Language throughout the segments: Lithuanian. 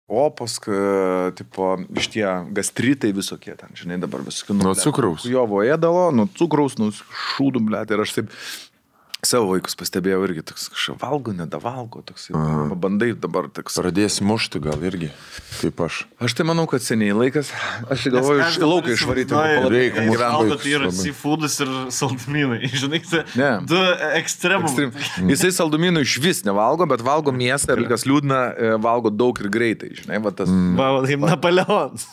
opos, tipo, iš tie gastritai visokie ten, žinai, dabar visokie. Nuo cukraus. Jovo ėdalo, nuo cukraus, nuo šūdų, blėt, ir aš taip savo vaikus pastebėjau irgi, toks kažkaip valgo, nedavalgo, toks, bandai dabar toks. Pradėsi mušti gal irgi, kaip aš. Aš tai manau, kad seniai laikas, aš galvoju, iš lauką išvaryti. Reikia valgo, tai yra seafoodas ir saldumynai, žinai, du ekstremum. Jisai saldumynų iš vis nevalgo, bet valgo mėsą ir kas liūdna, valgo daug ir greitai, žinai, va tas. Kaip Napoleonas.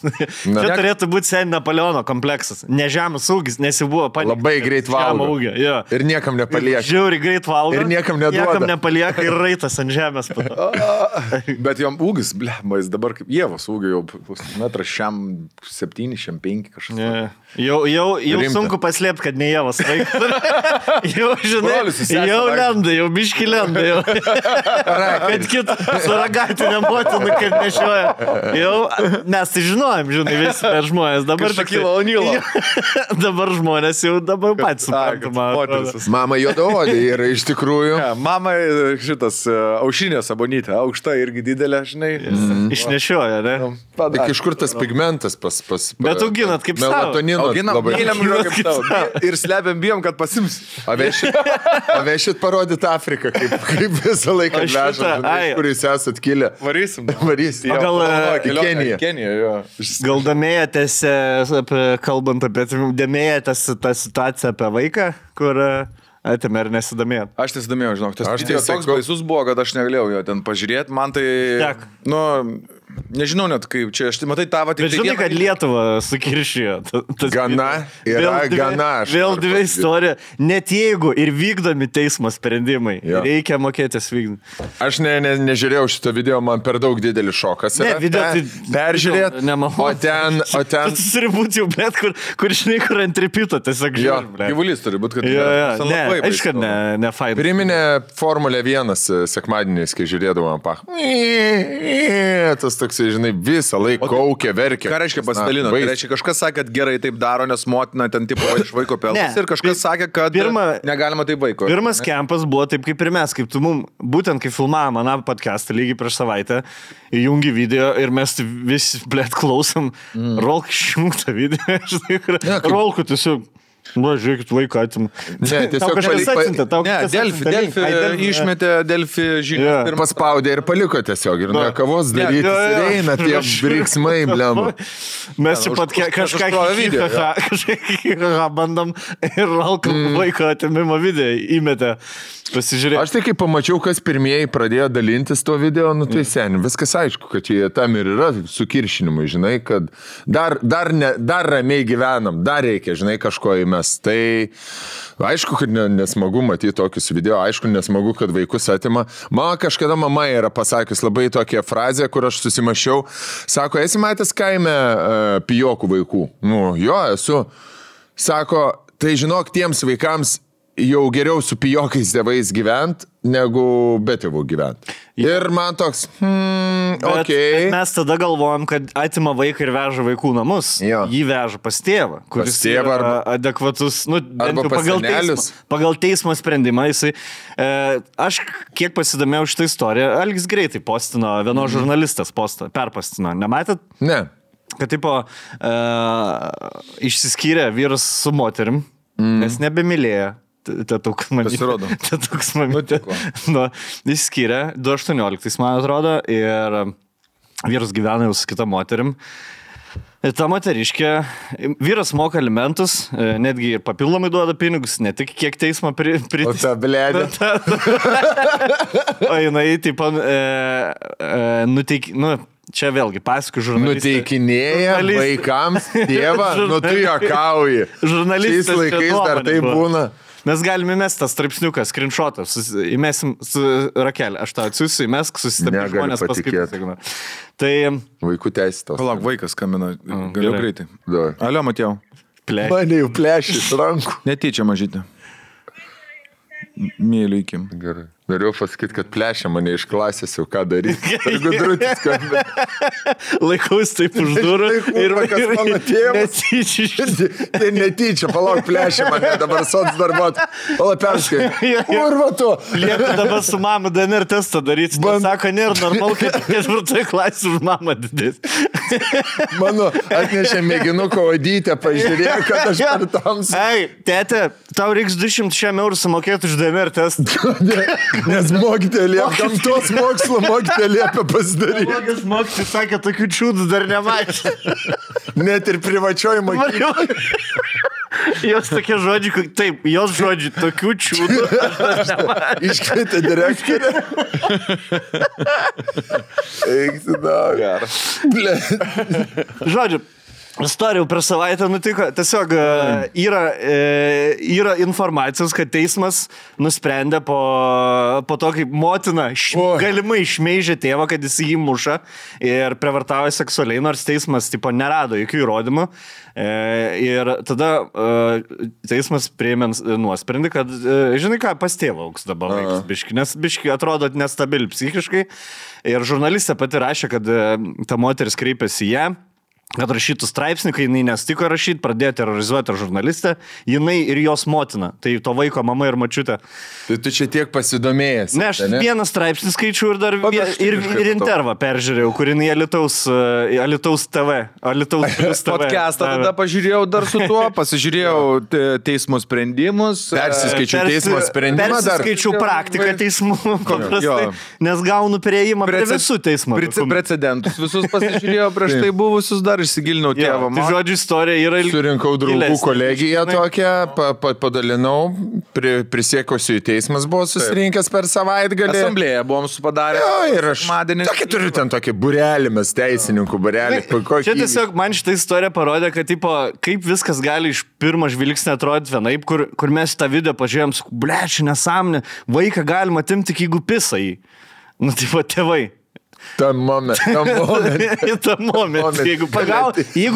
Čia turėtų būti seniai Napoleono kompleksas. Ne žemės ūgis, nes jau buvo palikta. Labai greit valgo. Ir niekam nepalieka. Žiauri greit valgo. Ir niekam neduoda. Niekam nepalieka ir raitas ant žemės. Bet jam ūgis, jis dabar kaip Ievos ūgio jau metras šiam 7, šiam 5 kažkas. Jau sunku paslėpti, kad ne Ievos vaikas. Jau, žinai, jau lenda, jau biški lenda. Jau. Kad kitą suragatinę motiną kaip nešioja. Jau mes tai žinojom, žinai, visi per žmonės. Dabar Šakilo O'Nealo. Dabar žmonės jau dabar patys suprantama. Mama juodaodė yra iš tikrųjų. Mama šitas aušinė sabonytė, aukšta irgi didelė, žinai. Išnešioja, ne? Tik iš kur tas pigmentas pas Bet auginat kaip savo. Melatonino labai. Ir slepiam bijom, kad pasims. Avešit parodyt Afriką, kaip visą laiką vežat, kur jūs esat kilę. Varysim. Keniją, jo. Gal domėjotės, kalbant apie domėjotės tą situaciją apie vaiką, kur atėmė ar nesidomėjot? Aš nesidomėjau, žinok. Tas videos toks baisus buvo, kad aš negalėjau jo ten pažiūrėti. Man tai, nežinau net kaip čia, aš tai matai tavo tik... Bet žinai, kad Lietuvą sukiršijo. Gana, gana. Vėl dvi istorija. Net jeigu ir vykdomi teismo sprendimai, reikia mokėtis vykdyti. Aš nežiūrėjau šito video, man per daug didelis šokas. Ne, video tai... Peržiūrėt, o ten... Tas turi būti jau, bet kur žinai, kur ant tripito, tiesiog žiūrim. Gyvulys turi būti, kad... Aišku, ne fain. Priminė Formulė 1 sekmadieniais, kai žiūrėdavom tas toksai, žinai, visą laiką kaukė, verkė. Ką reiškia pasidalino? Tai reiškia, kažkas sakė, kad gerai taip daro, nes motina ten tipo iš vaiko pelnas ir kažkas sakė, kad negalima taip vaiko. Pirmas kempas buvo taip kaip ir mes, kaip tu mum, būtent kai filmavom maną podcastą lygiai prieš savaitę, įjungi video ir mes visi, blėt, klausom, Rolk išjungtą video, Rolku tiesiog. Žiūrėkit, vaiką atim. Ne, tiesiog Delfi išmetė Delfi žinią. Paspaudė ir paliko tiesiog. Ir ne kavos daryti. Ir eina tie briksmai, blema. Mes čia pat kažką bandom ir Rolką vaiko atimimo video įmetė. Pasižiūrėk. Aš tai kai pamačiau, kas pirmieji pradėjo dalintis to video, tai seniai, viskas aišku, kad čia tam ir yra sukiršinimai, žinai, kad dar ramiai gyvenam, dar reikia, žinai, kažko įmes. Tai aišku, kad nesmagu matyti tokius video, aišku, nesmagu, kad vaikus atima. Man kažkada mama yra pasakius labai tokią frazę, kur aš susimašiau, sako, esi matęs kaime pijokų vaikų? Jo, esu. Sako, tai žinok, tiems vaikams jau geriau su pijokais tėvais gyvent, negu be tėvų gyvent. Ir man toks, bet mes tada galvojam, kad atima vaiką ir veža vaikų namus. Jį veža pas tėvą, kuris yra adekvatus, pagal teismo sprendimą. Aš kiek pasidomėjau šitą istoriją, Algis greitai postino, vienos žurnalistas perpostino. Nematėt? Ne. Kad tipo išsiskyrė vyras su moterim, nes nebemylėjo. Tatuks mamytė. Jis skyrė 2018, man atrodo, ir vyras gyvena jau su kita moterim. Ir ta moteriškė, vyras moka alimentus, netgi ir papildomai duoda pinigus, ne tik kiek teismo O ta blėdė. O jinai, taip, čia vėlgi pasakų žurnalistė. Nuteikinėja vaikams tėvą, tu juokauji. Žurnalistas. Šiais laikais dar tai būna. Mes galime įmesti tą straipsniuką, screenshotą, įmesim su Rakelė, aš tą atsiųsiu, įmesk, susistebė žmonės paskaityti. Tai... Vaikų teisės tos. Palauk, vaikas kamina, galiu greitai. Alio, Matėjau. Mane jau plešė iš rankų. Netyčia mažytė. Mėliu įkim. Gerai. Norėjau pasakyti, kad plešia mane iš klasės jau ką daryti. Gudrutis, kad... Laikaus taip už durų ir kas mano tėvas. Tai netyčia, palauk, plešia mane, dabar sots darbot. Pala perskai. Kurva tu. Lieka dabar su mama DNR testą daryti. Sako, nėra normalu, kad 4 klasė už mamą didės. Mano atnešė mėginuko odytę, pažiūrėjo, kad aš per tamsą. Ei, tėte, tau reiks 200 eurų sumokėti už DNR testą. Nes mokytė liepia, gamtos mokslo mokytė liepia pasidaryti. Mokytis mokytis sakė, tokių čiūdų dar nematė. Net ir privačioji mokykla. Jos tokie žodžiai, taip, jos žodžiai, tokių čiūdų aš dar nematė. Iškvietė direktorę. Eikti dar. Žodžiu, istorijų per savaitę nutiko, tiesiog yra informacijos, kad teismas nusprendė po to, kaip motina galimai šmeižė tėvą, kad jis jį muša ir prievartavo seksualiai, nors teismas tipo nerado jokių įrodymų. Ir tada teismas priėmė nuosprendį, kad, žinai ką, pas tėvą auks dabar vaikas biški, nes biški atrodo nestabili psichiškai. Ir žurnalistė pati rašė, kad ta moteris kreipėsi į ją, kad rašytų straipsnį, kai jinai nestiko rašyti, pradėjo terrorizuoti žurnalistę, jinai ir jos motina, tai to vaiko mama ir mačiutė. Tai tu čia tiek pasidomėjęs. Ne, aš vieną straipsnį skaičiu ir dar ir intervą peržiūrėjau, kur jinai Alytaus TV. Podcastą tada pažiūrėjau dar su tuo, pasižiūrėjau teismo sprendimus. Persiskaičiau teismo sprendimą dar. Persiskaičiau praktiką teismų, paprastai, nes gaunu prieimą prie visų teismų. Precedentus visus pasižiūrėjau prieš tai buvusius dar išsigilinau tėvą. Tai žodžiu, istorija yra surinkau draugų kolegiją tokią, padalinau, prisiekusiu į teismas buvo susirinkęs per savaitgalį. Asamblėje buvom supadarę. Ir aš tokį turiu ten tokį burelį, mes teisininkų burelį. Čia tiesiog man šitą istoriją parodė, kad tipo, kaip viskas gali iš pirmo žvilgsnio atrodyti vienaip, kur mes tą video pažiūrėjom, bleči, nesąmonė, vaiką galima atimti tik jeigu pisa jį. Nu, tipo, tėvai. Tam moment. Jeigu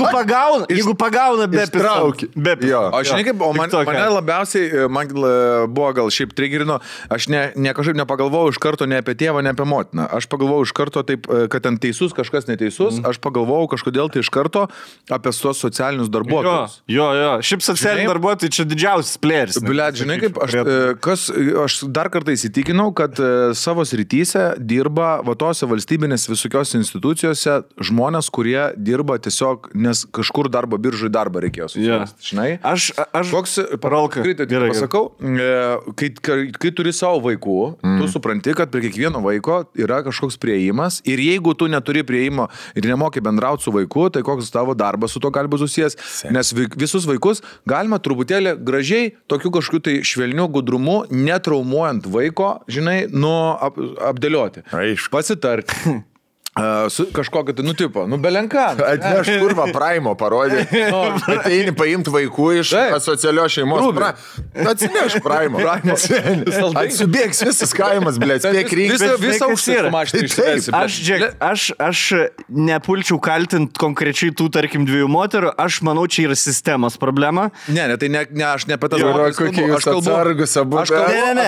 pagauna be ištraukį. O žinai kaip, mane labiausiai, man buvo gal šiaip trigerino, aš kažkaip nepagalvojau iš karto ne apie tėvą, ne apie motiną. Aš pagalvojau iš karto taip, kad ten teisus, kažkas neteisus, aš pagalvojau kažkodėl tai iš karto apie tuos socialinius darbuotojus. Jo. Šiaip socialiniai darbuotojai čia didžiausias plėris. Blet, žinai kaip, aš dar kartą įsitikinau, kad savo srityse dirba vatose valstybės visokios institucijose žmonės, kurie dirba tiesiog, nes kažkur darbo biržui darbą reikėjo susirasti. Žinai? Aš koks paralka. Pasakau, kai turi savo vaikų, tu supranti, kad prie kiekvieno vaiko yra kažkoks priėjimas ir jeigu tu neturi priėjimo ir nemoki bendrauti su vaiku, tai koks tavo darbas su to gali būti susijęs, nes visus vaikus galima truputėlį gražiai, tokiu kažkokiu tai švelniu gudrumu, netraumuojant vaiko, žinai, apdėlioti. Pasitarti. Kažkokio tai nutipo, belenką. Atneš kurva Praimo parodė. Ateini paimti vaikų iš asocialios šeimos. Atsineš Praimo. Atsibėgs visas kaimas, blėt. Visą užsirą. Aš nepulčiau kaltinti konkrečiai tų, tarkim, 2 moterų. Aš manau, čia yra sistemos problema. Ne, tai ne, aš ne apie tas moteris kalbu. Aš kalbu. Atsargus abu. Ne.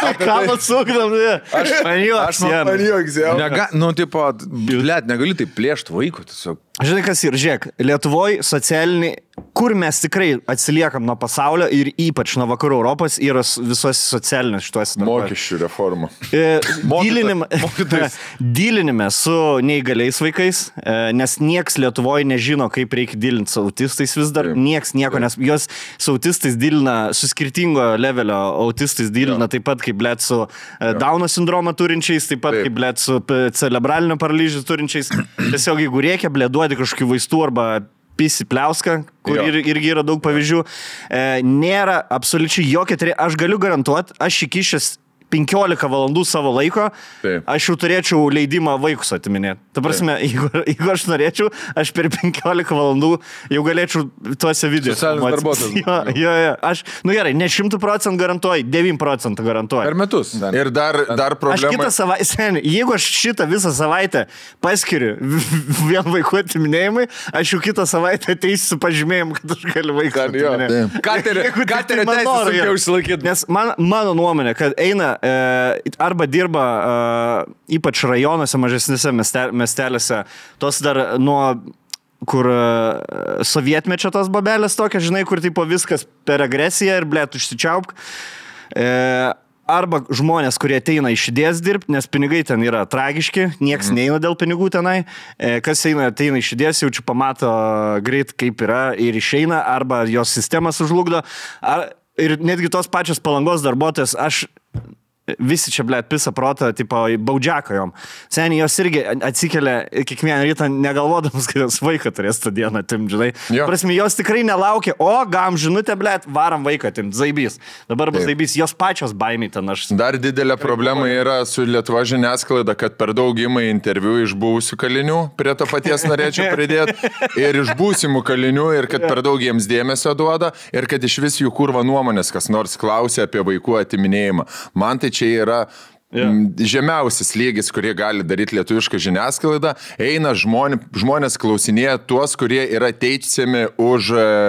Ką atsukdam, man juoks jau. Negali taip plėšti vaikų tiesiog. Žinai, kas ir, žiūrėk, Lietuvoje socialiniai, kur mes tikrai atsiliekam nuo pasaulio ir ypač nuo vakarų Europos, yra visos socialinės šituose darbuose. Mokesčių reforma. Dylinime su neįgaliais vaikais, nes nieks Lietuvoje nežino, kaip reikia dylinti su autistais vis dar, nieks nieko, nes jos su autistais dylina, su skirtingo levelio autistais dylina, taip pat kaip blėt su Dauno sindromą turinčiais, taip pat kaip blėt su cerebralinio paralyžių turinčiais. Tiesiog jeigu reikia, blėt, duoti kažkokių vaistų arba pisi pliauską, kur irgi yra daug pavyzdžių. Nėra absoliučiai jokia, aš galiu garantuoti, aš įkišęs 15 valandų savo laiko, aš jau turėčiau leidimą vaikus atiminėti. Ta prasme, jeigu aš norėčiau, aš per 15 valandų jau galėčiau tuose video. Socialinis darbuotojas. Jo. Aš, gerai, ne 100% garantuoju, 9% garantuoju. Per metus. Ir dar problema. Aš kitą savaitę, jeigu aš šitą visą savaitę paskiriu vien vaikų atiminėjimui, aš jau kitą savaitę ateisiu su pažymėjimu, kad aš galiu vaiką atiminėti. Ką tai reikia užsilaikyti? Nes mano nuomonė, kad eina arba dirba ypač rajonuose, mažesnėse miestelėse, tos dar nuo kur sovietmečio tos babelės tokia, žinai, kur tipo viskas per agresiją ir blėt užsičiaupk. Arba žmonės, kurie ateina iš idėjas dirbti, nes pinigai ten yra tragiški, nieks neina dėl pinigų tenai. Kas ateina iš idėjas, jaučiu pamato greit kaip yra ir išeina, arba jos sistema sužlugdo. Ir netgi tos pačios Palangos darbuotojas, aš visi čia, blėt, pisa protą, tipo, baudžiaką jom. Seniai, jos irgi atsikelia kiekvieną rytą negalvodamas, kad jos vaiką turės tą dieną atimt, žinai. Prasme, jos tikrai nelaukia, gam žinutę, blėt, varam vaiką atimt, zaibys. Dabar bus zaibys, jos pačios baimiai ten aš. Dar didelė problema yra su Lietuva žiniasklaida, kad per daug ima interviu iš buvusių kalinių, prie to paties norėčiau pridėti, ir iš būsimų kalinių, ir kad per daug jiems dėmesio duoda, ir kad iš vis jų kurva nuomonės, kas nors klausia apie vaikų atiminėjimą. Man tai čia yra žemiausias lygis, kurie gali daryti lietuvišką žiniasklaidą. Eina žmonės klausinėja tuos, kurie yra teisiami už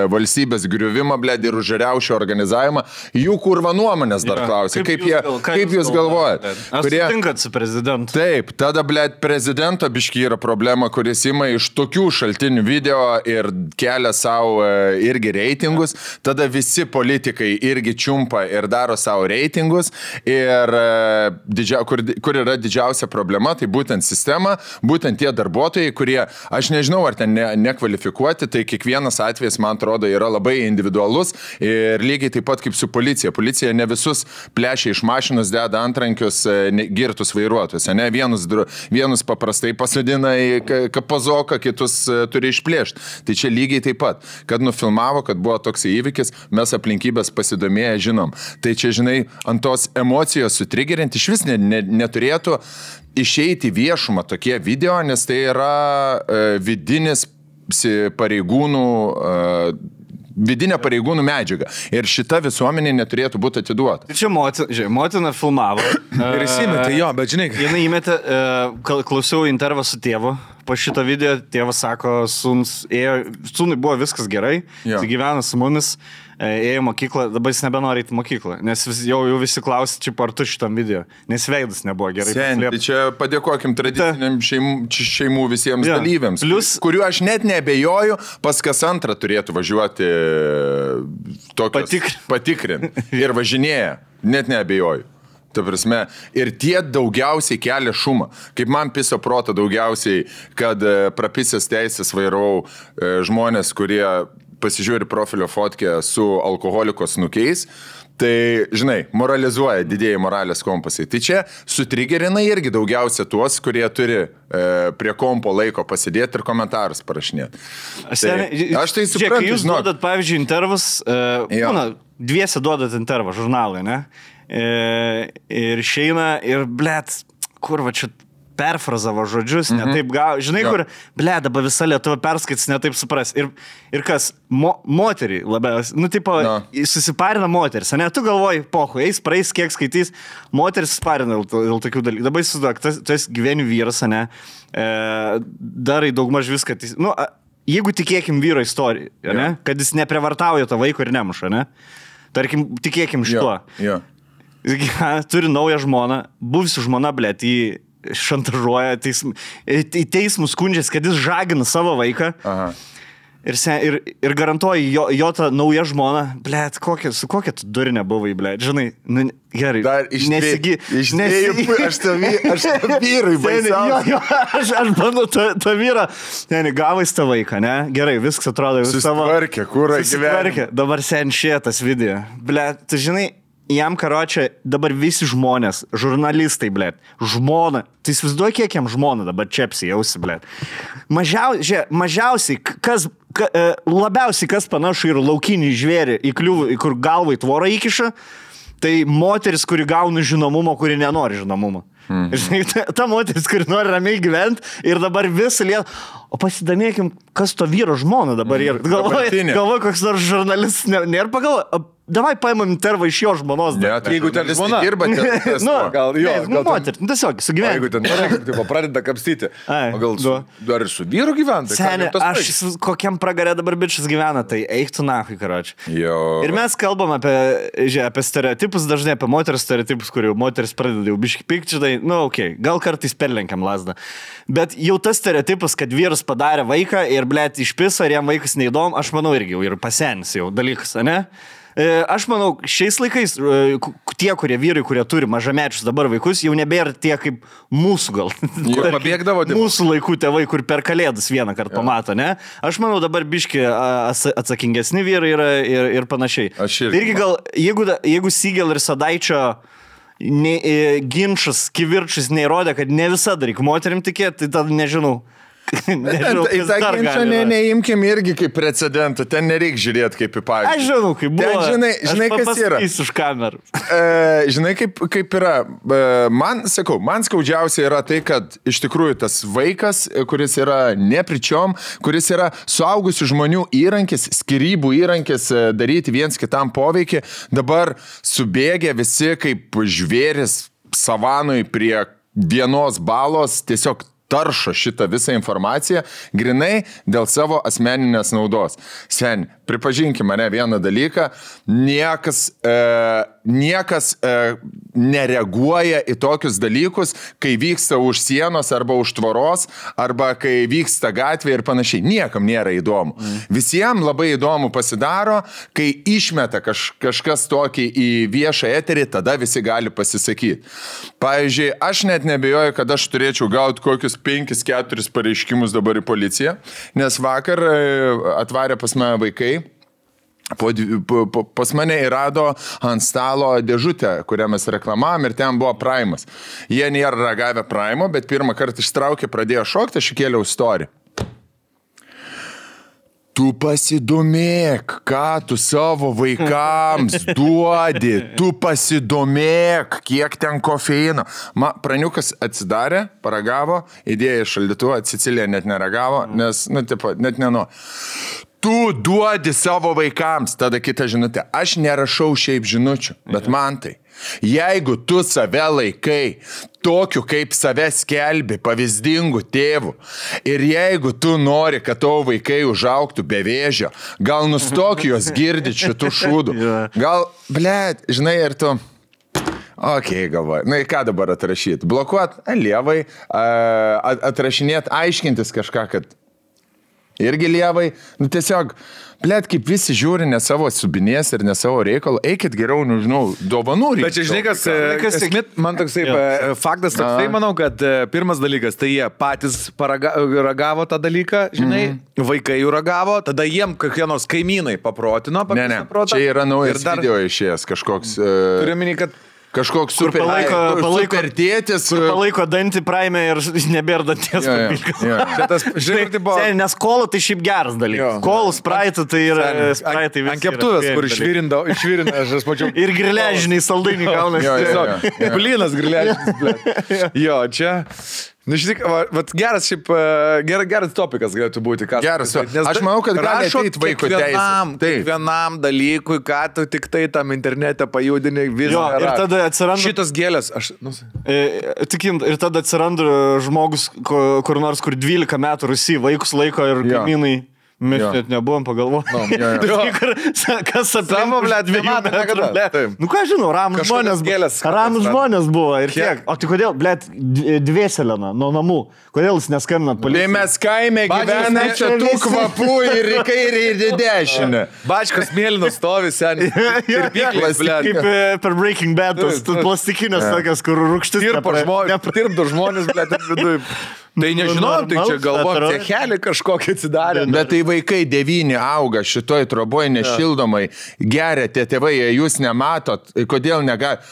valstybės griuvimą, blėd, ir už riaušių organizavimą. Jų kurva nuomonės dar klausia. Kaip jūs galvojate? Ar sutinkat su prezidentu? Taip, tada, blėd, prezidento biški yra problema, kuris ima iš tokių šaltinių video ir kelia savo irgi reitingus. Tada visi politikai irgi čiumpa ir daro savo reitingus. Ir kur yra didžiausia problema, tai būtent sistema, būtent tie darbuotojai, kurie, aš nežinau, ar ten nekvalifikuoti, tai kiekvienas atvejis, man atrodo, yra labai individualus ir lygiai taip pat kaip su policija. Policija ne visus plešia iš mašinos, deda antrankius girtus vairuotojus, ne? Vienus paprastai pasodina į kapazoką, kitus turi išplėšti. Tai čia lygiai taip pat, kad nufilmavo, kad buvo toks įvykis, mes aplinkybės pasidomėję žinom. Tai čia, žinai, ant tos emocijos sutrigerinti iš vis neturėtų išeiti viešumą tokie video, nes tai yra vidinis pareigūnų vidinė pareigūnų medžiaga. Ir šita visuomenė neturėtų būti atiduota. Čia motina filmavo. Ir įsimetė, jo, bet žinai. Jinai įmetė, klausiau intervą su tėvu. Po šito video tėvas sako, sūnui buvo viskas gerai, jis gyvena su mumis, ėjo mokyklą, dabar jis nebenori į mokyklą, nes jau visi klausia, čia ar tu šitam video, nes veidas nebuvo gerai. Tai čia padėkokim tradiciniam šeimų visiems dalyviams, kuriuo aš net neabejoju, pas kas antrą turėtų važiuoti patikrinti ir važinėja, net neabejoju. Ta prasme, ir tie daugiausiai kelia šumą. Kaip man piso proto daugiausiai, kad prapisęs teisės vairau žmonės, kurie pasižiūri profilio fotkę su alkoholiko snukiais, tai, žinai, moralizuoja didėjai moralės kompasai. Tai čia sutrigerina irgi daugiausia tuos, kurie turi prie kompo laiko pasidėti ir komentarus parašinėti. Aš tai suprantu. Kai jūs duodat, pavyzdžiui, intervus, dviese duodat intervą žurnalai, ne? Ir išeina ir, blėt, kur va čia perfrazavo žodžius, netaip gavo, žinai, kur, blėt, dabar visa Lietuva perskaits, netaip supras. Ir kas, moterį labiausiai, tipo, susiparina moteris, ne, tu galvoji, pohu, eis, praeis, kiek skaitys, moteris susiparina dėl tokių dalykų. Dabar įsivaizduok, tu esi gyvenių vyras, ne, darai daugmaž viską, jeigu tikėkim vyro istoriją, ne, kad jis neprevartauja to vaiko ir nemuša, ne, tarkim, tikėkim šituo. Turi naują žmoną, buvusi žmona, blėt, jį šantažuoja, į teismus skundžiasi, kad jis žagina savo vaiką. Ir garantuoju, jo ta nauja žmona, blėt, su kokia tu durinė buvai, blėt, žinai, gerai. Dar aš tą vyrui baisiausiai. Aš bandau tą vyrą, gavais tą vaiką, ne? Gerai, viskas atrodo susitvarkė, kur gyvenime. Dabar sen šitas video. Blėt, tu žinai, jam karočią dabar visi žmonės, žurnalistai, blėt, žmona, tai įsivaizduoju, kiek jam žmona dabar čepsi jausi, blėt. Mažiausiai, labiausiai kas panašu ir laukinį žvėrį į kliūvą, kur galvai tvorą įkiša, Tai moteris, kuri gauna žinomumo, kuri nenori žinomumo. Žinai, ta moteris, kuri nori ramiai gyventi ir dabar visą lietą. O pasidomėkim, kas to vyro žmona dabar yra. Galvoju, koks nors žurnalistas nėra pagalvoja. Davai paimam intervą iš jo žmonos. Ne, tai jeigu ten žmona dirba, gal moteris, tiesiog sugyventi. Jeigu ten pradeda kapstyti, gal dar ir su vyru gyventi. Seniai, aš kokiam pragarė dabar bičias gyvena, tai eik tu nahui, karoči. Ir mes kalbam apie stereotipus, dažnai apie moteris stereotipus, kurių moteris pradeda jau biški pykti, žinai, gal kartais perlenkiam lasdą. Bet jau tas stereotipas, kad vyras padarė vaiką ir, blėt, išpiso ir jam vaikas neįdom, aš manau irgi jau ir pasenis jau dalykas, ne? Aš manau, šiais laikais tie, kurie vyrai, kurie turi mažamečius dabar vaikus, jau nebėra tie kaip mūsų gal. Mūsų laikų tėvai, kur per kalėdas vieną kartą pamato, ne? Aš manau, dabar biški atsakingesni vyrai yra ir panašiai. Irgi gal, jeigu Sigel ir Sadaičio ginčas, kivirčius neįrodė, kad ne visada reikia moterim tikėti, tai tada nežinau. Į tą ginčą neimkim irgi kaip precedentų, ten nereik žiūrėti kaip į pavyzdį. Aš žinau, kaip buvo. Žinai kas yra. Už kamerų. Žinai, kaip yra. Man skaudžiausia yra tai, kad iš tikrųjų tas vaikas, kuris yra nepričiom, kuris yra suaugusių žmonių įrankis, skyrybų įrankis daryti viens kitam poveikį, dabar subėgė visi kaip žvėris savanui prie vienos balos, tiesiog taršo šitą visą informaciją grinai dėl savo asmeninės naudos. Seni, pripažinkim mane vieną dalyką, niekas nereaguoja į tokius dalykus, kai vyksta už sienos arba už tvoros, arba kai vyksta gatvė ir panašiai. Niekam nėra įdomu. Visiems labai įdomu pasidaro, kai išmeta kažkas tokį į viešą eterį, tada visi gali pasisakyti. Pavyzdžiui, aš net nebejoju, kad aš turėčiau gauti kokius 5-4 pareiškimus dabar į policiją, nes vakar atvarė pas mane vaikai, pas mane įrado ant stalo dėžutę, kurią mes reklamavom ir ten buvo Primas. Jie nėra ragavę Primo, bet pirmą kartą ištraukė, pradėjo šokti, aš įkėliau story. Tu pasidomėk, ką tu savo vaikams duodi, tu pasidomėk, kiek ten kofeino. Praniukas atsidarė, paragavo, įdėjo į šaldytuvą, Cecilija net neragavo, nes, net neno. Tu duodi savo vaikams, tada kita žinutė. Aš nerašau šiaip žinučių, bet man tai. Jeigu tu save laikai tokiu, kaip save skelbi, pavyzdingu tėvu, ir jeigu tu nori, kad tavo vaikai užaugtų be vėžio, gal nustok juos girdyti šitų šūdų. Gal, blėt, žinai, ir tu... Galvoju. Na, ką dabar atrašyti? Blokuot lievai, atrašinėti, aiškintis kažką, kad irgi lievai. Tiesiog, blėt, kaip visi žiūri ne savo subinės ir ne savo reikalą, eikit geriau, nežinau, dovanų reikia. Bet čia, žinai, kas man toksai faktas toksai, manau, kad pirmas dalykas, tai jie patys ragavo tą dalyką, žinai, vaikai jų ragavo, tada jiem kokie nors kaimynai paprotino. Ne, čia yra naujas video išėjęs kažkoks... Turiu minį, kad kažkoks super tėtis. Kur palaiko dantį Prime ir nebėra danties papilkas. Nes kolų tai šiaip geras dalykas. Kolų spraitų tai yra spraitai visi. Ant keptuvės, kur išvirina, aš mačiau. Ir griležiniai saldainiai gaunasi. Blynas griležinis. Jo, čia... Nu, šitik, geras šiaip, geras topikas galėtų būti. Geras, aš manau, kad gali ateiti vaiko teisė. Kiekvienam dalykui, ką tu tik tai tam internete pajudini, visą. Ir tada atsiranda... Šitas gėlės, ir tada atsiranda žmogus, kur nors, kur 12 metų Rusijai vaikus laiko ir kaimynai. Mes net nebuvom pagalvoti. Kas Savo, blėt, 2 metų nekada. Nu ką žinau, ramus žmonės buvo ir tiek. O tai kodėl, blėt, Dvėselena nuo namų? Kodėl jūs neskambinat policijai? Tai mes kaime gyvename čia tų kvapų ir į kairę ir į dešinę. Bačkas mėlynas stovi seniai. Ir pyklas, blėt. Kaip per Breaking Bad, plastikinės tokias, kur rūgštis. Tirpdo žmonės, blėt, ir vidui. Tai nežinau, tai čia galvom, cechelį kažkokį atsidarė. Bet tai vaikai 9 auga šitoj troboj nešildomai, geria tie tėvai, jūs nematot, kodėl negali.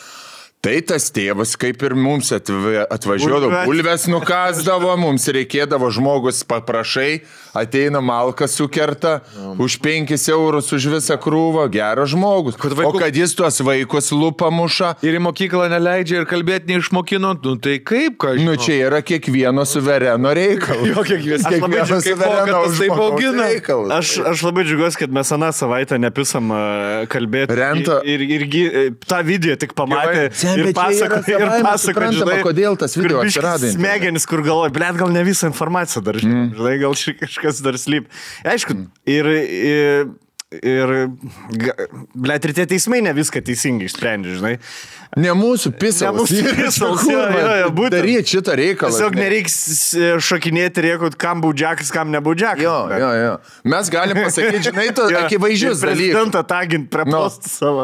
Tai tas tėvas, kaip ir mums atvažiuodavo, bulves nukasdavo, mums reikėdavo žmogus paprašai, ateina malką sukerta, už 5 eurus už visą krūvą, geras žmogus. O kad jis tuos vaikus lupą muša. Ir į mokyklą neleidžia ir kalbėti neišmokino, tai kaip, ką žinau. Čia yra kiekvieno suvereno reikalas. Jo, kiekvieno suvereno reikalas. Aš labai džiugiuosi, kad mes aną savaitę nepisam kalbėti. Renta. Ir tą video tik pamatė. Ir pasako, žinai, kodėl tas video atsirado. Smegenis, kur galvoja, blėt, gal ne visą informaciją dar, žinai, gal kažkas dar slyp. Aišku, blėt, ir tie teismai ne viską teisingai išsprendžia, žinai. Ne mūsų pisalas. Daryti šitą reikalą. Tiesiog nereiks šokinėti ir jeigu kam baudžiakas, kam nebaudžiakas. Jo. Mes galim pasakyti, žinai, akivaizdžius dalykus. Prezidentą tagint prie postų savo.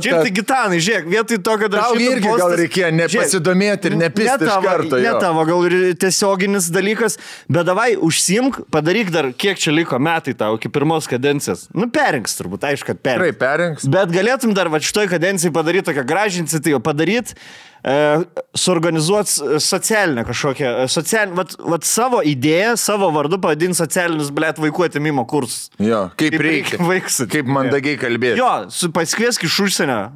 Čia tai Gitanai, žiūrėk, vietoj to, kad aš irgi postas, gal reikėjo nepasidomėti ir nepisti iš karto. Ne tavo, gal ir tiesioginis dalykas, bet davai užsimk, padaryk dar, kiek čia liko metai tau iki pirmos kadencijos. Perinks turbūt, aišku, kad perinks. Tikrai perinks. Bet galėtum dar šitoj kadencijai padaryti tokią gražią iniciatyvą, padaryti, suorganizuoti socialinę kažkokią, vat savo idėją, savo vardu pavadinti socialinius, blėt, vaikų atėmimo kursus. Jo, kaip reikia. Kaip mandagiai kalbėti. Jo, pasikviesk iš užsienio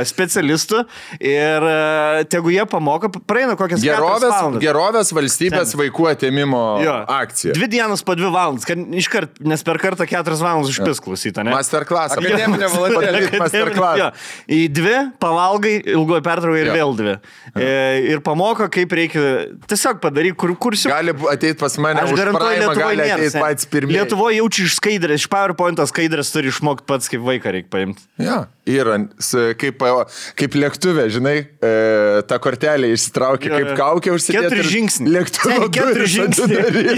specialistų ir tegu jie pamoka, praeina kokias 4 valandas. Gerovės valstybės vaikų atėmimo akcija. 2 dienas po 2 valandas, nes per kartą 4 valandas užpis klausyti, ne? Masterclass. Akademinė valandėlė. Masterclass. Į 2 pavalgai, ilgoji pertrauka ir vėl 2. Ir pamoko, kaip reikia tiesiog padaryti kursiu. Gali ateiti pas mane, aš garantuoju, gali ateiti patys pirmieji. Lietuvoje jaučia iš skaidrės, iš PowerPoint'o skaidrės turi išmokti pats, kaip vaiką reikia paimti. Ja, yra, kaip lėktuvė, žinai, tą kortelę išsitraukia, kaip kaukė užsidėti. 4 žingsniai. Lėktuvo 4 žingsniai.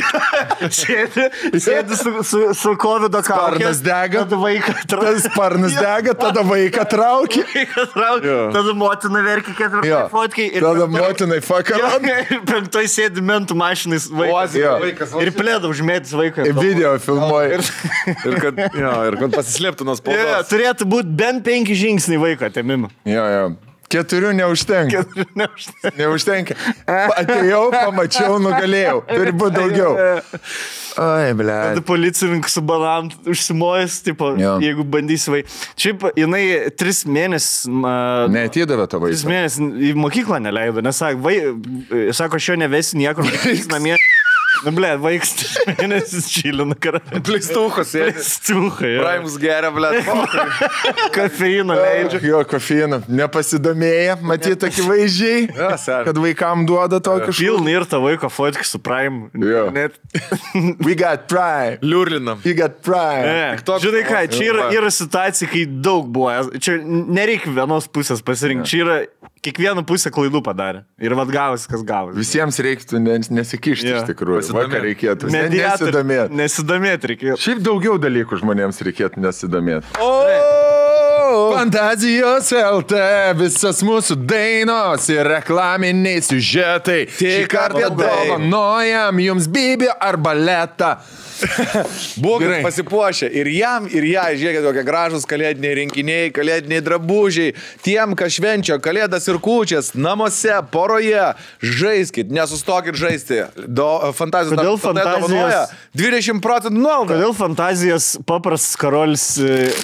Sėdi su COVID kaukė. Sparnas dega. Tada vaiką traukia. Sparnas dega, tada vaiką traukia. Tada motina verkia 4 fotkai. Tada motinai fakarot. Ir 5 sėdi mentų mašinais vaikas. Ir plėda užmėtis vaiką. Video filmuoja. Ir kad pasislėptų nuo spaudos. Turėtų būti bent 5 žingsniai vaiko atėmimo. Jo. 4 neužtenka. Neužtenka. Atėjau, pamačiau, nugalėjau. Turi būti daugiau. Ai, ble. Tada policininkas su bananu užsimojęs, tipo, jeigu bandysi vaiką. Šiaip, jinai 3 mėnesius... Neatidavė to vaiką. 3 mėnesius į mokyklą neleido, nes sako, aš jo nevesiu niekur, namie. Ble, vaikas 3 mėnesius čilina karalių. Pleistuchas, Pleistuchai, jo. Raimus geria, ble. Kofeino leidžia. Jo, kofeino. Nepasidomėję, matyti akivaizdžiai, kad vaikam duoda to kažką. Pilna ir ta vaiko fotki su Prime. Jo. We got Prime. Liurlinam. We got Prime. Žinai ką, čia yra situacija, kai daug buvo. Čia nereikia vienos pusės pasirinkti. Čia yra kiekvieną pusę klaidų padarė. Ir vad gavosi, kas gavosi. Visiems reiktų nesikišti iš tikrųjų. Vakar reikėtų. Nesidomėti reikėtų. Šiaip daugiau dalykų žmonėms reikėtų nesidomėti. Fantazijos LT, visas mūsų dainos ir reklaminiai siužetai. Šį kartą dovanojam jums Bibi ar baletą. Būkit pasipuošę ir jam, ir ją, žiūrėkit, kokie gražus kalėdiniai rinkiniai, kalėdiniai drabužiai, tiem, kas švenčia kalėdas ir kūčias, namuose, poroje, žaiskit, nesustokit žaisti. Fantazijos dovanoja 20% nuolaidą. Kodėl fantazijos paprastas karolis...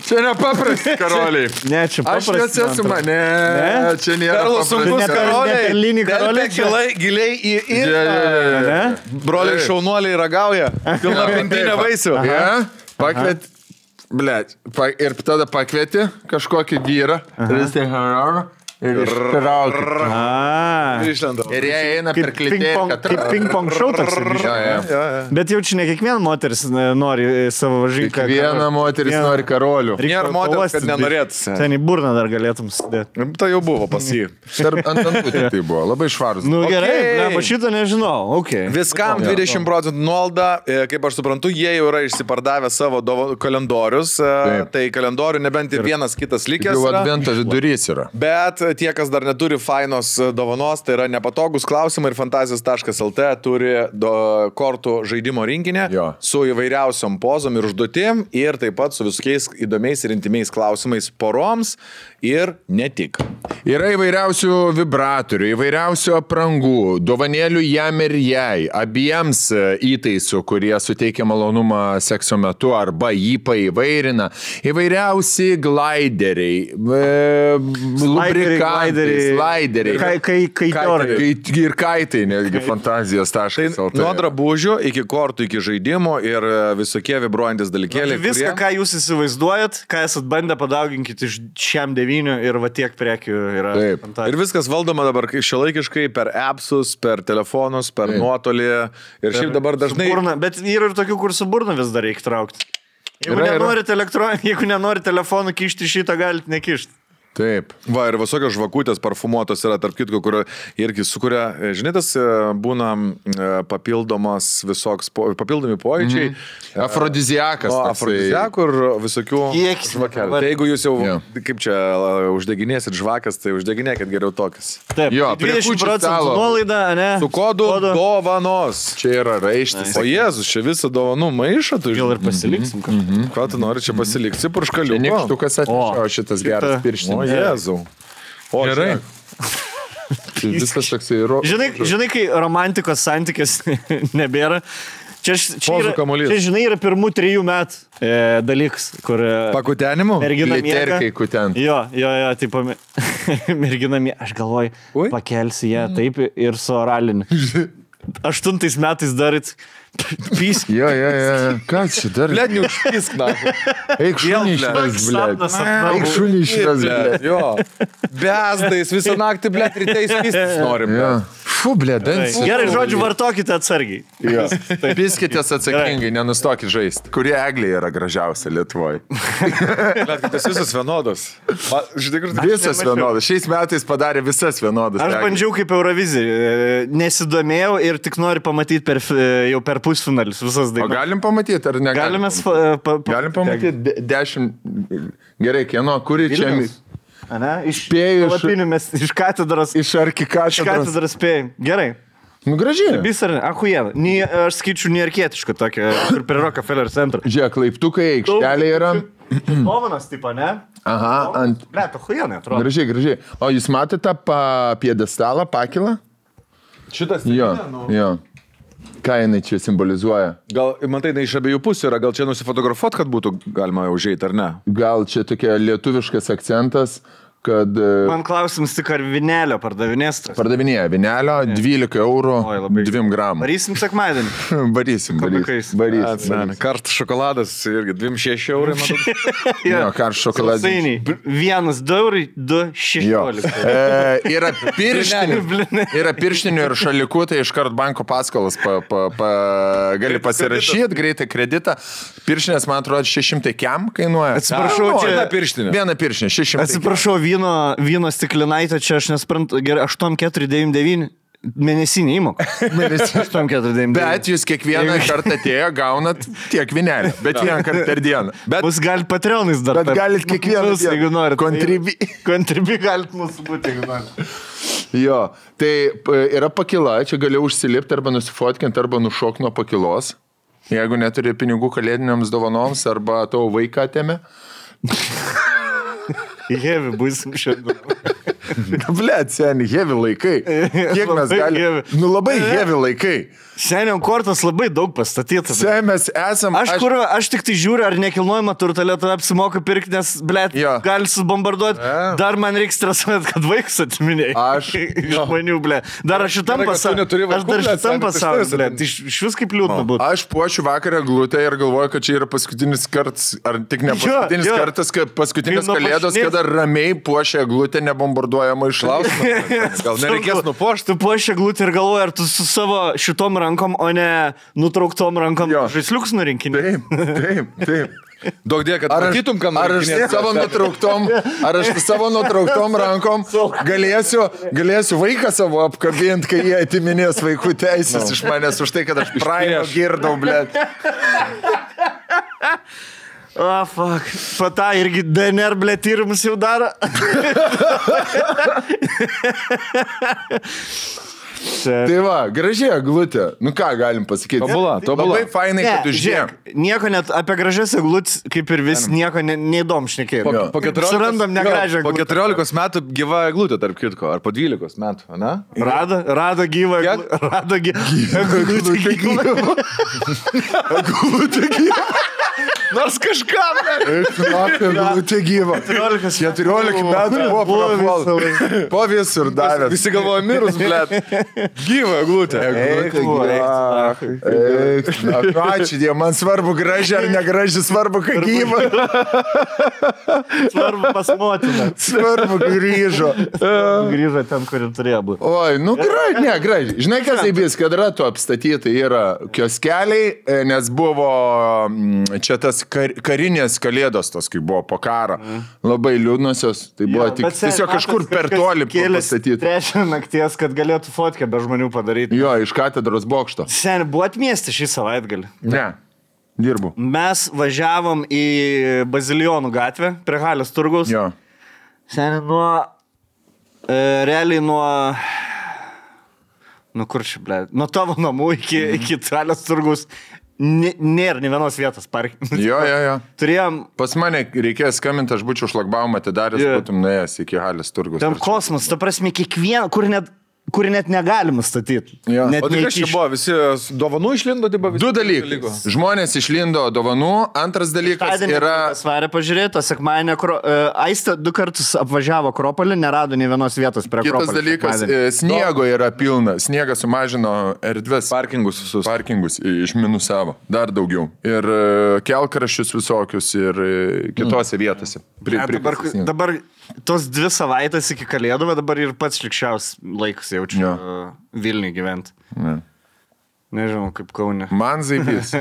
Čia ne paprastas karoliai. Ne, čia paprastas. Aš nesu mane. Čia nėra paprastas karoliai. Telpia giliai į irą. Broliai šaunuoliai ragauja. Pilna pintinė vaisių. Pakviet, blėt, ir tada pakvieti kažkokį vyrą. Ir ištraukia. Ir jie eina per klitėją. Kaip ping-pong šou toks. Bet jau čia ne kiekviena moteris nori savo žinką. Kiekviena moteris nori karolių. Nėra moteris, kad nenorėtų. Ten į burną dar galėtum sudėti. Tai jau buvo pas jį. Ant antutį tai buvo. Labai švarus. Nu gerai, šitą nežinau. Viskam 20% nuolaidą. Kaip aš suprantu, jie jau yra išsipardavę savo kalendorius. Tai kalendorių nebent ir vienas kitas likęs. Jau advento vidurys yra. Bet tie, kas dar neturi fainos dovanos, tai yra nepatogus klausimai ir fantazijos.lt turi kortų žaidimo rinkinį su įvairiausiom pozom ir užduotim ir taip pat su visokiais įdomiais ir intimiais klausimais poroms ir ne tik. Yra įvairiausių vibratorių, įvairiausių aprangų, dovanėlių jam ir jai, abiems įtaisų, kurie suteikia malonumą sekso metu arba jį paįvairina, įvairiausi glaideriai, lubrikantai, slaideriai, ir kaitai, netgi fantazijos.lt. Nuo drabužių iki kortų, iki žaidimų ir visokie vibruojantis dalykėliai. Viską, ką jūs įsivaizduojat, ką esat bandę, padauginkit iš šiam 9 ir va tiek prekių yra. Taip. Ir viskas valdoma dabar šiuolaikiškai per appsus, per telefonus, per nuotolį. Ir šiaip dabar dažnai... Bet yra ir tokių, kur su burna vis dar reikia traukti. Jeigu nenorit telefonų kišti, šitą galite nekišti. Taip. Va, ir visokios žvakutės parfumuotos yra, tarp kitko, kur irgi sukuria, žinai, tas būna papildomi pojūčiai. Afrodiziakas. Afrodiziakų ir visokių žvakelių. Tai jeigu jūs jau, kaip čia, uždeginėsit žvakas, tai uždeginėkit geriau tokias. Taip, 20% nuolaida, ne? Su kodu dovanos. Čia yra raištis. O Jėzus, čia visą dovanų maišą. Gal ir pasiliksim kažką. Ką tu nori čia pasilikti? Purškaliuko. Nykštukas atnešo šitas geras pirštinis. O Jėzau. O gerai. Viskas toksai žinai, kai romantikos santykės nebėra, čia žinai, yra pirmų 3 metų dalykas, kur... Pakutenimų? Mergina miega. Kutent. Jo, taip, mergina miega. Aš galvoju, pakelsi ją taip ir su oraliniu. 8 metais darit pysk. Jo. Ką čia darit? Blet, neužpisk, na. Eik šunį išves, blet. Eik šunį išves, blet. Jo. Bezdais visą naktį, blet, rytais pistis norim. Fu, blet, dansis. Gerai, žodžiu, vartokite atsargiai. Jo. Piskitės atsakingai, nenustokit žaisti. Kurie eglė yra gražiausia Lietuvoje? Blet, kad tas visas vienodas. Visas vienodas. Šiais metais padarė visas vienodas. Aš bandžiau kaip Eurovizija. Nesidomėjau ir tik noriu pamatyti jau per pusfinalis visas dainas. O galim pamatyti, ar negalim? Galim pamatyti 10. Gerai, kieno, kuri čia... Iš palapinių mes iš katedros. Iš arkikatedros. Iš katedros spėjim. Gerai. Nu, gražiai. Vis ar ne? Ahujena. Aš skaičiu nearkietišką tokią, kur prie Rockefeller centro. Žiūrėk, laiptukai, aikštelė yra. Dovanas, tipo, ne? Aha, ant... Blet, ahujena, atrodo. Gražiai. O jūs matėte piedestalą, pakilą? Šitas... Jo. Ką jinai čia simbolizuoja? Gal, matai, iš abiejų pusių yra, gal čia nusifotografuot, kad būtų galima užeiti, ar ne? Gal čia tokia lietuviškas akcentas, kad... Man klausimas tik, ar vinelio pardavinės tas? Pardavinėja vinelio, 12 eurų, 2 gramų. Varysim sekmadienį? Varysim. Karštas šokoladas irgi 2,6 eurai, matau. Jo, karštas šokoladas. 1 eurai, 2,16. Yra pirštinių ir šalikų, tai iškart banko paskolas gali pasirašyti, greitai kreditą. Pirštinės, man atrodo, 600 kiam kainuoja. Atsiprašau, čia viena pirštinė, 600. Atsiprašau, vyno stiklinaitė, čia aš nesprantu, gerai, 8,499 mėnesinį įmoką. 8,499. Bet jūs kiekvieną kartą atėjo, gaunat tiek vinelį, bet vieną kartą per dieną. Mus galit Patreonais dar. Bet galit kiekvieną dieną. Jeigu norit. Kontribi galit mūsų būti, jeigu norit. Jo, tai yra pakila, čia gali užsilipti arba nusifotkinti, arba nušok nuo pakilos. Jeigu neturi pinigų kalėdiniams dovanoms, arba tavo vaiką atėmė. Heavy būsim šiandien. Blet, seni, heavy laikai. Kiek mes galime? Nu labai heavy laikai. Seniau kortos labai daug pastatytas. Seniau mes esam... Aš tik tai žiūriu, ar nekilnojama turtą Lietuvoje apsimoka pirkti, nes, blet, gali subombarduoti. Dar man reikia stresuoti, kad vaikus atiminėjai. Aš... Žmonių, blet. Dar aš šitam pasauliu, blet. Iš vis kaip liūdna būtų. Aš puošiu vakarą glutę ir galvoju, kad čia yra paskutinis kartas, ar tik ne paskutinis kartas, kad paskutinis kalėdos, kada ramiai puošia glutę nebombarduojama iš klausimą. Gal nereikės nupuošti? Tu puošia glutę ir galvoji, ar tu su savo šitom rankom, o ne nutrauktom rankom žaisliuks nurinkinė. Taip. Daug dėja, kad matytum, ką nori. Ar aš savo nutrauktom rankom galėsiu vaiką savo apkabinti, kai jie atiminės vaikų teisės iš manęs už tai, kad aš praėjo girdau, blėt. Fuck. Pata irgi DNR, ble, tyrimus jau daro. Tai va, gražiai eglutė. Nu ką galim pasakyti? Tobula. Labai fainai, kad užžiūrėk. Nieko net apie gražias eglutės, kaip ir vis, nieko neįdom šnekėjom. Surandam negražią eglutę. Po 14 metų gyva eglutė, tarp kitko, ar po 12 metų, ne? Rado gyvą eglutę. Rado gyvą. Eglutė gyva. Nors kažkam. Eglutė gyva. 14 metų buvo prapuolta. Po visur davė. Visi galvoja mirus, blėt. Gyva eglutė. Ačiū Dievui, man svarbu graži ar negraži, svarbu, kad gyva. Svarbu pas motiną. Svarbu grįžo. Grįžo ten, kur ir turėjo būti. Oi, nu graži. Žinai, kas įbės, kad ratu apstatyti yra kioskeliai, nes buvo čia tas karinės kalėdos, tas, kai buvo po karo. Labai liūdnosios. Tai buvo tiesiog kažkur per toli pastatyti. Trečią nakties, kad galėtų fotkę be žmonių padaryti. Jo, iš katedros bokšto. Seni, buvo atmiesti šį savaitgalį? Ne, dirbu. Mes važiavom į Bazilijonų gatvę, prie Halės turgaus. Jo. Seni, realiai kur čia, ble, nuo tavo namų iki Halės turgaus nėra nė vienos vietos parkinti. Jo. Turėjom... Pas mane reikėjo skambinti, aš būčiau šlagbaumą atidaręs, būtum nuėjęs iki Halės turgaus. Ten kosmos, ta prasme, kiekvieną, kur net negalima statyti. Ja. O tai kas čia buvo? Visi dovanų išlindo? Du dalykai. Žmonės išlindo dovanų. Antras dalykas yra... Svarė pažiūrėti, sekmadienį Aistė 2 kartus apvažiavo Akropolį, nerado nei vienos vietos prie Akropolį. Kitas dalykas, sniego yra pilna. Sniegas sumažino erdves. Parkingus išminusavo. Dar daugiau. Ir kelkraščius visokius ir kitose vietose. Dabar tos 2 savaitės iki Kalėdų, bet dabar ir pats šlikščiaus laikas jaučiu Vilniui gyventi. Nežinau, kaip Kaune. Man zaibys.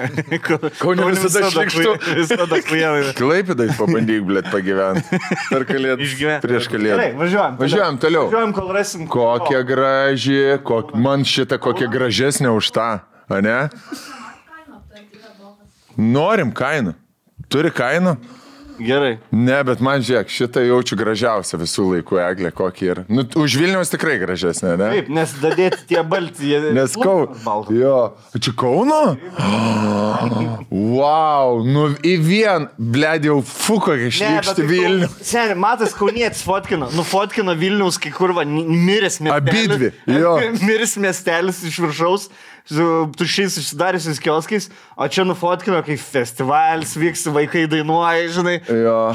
Kaune visada šlikštu. Visada kujavai. Klaipėdai pabandyk, blėt, pagyventi. Per Kalėdą. Prieš Kalėdą. Gerai, važiuojam toliau. Važiuojam, kol rasim. Kokia graži, man šitą kokia gražesnė už tą, ane? Norim kainą. Turi kainą? Gerai. Ne, bet man žiūrėk, šitą jaučiu gražiausią visų laikų eglę, kokį yra. Nu, už Vilniaus tikrai gražesnė, ne? Taip, nes dadėti tie balti. Nes Kauno. Jo. Čia Kauno? Wow, nu į vien, blėd, jau kokia šlykšti Vilnių. Seni, matas Kaunietis fotkino Vilniaus, kai kurva, miręs miestelis. Abidvi, jo. Miręs miestelis iš viršaus, su tušiais išsidariusiais kioskais, o čia nufotkino, kai festivalis vyks, vaikai dainuoja, žinai,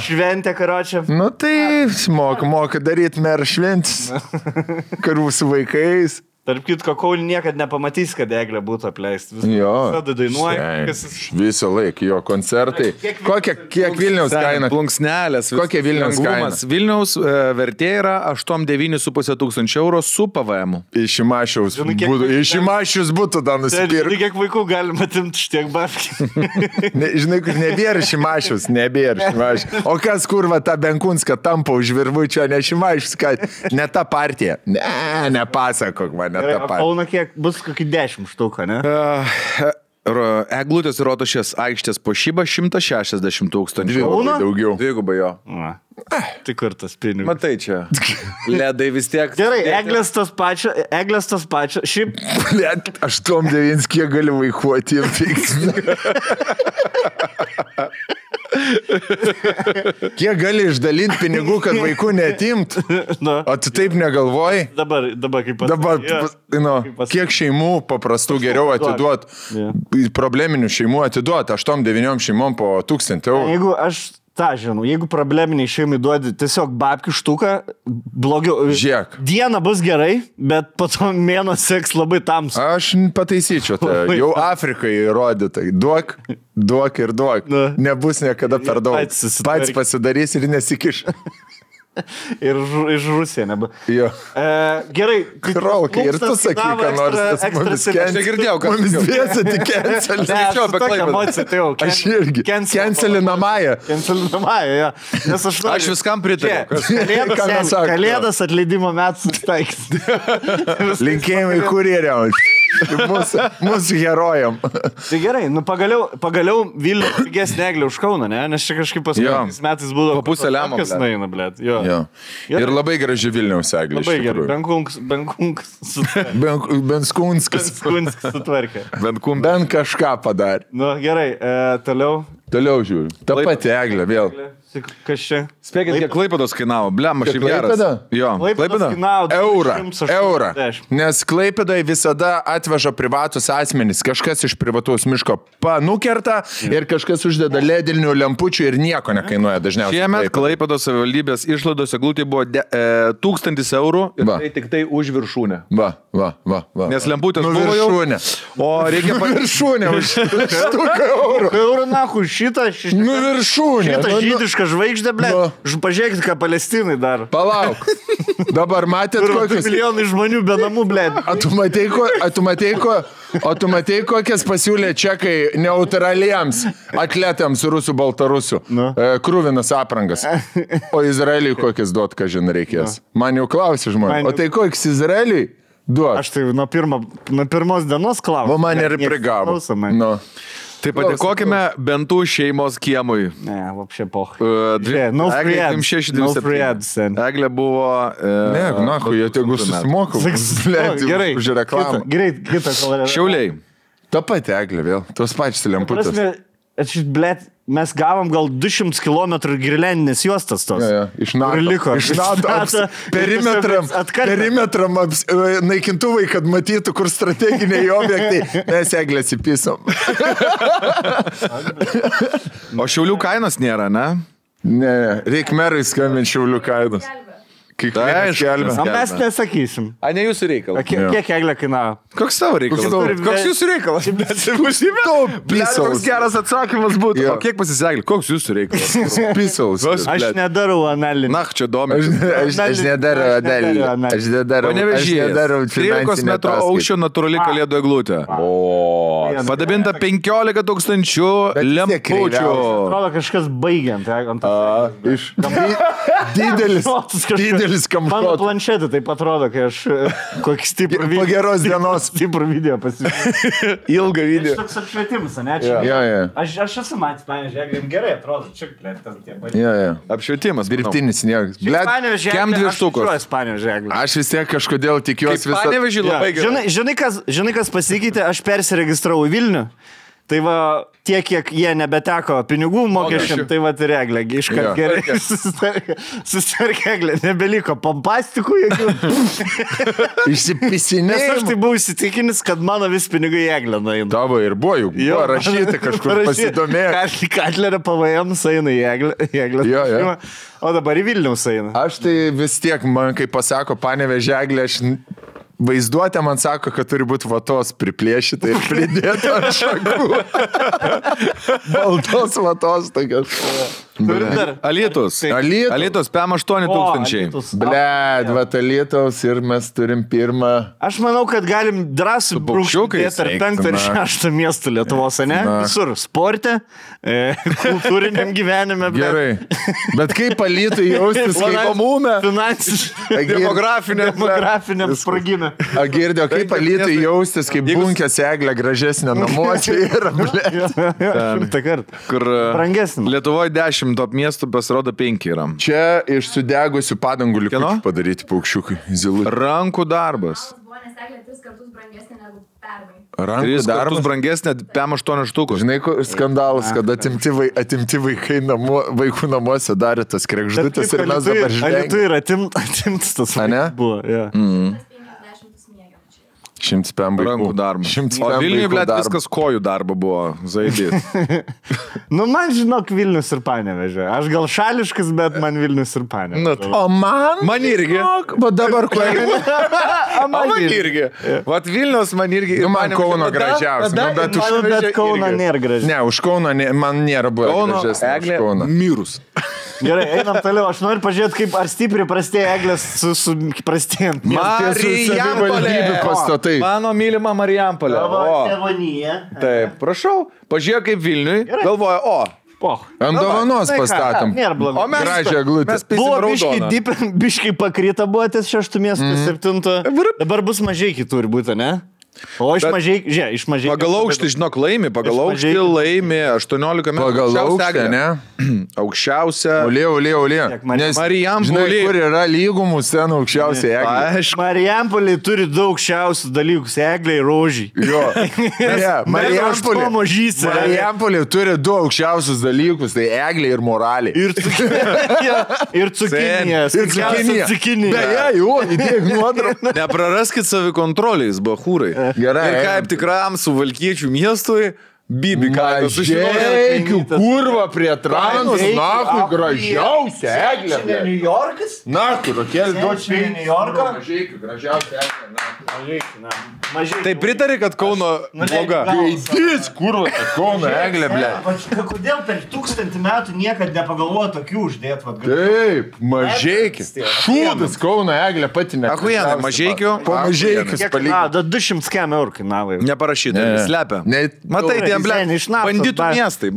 šventė karočią. Nu tai moka daryti merą šventis, karų su vaikais. Tarp kitko, Kaunį niekad nepamatys, kad eglė būtų apleist. Visada dainuoja. Visą laiką, jo koncertai. Kiek Vilniaus kaina? Plunksnelės. Kokia Vilniaus kaina? Vilniaus vertė yra 8-9,5 tūkstančių eurų su PVM. Iš Šimašius būtų dar nusipirkti. Žinai, kiek vaikų galima atimti štiek babkių. Žinai, kur nebėra Šimašius. O kas kurva tą Benkunską tampa už virvučio, ne Šimašius, kad ne ta partija. Nepasakok man. Kauno kiek bus kokį 10 štuką, ne? Eglutės ir Rotušės aikštės puošyba 160 tūkstančių. Daugiau. Dvigubai jo. Tik kur tas pinigas. Matai čia. Ledai vis tiek. Gerai, eglės tos pačio. Šiaip. Led, 8-9, kiek gali vaikuoti ir fiks. Kiek gali išdalinti pinigų, kad vaikų netimt? O tu taip negalvoji? Dabar kaip pasakyti. Kiek šeimų paprastų geriau atiduot, probleminių šeimų atiduot, 8-9 šeimom po 1000 eurų. Jeigu aš jeigu probleminiai šeimai duodi tiesiog babkių štuką, blogiau. Žiūrėk. Diena bus gerai, bet po to mėnuo seks labai tamsu. Aš pataisyčiau tai. Jau Afrikai įrodytai. Duok ir duok. Nebus niekada per daug. Pats pasidarys ir nesikiš. Ir iš Rusija nebu. Jo. Gerai. Krolkai, ir tu sakai, ką nors tas mumis negirdėjau, kad mumis dviesi tik cancelį. Aš irgi. Cancelinamąją. Ja. Nes aš viskam pritariu. Kalėdas atleidimo metų susitaiks. Linkėjimai kurjeriam. Mūsų herojam. Tai gerai, nu pagaliau Vilnius pigesnė eglė už Kauną, ne? Nes čia kažkaip paskutiniais metais būdavo... Pusę lemo, kas naina, blėt. Jo. Ir labai graži Vilniaus eglė. Labai gerai. Benskunskas sutvarkė. Bent kažką padarė. Nu, gerai, toliau. Toliau žiūriu. Ta pati eglė vėl. Kas čia? Spėkit, kiek Klaipėdos kainavo. Blem, aš šiaip geras. Jo, Klaipėda kainavo eurą. Nes Klaipėdai visada atveža privatus asmenys. Kažkas iš privataus miško panukerta ir kažkas uždeda ledinių lempučių ir nieko nekainuoja dažniausiai. Šiemet Klaipėdos savivaldybės išlaidos eglutė buvo 1000 eurų ir tai tik tai už viršūnę. Va. Nes lemputės buvo jau. O reikia viršūnę už 100 eurų. Eurų nahu šitą. Viršūnę. Šitą žydišką žvaigždę, ble. Pažiūrėkit, ką Palestinai daro. Palauk. Dabar matėt kokius... milijonai žmonių be namų, ble. O tu matei, kokias pasiūlė čekai neutraliems atletams rusų baltarusių. Krūvinas aprangas. O Izraeliui kokias duot, ką žin reikės. Man jau klausė žmonės. O tai kokias Izraeliui duot? Aš tai nuo pirmos dienos klausiu. O man ir prigavo. Tai padėkokime bentų šeimos kiemui. Ne, vapšė poch. No free ads. Eglė buvo... Ne, jie tegu susimokau. Gerai, už reklamą. Gerai, kitą kolorę. Šiauliai. Ta pati eglė vėl. Tos pačios lemputės. Mes gavom gal 200 km girlendinės juostas tos. Iš NATO. Perimetram naikintuvai, kad matytų, kur strateginiai objektai. Mes eglės įpisom. O Šiaulių kainos nėra, ne? Ne, reik merai skambinti Šiaulių kainos. Mes nesakysim. A, ne jūsų reikalas. Kiek eglė kainavo? Koks tavo reikalas? Koks jūsų reikalas? Koks geras atsakymas būtų. O kiek pasiseglė? Koks jūsų reikalas? Pisaus. Aš nedarau analizę. Na, čia domi. Aš nedarau analizę. Panevežyje. 13 metrų aukščio natūrali kalėdų eglutė. Padabinta 15 000 lempučių. Atrodo kažkas baigiant. Didelis kamšotas. Mano planšetė taip atrodo, kai aš kokį stiprų video. Po geros dienos. Stiprų video pasižiūrėjau. Ilgą video. Aš toks apšvietimas, ne? Aš esu matęs, pavyzdžiui, gerai atrodo. Čia, blėt, ten tie. Apšvietimas. Dirbtinis sniegas. Blėt, kem 2 štukos. Aš vis tiek kažkodėl tikiuosi visą. Panevežį labai gerai. Žinai, kas pasikeitė? Aš persiregistravau į Vilnių. Tai va, tiek, kiek jie nebeteko pinigų mokesčiam, tai va, ir eglė, iškart gerai susitvarkė eglė, nebeliko pompastikų jokių. Išsipisinėjimų. Nes aš tai buvau įsitikinęs, kad mano vis pinigai į eglę nueina. Tavo ir buvo rašyti kažkur pasidomėjo. Katlerio PVM eina į eglę. O dabar į Vilniaus eina. Aš tai vis tiek, man kai pasako Panevėžio eglė, aš... Vaizduotė man sako, kad turi būti vatos priplėšyta ir pridėta ant šakų. Baltos vatos tokios. Alytus. Alytus, PM 8000. Bled, vat Alytaus ir mes turim pirmą. Aš manau, kad galim drąsiai brūkšti tarp 5 ir 6 miestų Lietuvos, ne? Visur. Sporte, kultūriniam gyvenime. Gerai. Bet kaip Alytui jaustis, kaip pamume, finansiškai, demografiniam spragime. Girdėjau, kaip Alytui jaustis, kaip bunkės eglė gražesnė namuose yra, bled. Kur Lietuvoje 10 top miestų pasirodo 5 yra. Čia iš sudegusių padangų likučių padaryti paukščiukai. Rankų darbas. Rankų darbas brangesnė PM 8 štukų. Žinai, skandalas, kad atimti vaikai vaikų namuose darė tas krekždutės ir mes dabar žinai. Alytui yra atimtas tas buvo. 100 PM vaikų. Rankų darbas. O Vilniuje, blėt, viskas kojų darbo buvo. Zaidys. Man žinok Vilnius ir Panevėžė. Aš gal šališkas, bet man Vilnius ir Panevėžė. O man irgi. Va dabar kojų. Man irgi. Vat Vilnius man irgi. Man Kauno gražiausia. Bet Kauno nėra gražiausia. Ne, už Kauno man nėra buvo gražiausia. Eglė mirus. Gerai, einam toliau. Aš noriu pažiūrėti, kaip ar stipriai prastėja eglės su prastėjant. Marijampolė. Mano mylima Marijampolė. Tėvonyje. Taip, prašau. Pažiūrėk kaip Vilniui. Galvoja, ant dovanos pastatom. Nėra blogai. O gražią eglutę. Buvo biškai pakrita, buvo ties 6 miestų, 7. Dabar bus mažai kitur būtų, ne? O iš mažai. Pagal aukštį, žinok, laimi 18 metų. Pagal aukštį, ne? Aukščiausia. Olė. Nes Marijampolė. Žinai, kur yra lygumų scenų aukščiausia eglė. Marijampolė turi daug aukščiausių dalykų. Eglė ir rožį. Jo. Marijampolė turi du aukščiausius dalykus. Tai eglė ir moralė. Ir cukinija. Beje, jo, įdėk nuotrauką. Nepraraskit savikontrolės, bachūrai. Gerai. Ir kaip tikram suvalkiečių miestui, Bibi kaimas sužinojau. Kurva prie Tranos, nakui, gražiausia eglė. Čia ne New Yorkas? Nakui, Rokelį duočiau. Čia New Yorką? Mažeikiu, gražiausia eglė. Tai pritari, kad Kauno bloga. Gaidys, kurva, Kauno eglė, ble. Kodėl per 1000 metų niekad nepagalvojo tokių uždėt? Taip, Mažeikis. Šūdas Kauno eglė pati ne. Achujenai, Mažeikiu. Po Mažeikius palyginti. 200 km eurų kainavo. Neparašyta, slepia. Matai, banditų miestai.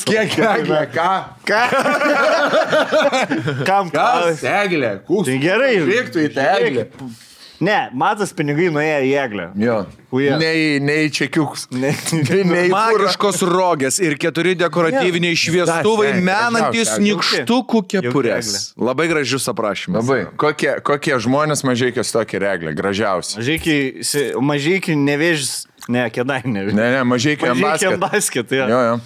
Kiek eglė, ką? Kam? Kas eglė? Tai gerai. Reiktų į tą eglę. Ne, matas pinigai nuėjo į eglę. Jo. Nei čekiuks. Magiškos rogės ir 4 dekoratyviniai šviestuvai menantis nykštukų kepurės. Labai gražius aprašymas. Labai. Kokie žmonės Mažeikis tokie reglė? Gražiausi. Mažeikių nevėžis. Ne, Kėdainių. Ne, Mažeikių basket. Jo.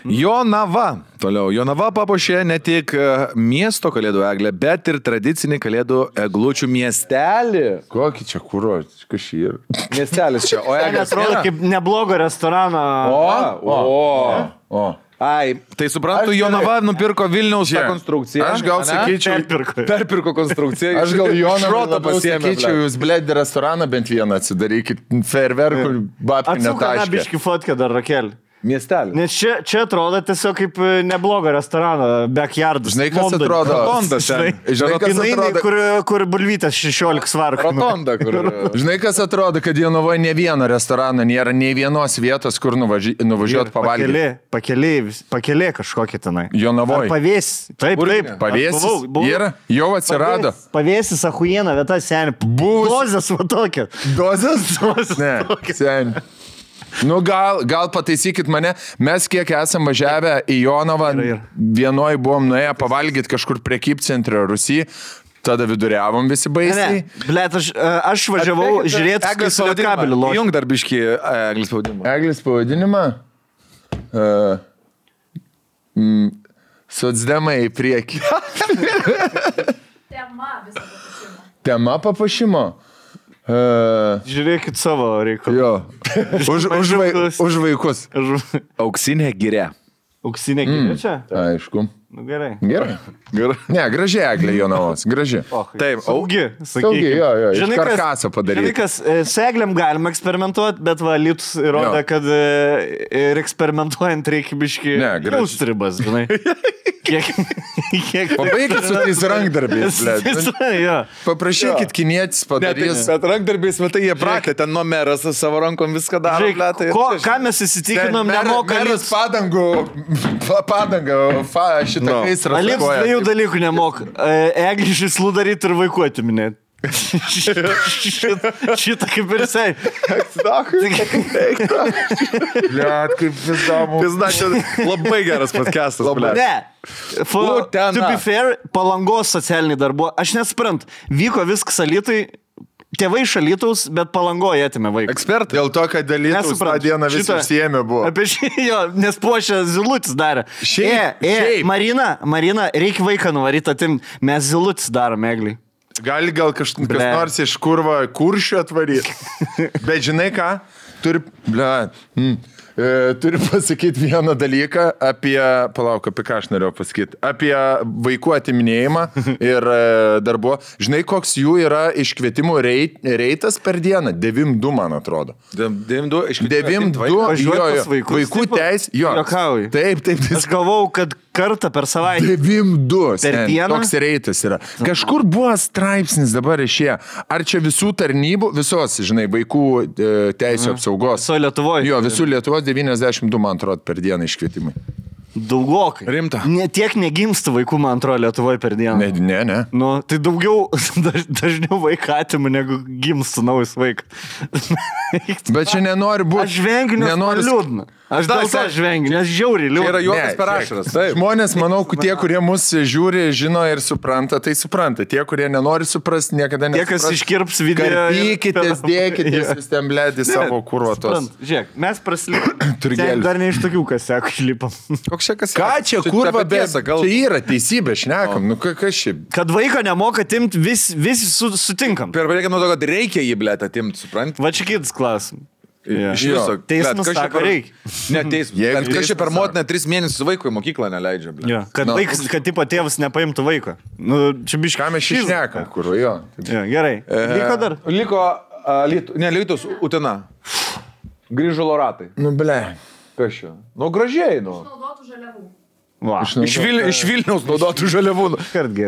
Jonava. Toliau. Jonava papuošė ne tik miesto kalėdų eglę, bet ir tradicinį kalėdų eglučių miestelį. Kokį čia kuro? Kas šį yra? Miestelis čia. O eglės atrodo kaip neblogo restorano. O. Ai, tai suprantu, Jonava nupirko Vilniaus tą konstrukciją. Aš gal sakyčiau, perpirko konstrukciją. Aš gal Jonava sakyčiau, jūs blėdį restoraną bent vieną atsidarykit, fejerverkų babkių netaškė. Atsuk biškį fotkę dar, Rakel. Miestelį. Nes čia atrodo tiesiog kaip neblogo restorano, backyardas. Žinai, kas atrodo? Rotondas. Žinai, kas atrodo? Kur bulvytas 16 svarų. Rotonda, kur. Žinai, kas atrodo, kad Jonavoje ne vieno restorano nėra, nei vienos vietos, kur nuvažiuoti pavalgyti. Pakelė kažkokia tenai. Jonavoje. Pavės. Taip. Pavėsis. Yra. Jau atsirado. Pavėsis, achujiena vieta, seniai. Dozės va tokia. Dozės? Ne, seniai. Nu, gal pataisykit mane, mes kiek esam važiavę į Jonavą, vienoj buvom nuėję pavalgyti kažkur prekybcentre Rusijai, tada viduriavom visi baisiai. Blet, aš važiavau žiūrėti, Eglės pavadinimą. Jung dar biškį Eglės pavadinimą. Eglės pavadinimą? Socdemai į priekį. Tema papuošimo. Žiūrėkit savo reikalų. Jo. Už vaikus. Auksinė giria. Auksinė giria čia? Aišku. Nu, gerai. Ne, graži eglė Jonavos. Graži. Taip, saugi. Jo. Iš karkaso padaryti. Žinai, kas, su eglėm galima eksperimentuoti, bet Lytus įrodė, kad ir eksperimentuojant reikia biškį jaustribas, žinai. Pabaikit su tais rankdarbiais, paprašykit kinietis padarys. Bet rankdarbiais, matai, jie prakė, ten nuo meras savo rankom viską daro. Ką mes įsitikinom, nemoka meras padangą šitą gaisrą sakoja. Alips dviejų dalykų nemok. Eglišį slūdaryti ir vaikų atiminėti. Šitą kaip ir sei. Bliat, kaip pizdamu. Pizda, čia labai geras podcastas. Ne. To be fair, Palangos socialiniai darbo. Aš nesprant, vyko viskas Alytui. Tėvai iš Alytaus, bet Palangoje atėmė vaiką. Ekspertai. Dėl to, kad Alytaus tą dieną visi užsiėmė buvo. Apie nes puošė zilutis darė. Marina, reikia vaiką nuvaryti atimti. Mes zilutis darom, Egliai. Gal kas nors iš kuršių atvaryti. Bet žinai ką? Turiu pasakyti vieną dalyką apie ką aš norėjau pasakyti, apie vaikų atiminėjimą ir darbo. Žinai, koks jų yra iškvietimų reitas per dieną? 9-2, man atrodo. 9-2 vaikų teis. Taip. Aš galvau, kad kartą per savaitę. 9-2. Toks reitas yra. Kažkur buvo straipsnis dabar išėjo. Ar čia visų tarnybų, visos, žinai, vaikų teisų apsaugos? Viso Lietuvoje. Jo, visų Lietuvos 92, man atrodo, per dieną iškvietimai. Daugokai. Rimta. Tiek negimsta vaikų, man atrodo, Lietuvoje per dieną. Ne. Nu, tai daugiau, dažniau vaiką atimų, negu gimsta naujas vaikas. Bet čia nenori būti. Aš vengiu, nes man liūdna. Aš dėl to žvengiu, nes žiauriai liūdna. Tai yra juokas per ašaras. Žmonės, manau, tie, kurie mus žiūri, žino ir supranta, tai supranta. Tie, kurie nenori suprasti, niekada nesupras. Tie, kas iškirps video. Karpykitės, dėkitės, vis ten blėdi savo kurvatos. Žiūrėk, mes praslipom. Dar ne iš tokių, kas sako, išlipam. Koks čia kas? Ką čia kurva bėsa? Čia yra teisybė, šnekam. Nu, kas šiaip? Kad vaiką nemoka atimti, visi sutinkam. Per reikia nuo to, kad reikia jį blėt atimti, suprant? Va čia kitas klausimas. Iš viso. Teismas sako, reikia. Ne, teismas. Kas čia per motiną 3 mėnesius vaikui į mokyklą neleidžia, blėt. Kad vaikas, kad tipo tėvas nepaimtų vaiko. Nu, čia biškai. Ką mes šnekam, kur jo. Gerai. Liko dar? Liko, Lietuvos, Utena. Grįžulo ratai. Nu, ble. Kas čia? Nu, gražiai, nu. Naudotų žaliavų. Va. Iš Vilniaus naudotų žaliavų.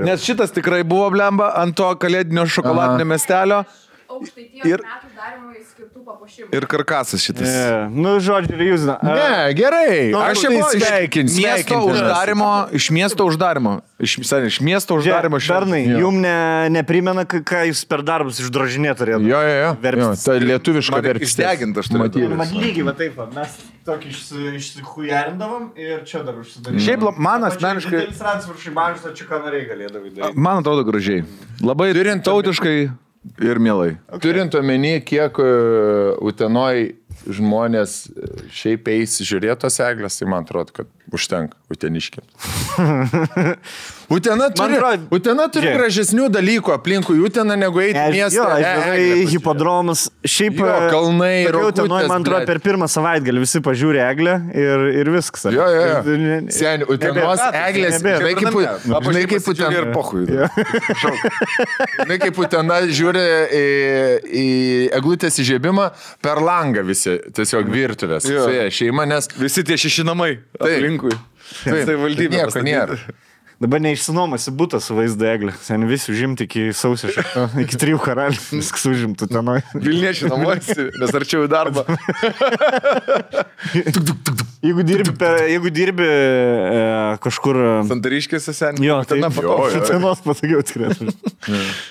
Nes šitas tikrai buvo blemba ant to kalėdinio šokoladinio miestelio. Aukštaitijos metų darimui skirtų papuošimų. Ir karkasas šitas. Nu, žodžiu, jūs... Ne, gerai. Aš jau iš miesto uždarimo. Iš miesto uždarimo. Bernai, jum neprimena, ką jūs per darbus išdrožinėt turėtų? Jo. Tai lietuviška verpstė. Išdegint aš turėtų. Man lygiai, va taip, mes tokį išsihujarindavom ir čia dar užsidarėm. Šiaip man asmeniškai... Man atrodo gražiai. Labai tautiškai ir mielai. Turint omeny, kiek Utenoj žmonės šiaip eis žiūrėtos eglės, tai man atrodo, kad užtenka uteniškiams. Utena turi gražesnių dalykų aplinkui Uteną negu eiti miestą. Hipodromas. Šiaip kalnai, Utenoj, man atrodo, per pirmą savaitgalį visi pažiūri eglę ir viskas. Jo. Seni, Utenos eglės, žinai kaip Utena ir pochui. Žinai kaip Utena žiūri į eglutės įžiebimą per langą visi, tiesiog virtuvės. Šeima, nes... Visi tie 6 namai aplinkui. Tai valdybė. Nieko nėra. Dabar neišsinuomasi butas su vaizdo eglė. Sen visi užimti iki sausio, iki 3 karalių. Viskas užimtų tenoj. Vilniečiai namuosi, nes arčiau į darbą. Jeigu dirbi kažkur... Santariškėse, seniai. Jo, tai tenos patogiau tikrai.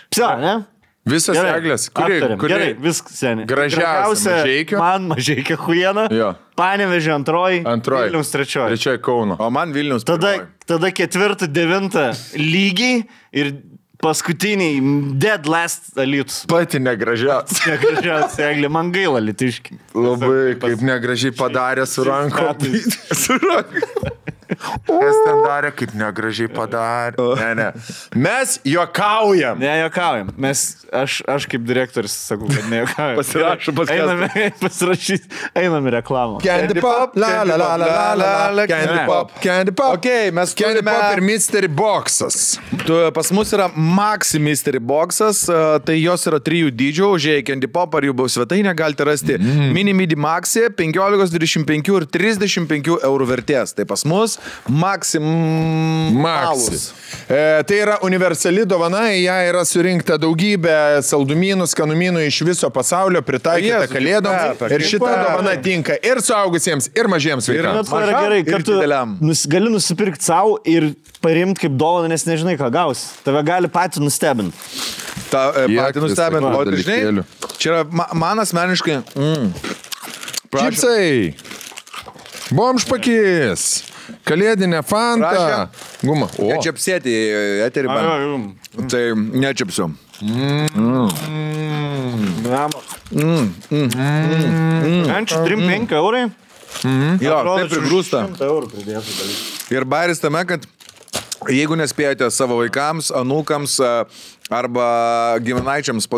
Psa, ne? Visas eglės. Gerai, viskas, seniai. Gražiausia Mažeikio. Man Mažeikio huiena. Panevėžio antroji. Vilniaus trečioji. Trečioji Kauno. O man Vilniaus pirmoji. Tada 4, 9 lygiai ir paskutiniai dead last Alytus. Pati negražiausia. Negražiausia eglė. Man gaila Alytiški. Labai kaip negražiai padarė su rankom. Su rankom. Kas ten darė, kaip negražiai padarė. Ne. Mes juokaujam. Ne, juokaujam. Aš kaip direktorius sakau, kad ne juokaujam. Pasirašau Einam į reklamą. Candy Pop, la, Candy Pop. Okay, mes Candy Pop ir Mystery Boxas. Pas mus yra Maxi Mystery Boxas, tai jos yra 3 dydžių, užėję Candy Pop ar jų svetainę galite rasti Mini Midi Maxi, 15, 25 ir 35 eurų vertės. Tai pas mus Maxi. Tai yra universali dovana, į ją yra surinkta daugybė saldumynų, skanumynų iš viso pasaulio, pritaikyta kalėdoms. Ir šita dovana tinka ir suaugusiems, ir mažiems vaikams. Ir yra gerai, kad tu gali nusipirkti savo ir parimti kaip dovaną, nes nežinai, ką gausi. Tave gali patį nustebinti. Patį nustebinti. O tai žinai, čia yra man asmeniškai... Čipsai. Bomžpakis. Kalėdinė Fanta. Guma. Nečiapsėti eterį man. Tai nečiapsiu. Ančių 3-5 eurai. Jo, taip prigrūsta. Ir bairis tame, kad jeigu nespėjote savo vaikams, anūkams arba giminaičiams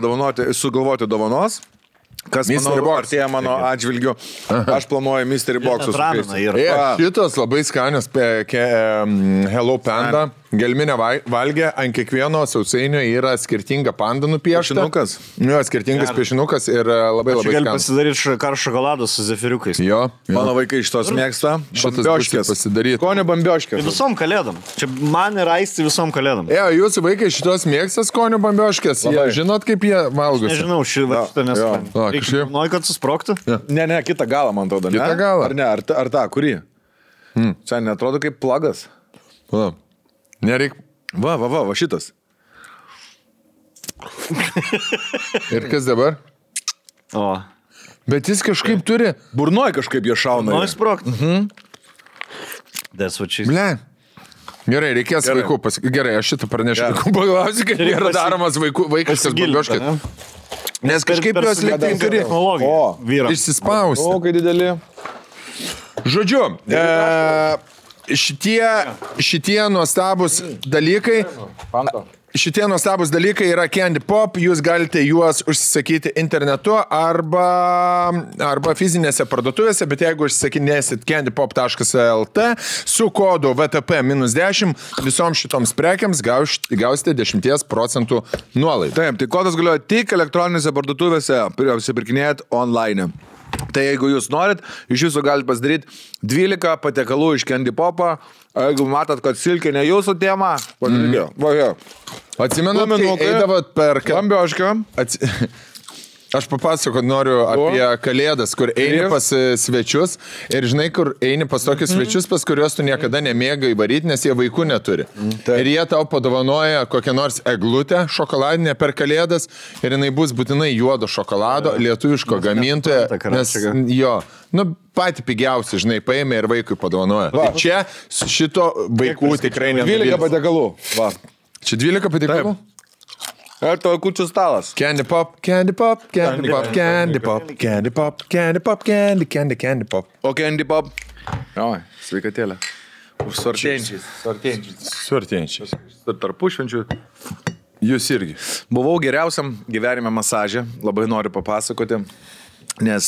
sugalvoti dovanos, kas artėja mano atžvilgiu, aš planuoju Mystery Box'us. Šitas labai skanios Hello Panda. Gelminė valgė, ant kiekvieno sausainio yra skirtinga panda nupiešta. Piešinukas. Jo, skirtingas piešinukas ir labai skanus. Gali pasidaryti karštą šokoladą su zefiriukais. Jo. Mano vaikai iš tos mėgsta. Bambioškės pasidaryti. Skonio bambioškės. Visom kalėdom. Čia man ir aisti visom kalėdom. Jūsų vaikai šitos mėgsta skonio bambioškės. Žinot, kaip jie valgosi? Nežinau, šitą nesuprantu. Nori, kad susprogtų? Ne, kitą galą, man atrodo. Kitą galą. Ar ne? Ar tą, kurį? Čia netrodo kaip plagas. Nereik. Va, šitas. Ir kas dabar? O. Bet jis kažkaip turi. Burnoj kažkaip jie šauna. Nori sprogti. That's what she's... Ble. Gerai, reikės vaikų pasakyti. Gerai, aš šitą pranešiu. Pagalvosiu, kad yra daromas vaikiškas babioškas. Nes kažkaip jos liktai turi išsispausti. O, kai didelį. Žodžiu, šitie nuostabus dalykai. Šitie nuostabus dalykai yra Candy Pop, jūs galite juos užsisakyti internetu arba fizinėse parduotuvėse, bet jeigu užsisakinėsit candypop.lt su kodu VTP-10 visoms šitoms prekiams gausite 10% nuolaidą. Taip, tai kodas galioja tik elektroninėse parduotuvėse, apsipirkinėjat online. Tai jeigu jūs norit, iš jūsų galite pasidaryti 12 patiekalų iš Candy Pop'o. Jeigu matot, kad silkė ne jūsų tema, pažiūrėjau. Va, jo. Atsimenat, kai eidavot per... Kambiošką. Aš papasakot noriu apie Kalėdas, kur eini pas svečius ir žinai, kur eini pas tokius svečius, pas kuriuos tu niekada nemėgai varyti, nes jie vaikų neturi. Ir jie tau padovanoja kokią nors eglutę šokoladinę per Kalėdas ir jinai bus būtinai juodo šokolado, lietuviško gamintojo, nes jo, patį pigiausią, žinai, paėmė ir vaikui padovanoja. Tai čia šito vaikų tikrai nenuvilys. 12 patiekalų. Va. Čia 12 patiekalų? Ir to kučių stalas. Candy Pop, Candy Pop, Candy Pop, Candy Pop, Candy Pop, Candy Pop, Candy Pop. O Candy Pop? Oi, sveikatėlė. Už suartėjančiais. Tarpušvenčių. Jūs irgi. Buvau geriausiam gyvenime masaže, labai noriu papasakoti, nes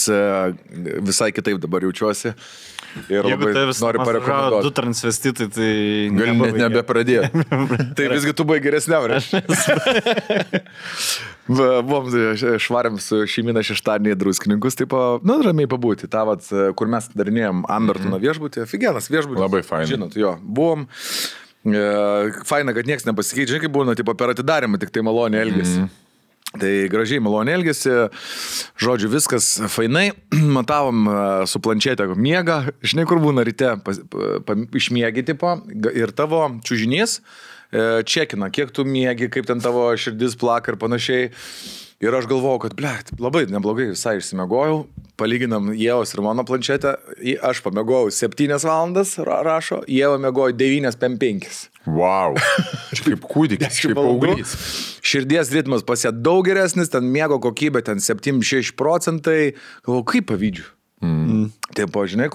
visai kitaip dabar jaučiuosi. Ir jeigu tai vis noriu du transvestitai, tai... Gal net nebepradėjo. Tai visgi tu buvai geresniam, buvom švarėm su šeimina šeštadienį druskininkus, taip, ramiai pabūti. Ta, kur mes darinėjom Ambertono viešbutį, figienas viešbutį. Labai faina. Žinot, jo, buvom. Faina, kad niekas nepasikeičia, žinai, kaip būna, tipo, per atidarimą, tik tai maloniai elgėsi. Tai gražiai maloniai elgėsi, žodžiu, viskas fainai, matavom su planšetė miegą, žinai, kur būna ryte išmiegi tipo ir tavo čiužinys čekina, kiek tu miegi, kaip ten tavo širdis plaka ir panašiai. Ir aš galvojau, kad, labai neblogai visai išsimiegojau, palyginam Ievos ir mano planšetę, aš pamiegojau 7 valandas, rašo, Ieva miegojo 9:05. Wow, čia kaip kūdikis, kaip paauglys. Širdies ritmas pas ją daug geresnis, ten miego kokybė, ten 76%, galvoju, kaip pavydžiu. Taip, žinai,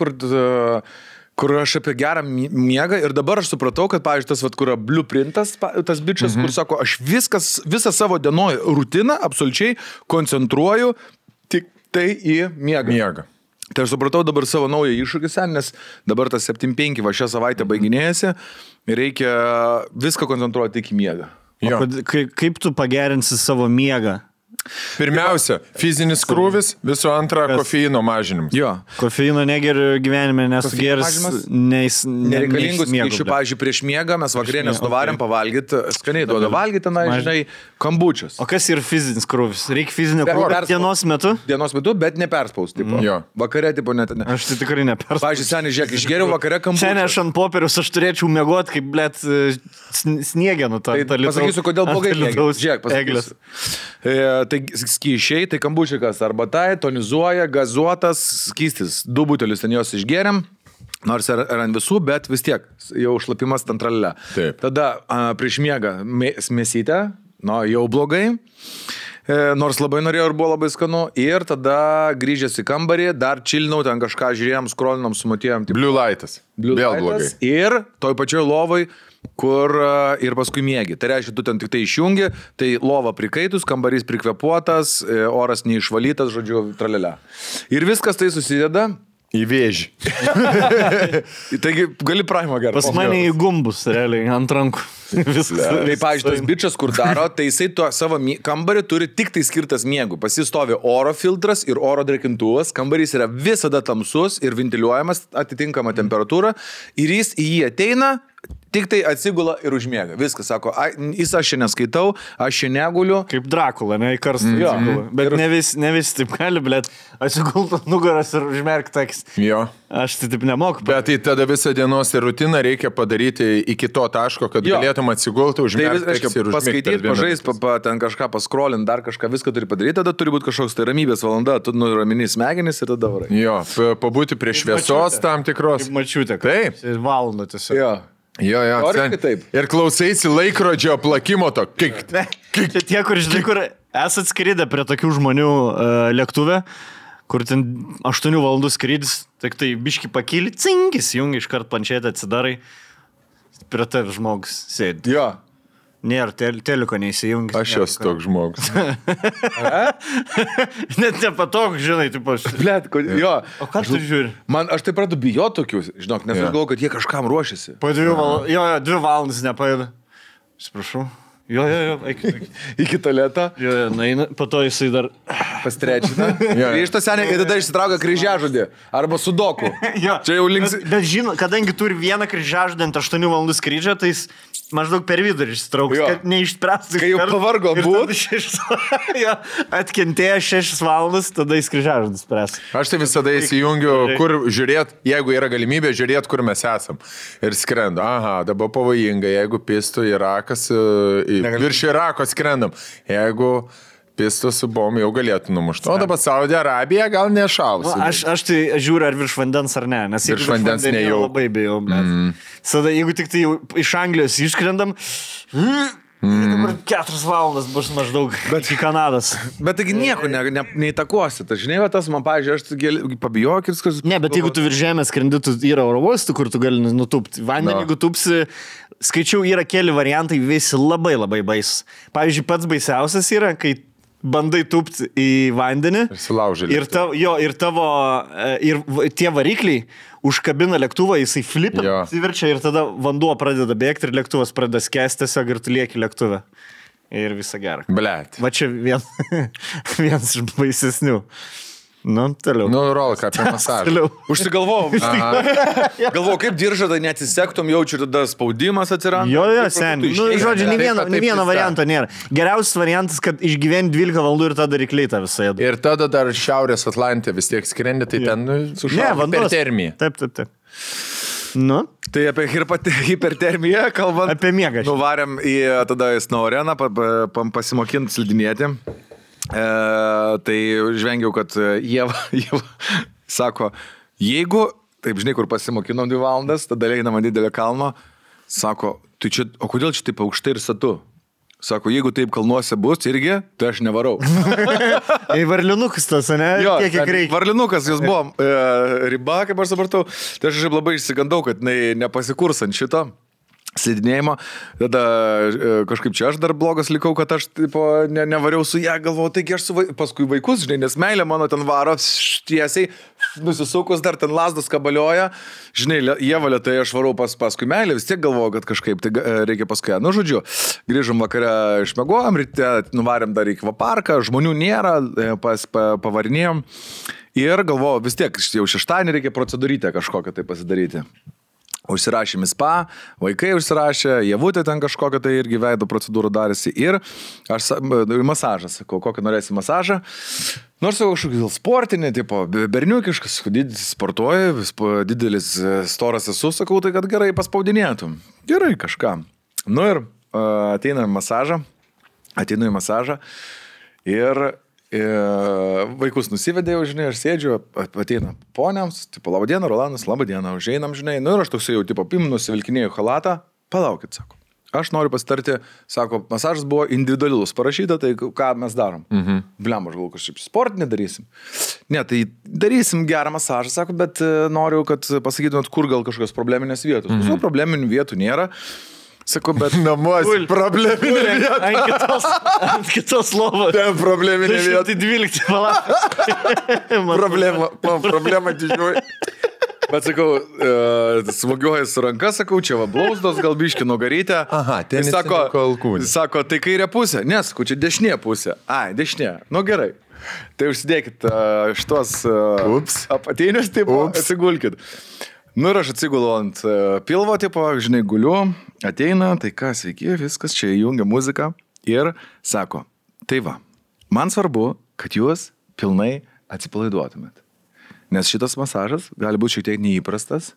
kur aš apie gerą miegą ir dabar aš supratau, kad, pavyzdžiui, tas, kur yra blueprintas, tas bičas, kur sako, aš visą savo dienoj rutiną absoliučiai koncentruoju tik tai į miegą. Tai aš supratau dabar savo naują iššūkį, nes dabar tas 7-5 va šią savaitę baiginėjasi ir reikia viską koncentruoti tik į miegą. Kaip tu pagerinsi savo miegą? Pirmiausia, fizinis krūvis, visų antra, kofeino mažinimas. Jo. Kofeino negeriu gyvenime, nes geris nereikalingus skaičių, pavyzdžiui, prieš miegą mes vakarienės nuvarėm pavalgyti, skaniai duoda valgyti, žinai, kambučius. O kas yra fizinis krūvis? Reikia fizinio krūvio dienos metu? Dienos metu, bet neperspaus, tipo. Vakare, tipo, net. Aš tai tikrai neperspaus. Pavyzdžiui, seniai, žiūrėk, išgeriau vakare kambučius. Seniai aš ant popieriaus, aš turėčiau miegoti, kaip, sniegenų tą litrų. Pasakysiu, kodėl blogai žiūrėk, pasakysiu. Tai skyšiai, tai kambučikas arbatai, tonizuoja, gazuotas skystis. 2 butelius ten jos išgeriam, nors ir ant visų, bet vis tiek jau šlapimas ten tralelė. Tada prieš miegą mėsytę, jau blogai, nors labai norėjau ir buvo labai skanu. Ir tada grįžęs į kambarį, dar čilinau, ten kažką žiūrėjom, skrolinom, sumatėjom. Blue lightas. Vėl blogai. Ir toj pačioj lovoj, kur ir paskui miegi. Tai reiškia, tu ten tik tai išjungi, tai lova prikaitus, kambarys prikvepuotas, oras neišvalytas, žodžiu, tralelė. Ir viskas tai susideda į vėžį. Taigi, gali praimą gerą. Pas mane į gumbus, realiai, ant rankų. Tai, pavyzdžiui, tas bičias, kur daro, tai jisai to savo kambarį turi tik tai skirtas miegų. Pasistovi oro filtras ir oro drėkintuvas, kambarys yra visada tamsus ir ventiliuojamas atitinkama temperatūra ir jis į jį ateina, tik tai atsigula ir užmiega. Viskas, sako, aš čia neskaitau, aš čia neguliu. Kaip Drakula, ne į karstą. Bet ne vis taip gali, blėt, atsigultų nugaras ir užmerkti akis. Jo. Aš tai taip nemoku. Bet tai tada visą dienos rutiną reikia padaryti iki to taško, kad galėtum atsigulti, užmerkti akis ir užmigti. Paskaityti, pažaist, ten kažką paskrolint, dar kažką, viską turi padaryti, tada turi būti kažkoks tai ramybės valanda, tu nuramini smegenis ir tada varai. Jo, pabūti prie šviesos tam tikros. Kaip mačiutė. Taip. Valandą tiesiog. Jo. Ir klausaisi laikrodžio plakimo to. Čia tie, kur, žinai, kur esat skridę prie tokių žmonių lėktuve, kur ten 8 valandų skrydis, tik tai biški pakyli, cinkis, jungi iškart planšetę atsidarai, prie tavi žmogus sėdi. Jo. Nėra, teliko neįsijungi. Aš esu toks žmogus. Net nepatogu, žinai, taip aš. Blet, jo. O ką tu žiūri? Aš taip pradu bijoti tokius, žinok, nes aš galvoju, kad jie kažkam ruošiasi. Po 2 valandas, jo, 2 valandas nepaėda. Sprašau. Jo, eik. Iki tualetą. Jo, naina, po to jisai dar pastrečina. Grįžta seniai ir tada išsitraukia kryžiažodį. Arba sudoku. Čia jau links. Bet žinot, kadangi turi vieną kryžiažodį ant 8 valandų skrydžio, tai jis maždaug per vidurį išsitrauks, kad neišspręstų. Kai jau pavargo būt. Atkentėjo 6 valandas, tada jis kryžiažodį spręs. Aš tai visada įsijungiu, kur žiūrėt, jeigu yra galimybė žiūrėt, kur mes esam. Ir skrenda. Aha, dabar pavojinga, jeigu pistų Irakas, virš Irako skrendam. Jeigu pistų su bom jau galėtų numušti. O dabar Saudi Arabija gal nešaus. Aš tai žiūriu, ar virš vandens ar ne. Nes virš vandens nejau. Labai bijau. Sada, jeigu tik tai iš Anglijos išskrendam, dabar 4 valandas bus maždaug iki Kanados. Bet taigi nieko neįtakosi. Tai žinai, tas man, pavyzdžiui, aš pabijok ir viskas. Ne, bet jeigu tu virš žemės skrendi, tu yra oro uostų, kur tu gali nutūpti. Vandenį, jeigu tūpsi, skaičiau, yra keli variantai, visi labai labai baisus. Pavyzdžiui, pats baisiausias yra, kai bandai tūpti į vandenį ir tie varikliai užkabina lėktuvą, jisai flipia, įverčia ir tada vanduo pradeda bėgti ir lėktuvas pradeda skęsti tiesiog ir tu lieki lėktuve. Ir visa gera. Blet. Va čia vienas iš baisesnių. Nu, toliau. Nu, rolka apie masažą. Užsigalvojau. Galvojau, kaip diržą, tai neatsisektum, jaučiu, tada spaudimas atsiranda. Jo, seniai. Nu, žodžiu, nei vieno varianto nėra. Geriausias variantas, kad išgyveni 12 valandų ir tada rykliai tą visą ėdu. Ir tada dar Šiaurės Atlantė vis tiek skrendi, tai ten sušaukia hipertermija. Taip. Nu? Tai apie hipertermiją kalbant. Apie miegą. Nuvarėm į tada į snow areną pasimokinti slidinėti. Tai žvengiau, kad Ieva sako, jeigu, taip žinai, kur pasimokinom 2 valandas, tada einama didelio kalno, sako, tai čia, o kodėl čia taip aukštai ir satu? Sako, jeigu taip kalnuose bus irgi, tai aš nevarau. Varlinukas tas, ne? Jo, kiek reikia. Varlinukas, jūs buvom riba, kaip aš supratau, tai aš labai išsigandau, kad nepasikurs ant šito slidinėjimo, tada kažkaip čia aš dar blogas likau, kad aš nevariau su ją, galvojau, taigi aš paskui vaikus, žinai, nes meilė mano ten varo tiesiai, nusisukus dar ten lasdas kabalioja, žinai, Ieva lėtai aš varau paskui meilę, vis tiek galvojau, kad kažkaip tai reikia paskui ją. Nu, žodžiu, grįžom vakare, išmegojom, ryte nuvarėm dar į akvaparką, žmonių nėra, pavarinėjom ir galvojau, vis tiek jau šeštadienį reikia procedūrytę kažkokią tai pasidaryti. Užsirašėm į spa, vaikai užsirašė, Ievutė ten kažkokią tai irgi veido procedūrą darėsi ir aš masažą sakau, kokį norėsi masažą. Nors jau kažkokį sportinį, tipo, berniukiškas, sportuoji, didelis storas esu, sakau, tai kad gerai paspaudinėtum. Gerai kažką. Nu ir ateinu į masažą ir vaikus nusivedėjau, žinai, aš sėdžiu, ateina poniams, tipo, laba diena, Rolandas, laba diena, užeinam, žinai, nu ir aš toksai jau, tipo, nusivilkinėjau halatą, palaukit, sako, aš noriu pasitarti, sako, masažas buvo individualus parašyta, tai ką mes darom? Bliam, aš galvoju, kažkaip sportinį darysim. Ne, tai darysim gerą masažą, sako, bet noriu, kad pasakytumėt, kur gal kažkokios probleminės vietos. Visų probleminių vietų nėra. Sako, bet namuos probleminė vieta. Ant kitos lovos. Ten probleminė vieta. 212 valandas. Problema didžioji. Bet sakau, smogiuoju su ranka, sakau, čia va blauzdos, gal biški nugarytę. Aha, ten sako, tai kairė pusė. Ne, sakau, čia dešinė pusė. Ai, dešinė. Nu gerai. Tai užsidėkit šitos apatinius, taip, atsigulkit. Nu ir aš atsigulu ant pilvo, tipo, žinai, guliu, ateina, tai ką, sveiki, viskas, čia įjungia muziką ir sako, tai va, man svarbu, kad jūs pilnai atsipalaiduotumėt. Nes šitas masažas gali būti šiek tiek neįprastas,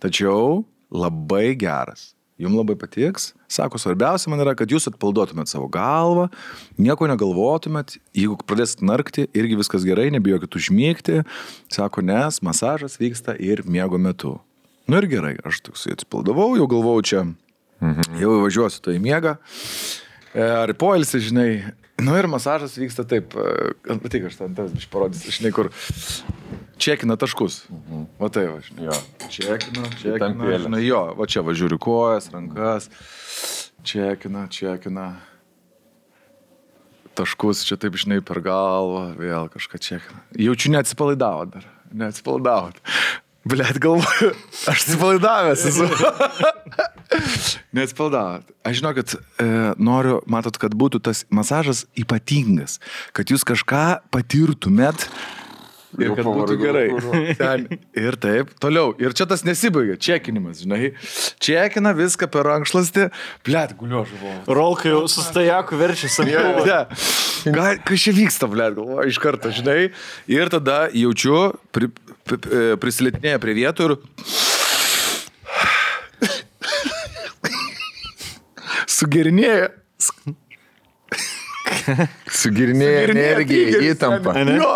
tačiau labai geras. Jums labai patiks. Sako, svarbiausia man yra, kad jūs atpalaiduotumėt savo galvą, nieko negalvotumėt, jeigu pradėsit narkti, irgi viskas gerai, nebijokit užmygti. Sako, nes masažas vyksta ir miego metu. Nu ir gerai, aš toksai atsipalaidavau, jau galvojau čia, jau važiuosiu to į miegą. Ar poilsį, žinai. Nu ir masažas vyksta taip, patik, aš ten tas biškai parodysiu, žinai, kur čekina taškus. Va tai va, žinai. Čekina, žinai, jo, va čia va žiūriu kojas, rankas, čekina. Taškus čia taip, žinai, per galvą, vėl kažką čekina. Jaučiu neatsipalaidavot dar, neatsipalaidavot. Blet, galvoju, aš atsipalaidavęs esu. Neatsipalaidavot. Aš žinau, kad noriu, matot, kad būtų tas masažas ypatingas, kad jūs kažką patirtumėt ir kad būtų gerai. Ten. Ir taip, toliau. Ir čia tas nesibaigia, čekinimas, žinai. Čekina viską per rankšluostį. Blet, guliu žuvau. Rolkai jau su stajaku verčia savyje. Kas čia vyksta, blet, galvoju, iš karto, žinai. Ir tada jaučiu, prisilietinėja prie vietų ir sugerinėja. Sugirinėja energiją, įtampą. Jo.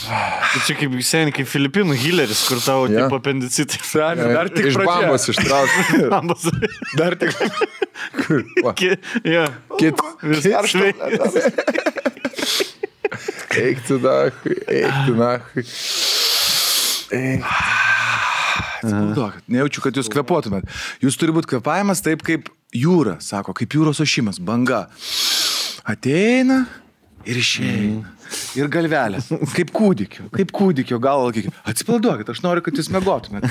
Tai čia kaip seniai, kaip Filipinų Hilleris, kur tavo tipo apendicitai. Seniai, dar tik iš bambos ištraukti. Dar tik. Eik tu nachui. Atsipalaiduokit, nejaučiu, kad jūs kvepuotumėt. Jūs turi būti kvepavimas taip kaip jūra, sako, kaip jūros ošimas, banga. Ateina ir išeina. Ir galvelės, kaip kūdikio galva. Atsipalaiduokit, aš noriu, kad jūs miegotumėt.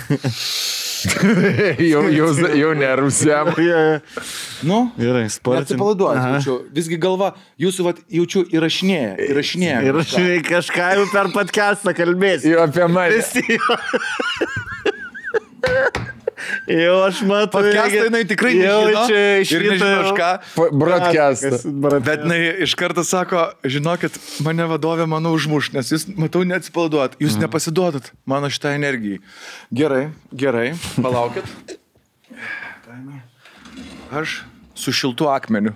jau nervsiam. Nu, gerai, sportin. Atsipalaiduokit, visgi galva, jūsų jaučiu įrašinėja. Įrašinėja kažką jau per podcastą kalbėsi. Jau apie mane. Jau aš matau. Podcastą jinai tikrai nežino. Ir nežino aš ką. Broadcastas. Bet jinai iš karto sako, žinokit, mane vadovė mano užmuš, nes jūs, matau, neatsipalaiduot. Jūs nepasiduodat mano šitą energijai. Gerai, palaukit. Aš su šiltu akmeniu.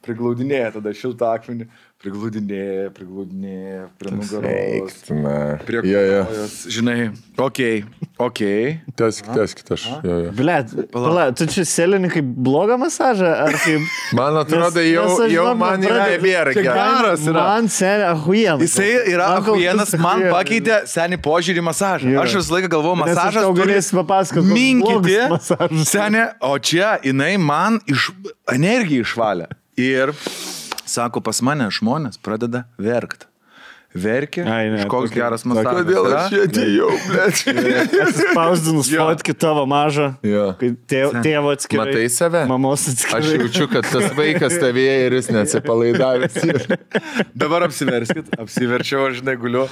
Priglaudinėja tada šiltą akmenį. Priglaudinėja prie nugaros. Prie kojos. Žinai, okei. Teskit aš. Blet, tu čia selini kaip blogą masažą, ar kaip... Man atrodo, jau man yra nebėra geras. Man seniai ahuienas. Jisai yra ahuienas, man pakeitė seniai požiūrį masažą. Aš visą laiką galvoju, masažas turi minkyti. Seniai, o čia jinai man energiją išvalė. Ir... Sako, pas mane žmonės pradeda verkti. Verkia, koks geras masažas. Kodėl aš čia atėjau, blėt? Atsispausdinus fotki tavo mažą, kai tėvo atskirai. Matai save? Mamos atskirai. Aš jaučiu, kad tas vaikas tavėje ir jis neatsipalaidavęs. Dabar apsiverskit. Apsiverčiau, aš žinai, guliu.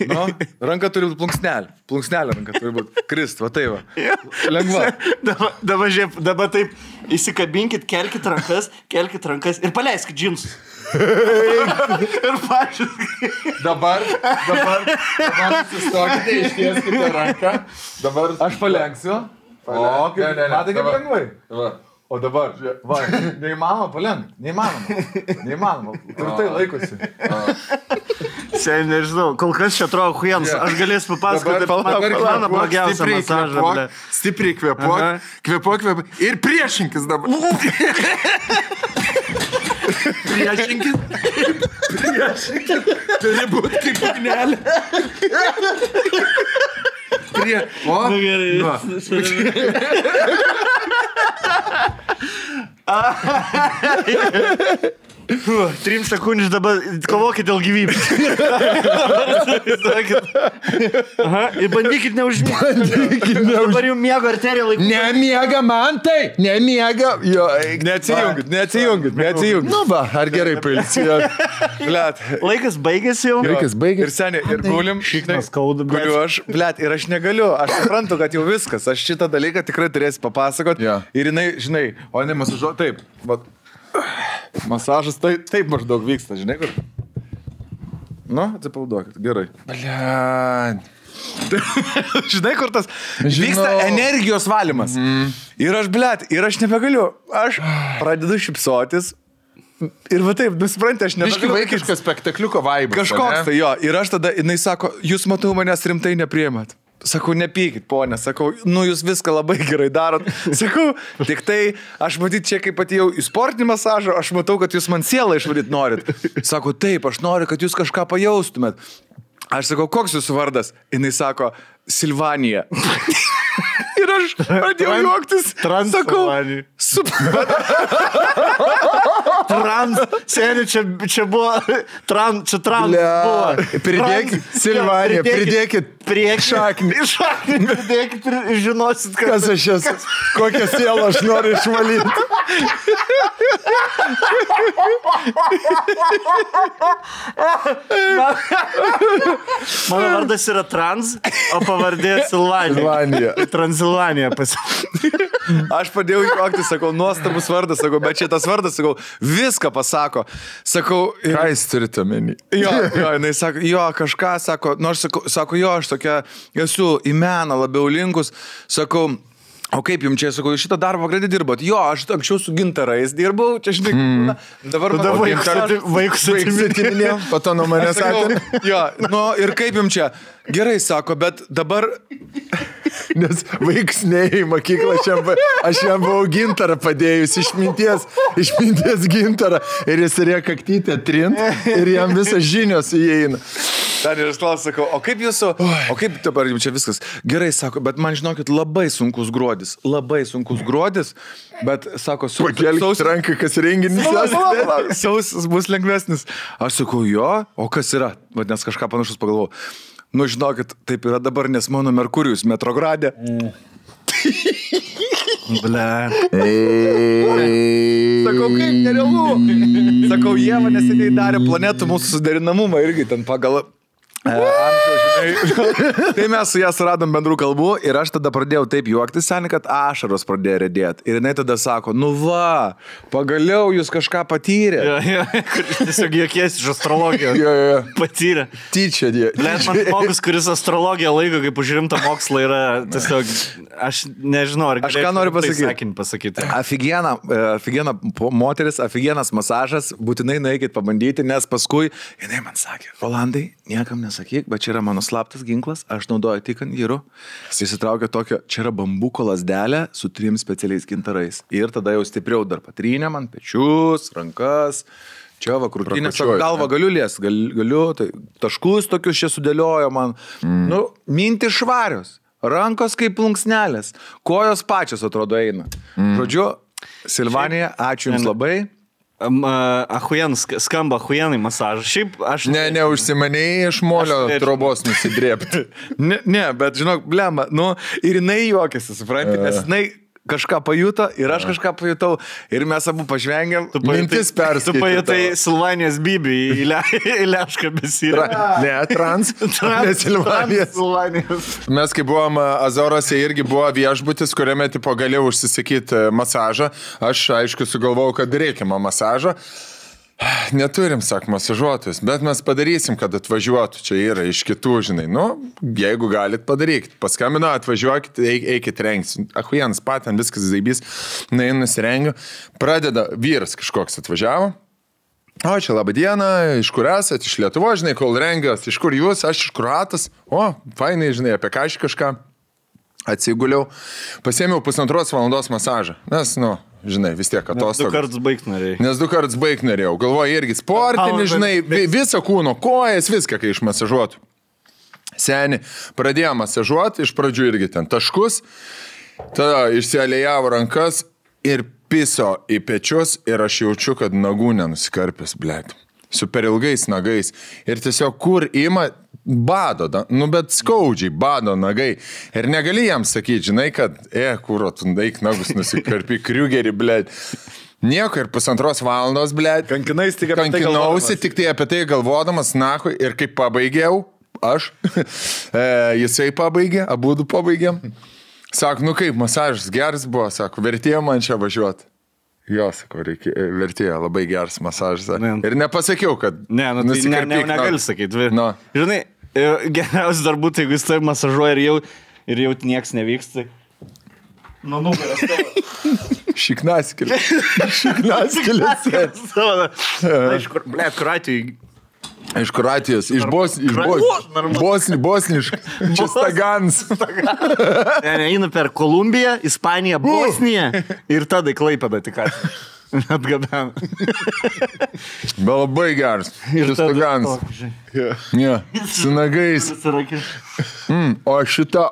Nu, ranka turi būti plunksnelė. Plunksnelė ranka turi būti. Krist, va tai va. Lengva. Dabar taip, įsikabinkit, kelkit rankas ir paleiskit džinsus. Ir pačius. Dabar susistokite, ištieskite ranką. Dabar aš palenksiu. Matai kaip lengvai? O dabar, va, neįmanoma palenkt. Neįmanoma. Tvirtai laikosi. Seniai nežinau, kol kas čia atrodo huienas. Aš galėsiu papasakoti mano blogiausią masažą. Stipriai kvepuok ir priešinkis dabar. Priešinkis. Turi būti kaip ugnelė. O? Nu gerai. 3 sekundžių dabar kovokit dėl gyvybės. Aha, ir bandykit neužmėgti. Dabar jau miego arterija laiku. Nemiega man tai, nemiega. Jo, Neatsijungit. Nu va, ar gerai pailsėjo. Blet. Laikas baigėsi jau. Laikas baigėsi. Ir seniai, ir gulim. Šiknas skauda, Guliu aš, blet, ir aš negaliu. Aš suprantu, kad jau viskas. Aš šitą dalyką tikrai turėsiu papasakot. Jo. Ir jinai, žinai, o ne masažuoja taip. Vat. Masažas taip maždaug vyksta, žinai, kur. Nu, atsipalduokit, gerai. Blet. Žinai, kur tas vyksta energijos valymas. Ir aš, blet, ir aš nebegaliu. Aš pradedu šipsotis. Ir va taip, nusipranti, aš nebegaliu. Biški vaikiškas spektakliuko vaibas. Kažkoks tai jo. Ir aš tada, jinai sako, jūs matau manęs rimtai nepriimat. Sakau, nepykit, ponė. Sakau, nu jūs viską labai gerai darot. Sakau, tik tai aš matyt čia, kaip atėjau į sportinį masažą, aš matau, kad jūs man sielą išvaryt norit. Sako, taip, aš noriu, kad jūs kažką pajaustumėt. Aš sakau, koks jūsų vardas? Jinai sako, Silvanija. Ir aš pradėjau juoktis. Transilvanija. Seniai, čia buvo. Čia trans buvo. Pridėkit, Silvanija, pridėkit šaknį. Pridėkit ir žinosit, kas aš esu. Kokią sielą aš noriu išvalyti. Mano vardas yra Trans, o pavardė Silvanija. Transilvanija pasakė. Aš padėjau juoktis, sakau, nuostabus vardas, sakau, bet šitas vardas, sakau, viską pasako. Sakau, ką jis turite omeny? Jo, jinai sako, jo, kažką sako, nors sako, jo, aš tokia esu į meną labiau linkus, sakau, o kaip jums čia, sakau, šitą darbą greitai dirbot? Jo, aš anksčiau su gintarais dirbau, čia žinai, dabar vaikus atiminėjau, po to nuo manęs sakė. Jo, nu ir kaip jums čia? Gerai, sako, bet dabar... Nes vaiks neį mokyklą, aš jam buvau gintarą padėjus, išminties gintarą, ir jis turėjo kaktytę trint, ir jam visas žinios įeina. Ten ir aš klausiu, sakau, o kaip dabar jums čia viskas? Gerai, sako, bet man žinokit, labai sunkus gruodis, bet, sako, pakelkit ranką, kas renginys. Sausis bus lengvesnis. Aš sakau, jo, o kas yra? Nes kažką panašus pagalvojau. Nu, žinokit, taip yra dabar, nes mano Merkurijus Metrogradė. Ble. Sakau, kaip nerealu. Sakau, jie man neseniai darė planetų mūsų suderinamumą irgi ten pagal... Tai mes su ją suradom bendrų kalbų ir aš tada pradėjau taip juoktis, seniai, kad ašaros pradėjo redėti. Ir jinai tada sako, nu va, pagaliau jūs kažką patyrė. Tiesiog juokiesi iš astrologijos. Patyrė. Tyčia, dė. Man žmogus, kuris astrologiją laiko kaip už rimtą mokslą yra tiesiog, aš nežinau, ar aš ką noriu pasakyti. Aфиgiena moteris, aфиgenas masažas, būtinai nueikit pabandyti, nes paskui jinai man sakė, Rolandai, niekam nesakyk, bet čia yra mano slaptas ginklas, aš naudoju tik ant vyrų. Jis įtraukė tokio, čia yra bambuko lasdelė su 3 specialiais gintarais. Ir tada jau stipriau dar patrynė man pečius, rankas, čia va krūtinės, galvą galiu lies, galiu, tai taškus tokius čia sudėliojo man. Nu, mintys švarios, rankos kaip plunksnelės, kojos pačios atrodo eina. Žodžiu, Silvanija, ačiū Jums labai. Skamba ahujenai masažas. Šiaip aš... Neužsimanėjai iš molio trobos nusidrėpti. Ne, bet žinok, blemba, nu, ir jinai juokėsi, supranti, nes jinai kažką pajuto ir aš kažką pajutau ir mes abu pažvengėm. Mintis perskaitė. Tu pajutai Silvanijos Bibį į Lešką besirą. Ne, ne Silvanijos. Mes kai buvom Azorose irgi buvo viešbutis, kuriame tipo galėjau užsisakyti masažą. Aš aišku sugalvojau, kad reikiamą masažą. Neturim, sak, masažuotojus, bet mes padarysim, kad atvažiuotų. Čia yra iš kitų, žinai. Nu, jeigu galit, padarykit. Paskambino, atvažiuokit, eikit rengtis. Ahujans paten, viskas zaibys. Na, nusirengiu. Pradeda vyras kažkoks atvažiavo. O, čia laba diena, iš kur esat, iš Lietuvos, žinai, kol rengiuos. Iš kur jūs, aš iš Kroatas. O, fainai, žinai, apie ką aš kažką. Atsiguliau. Pasėmiau 1,5 valandos masažą. Nes, nu, žinai, vis tiek atostogos. Nes 2 kartus baigt norėjau. Galvoju irgi sportinį, žinai, visą kūno, kojas, viską, kai išmasažuotų. Seni, pradėjo masažuoti, iš pradžių irgi ten taškus, tada išsialėjavo rankas ir piso į pečius ir aš jaučiu, kad nagų nenusikarpęs, blėt. Su per ilgais nagais. Ir tiesiog kur ima bado, bet skaudžiai bado nagai. Ir negali jam sakyti, žinai, kad, kuro, tu daik nagus nusikarpi, kriugerį, blėt. Nieko ir 1,5 valandos, blėt. Kankinausi tik tai apie tai galvodamas, nahui, ir kaip pabaigiau, aš, jisai pabaigė, abudu pabaigėm. Sako, kaip, masažas geras buvo, sako, vertėjo man čia važiuoti. Jo, sako, vertėjo, labai geras masažas. Ir nepasakiau, kad... Negali sakyti. No. Žinai, geriausia dar būtų, jeigu jis tai masažuoja ir jau nieks nevyksta. Nugaras tavo. Šiknaskėlės. Iš Kroatijos, iš bosniškas, čia Stagans. Eina per Kolumbiją, Ispaniją, Bosniją ir tada Klaipėdą tik atgabena. Bet labai geras. Ir Stagans. Su nagais. O šitą,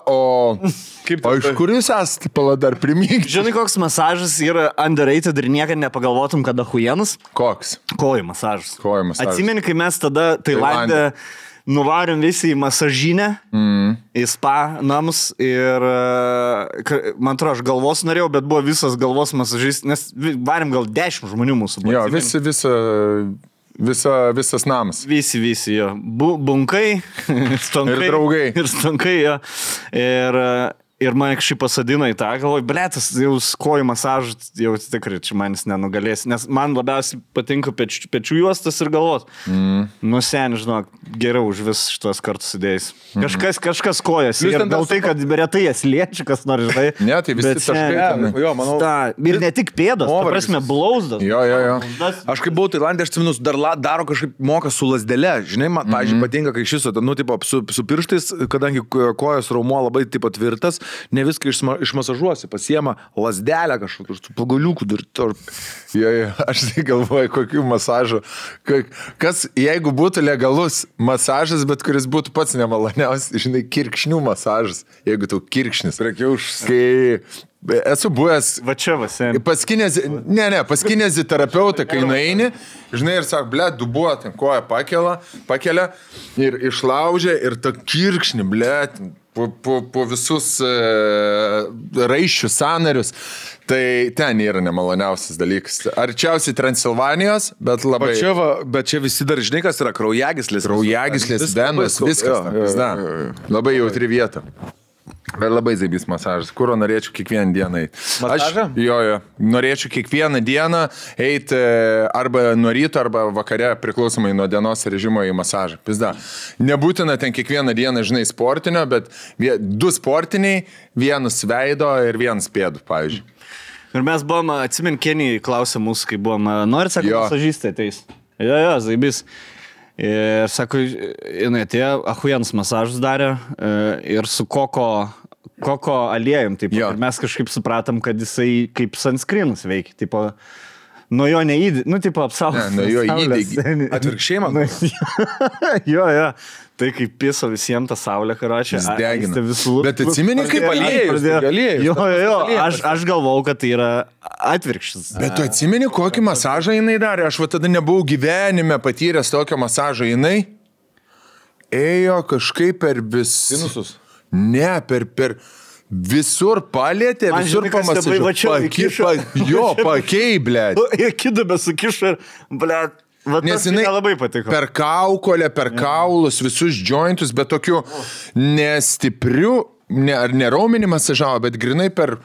iš kur jūs esate, pala dar primykti? Žinai, koks masažas yra underrated ir niekad nepagalvotum, kada huienas? Koks? Kojų masažas. Atsimeni, kai mes tada Tailande nuvarėm visi į masažinę, į spa namus ir, man atrodo, aš galvos norėjau, bet buvo visas galvos masažis, nes varėm gal 10 žmonių mūsų. Jo, visas namas. Visi, jo. Bunkai, stonkai. Ir draugai. Ir stonkai, jo. Ir man kažkaip pasadino į tą, galvoju, blėtas, jau kojų masažas, jau tikrai čia manis nenugalės, nes man labiausiai patinka pečių juostas ir galvos. Sen, žinok, geriau už vis šitos kartus sudėjus. Kažkas kojas. Ir gal tai, kad retai jas liečia, kas nori, žinai. Ne, tai visi taškai. Jo, manau. Ir ne tik pėdos, ta prasme, blauzdas. Jo. Aš kaip buvau Tailandė, aš atsimenu, dar daro kažkaip moka su lasdele. Žinai, man, pavyzdžiui, patinka, kai šis, su pirštais, kadangi kojos raumuo labai tipo tvirtas, ne viską išmasažuosi, pasiema lasdelę kažkokius, su pagaliukų dar. Aš tai galvoju, kokių masažų. Kas, jeigu būtų legalus masažas, bet kuris būtų pats nemaloniausias, žinai, kirkšnių masažas, jeigu tau kirkšnis. Kai esu buvęs pas kineziterapeutą, kai nueini, žinai, ir sako, blėt, dubuo, ten koją pakelia ir išlaužia ir ta kirkšnį, blėt, po visus raiščius, sąnarius. Tai ten yra nemaloniausias dalykas. Arčiausiai Transilvanijos, bet labai... Bet čia visi dar, žinai, kas yra kraujagyslės. Kraujagyslės, venos, viskas. Labai jautri vieta. Bet labai zaibys masažas. Kuro norėčiau kiekvieną dieną eiti. Masažą? Jo. Norėčiau kiekvieną dieną eiti arba nuo ryto, arba vakare, priklausomai nuo dienos režimo į masažą. Pizda. Nebūtina ten kiekvieną dieną, žinai, sportinio, bet 2 sportiniai, 1 veido ir 1 pėdų, pavyzdžiui. Ir mes buvom, atsimint, Kenijai klausė mūsų, kai buvom, norit, sako, masažistė ateis. Jo, zaibys. Ir sako, jinai atėjo, ahujens masažus darė ir su koko aliejum, taip, ir mes kažkaip supratom, kad jisai kaip sunscreenus veikia, tipo, nuo jo neįdė, tipo, apsaugos. Nuo jo įdė, atvirkščiai man. Jo, tai kaip piso visiems tą saulę, karočią. Jis degina. Bet atsimeni, kaip aliejus. Jo, aš galvau, kad tai yra atvirkštis. Bet tu atsimeni, kokį masažą jinai darė? Aš tada nebuvau gyvenime patyręs tokio masažo. Jinai ėjo kažkaip per Sinusus? Ne, per visur palėtė, visur pamasažavo. Pakei, blėt. Ir kidabė sukišo ir, blėt. Nes jinai labai patiko. Per kaukolę, per kaulus, visus jointus, bet tokiu nestipriu, ne raumenį masažavo, bet grinai per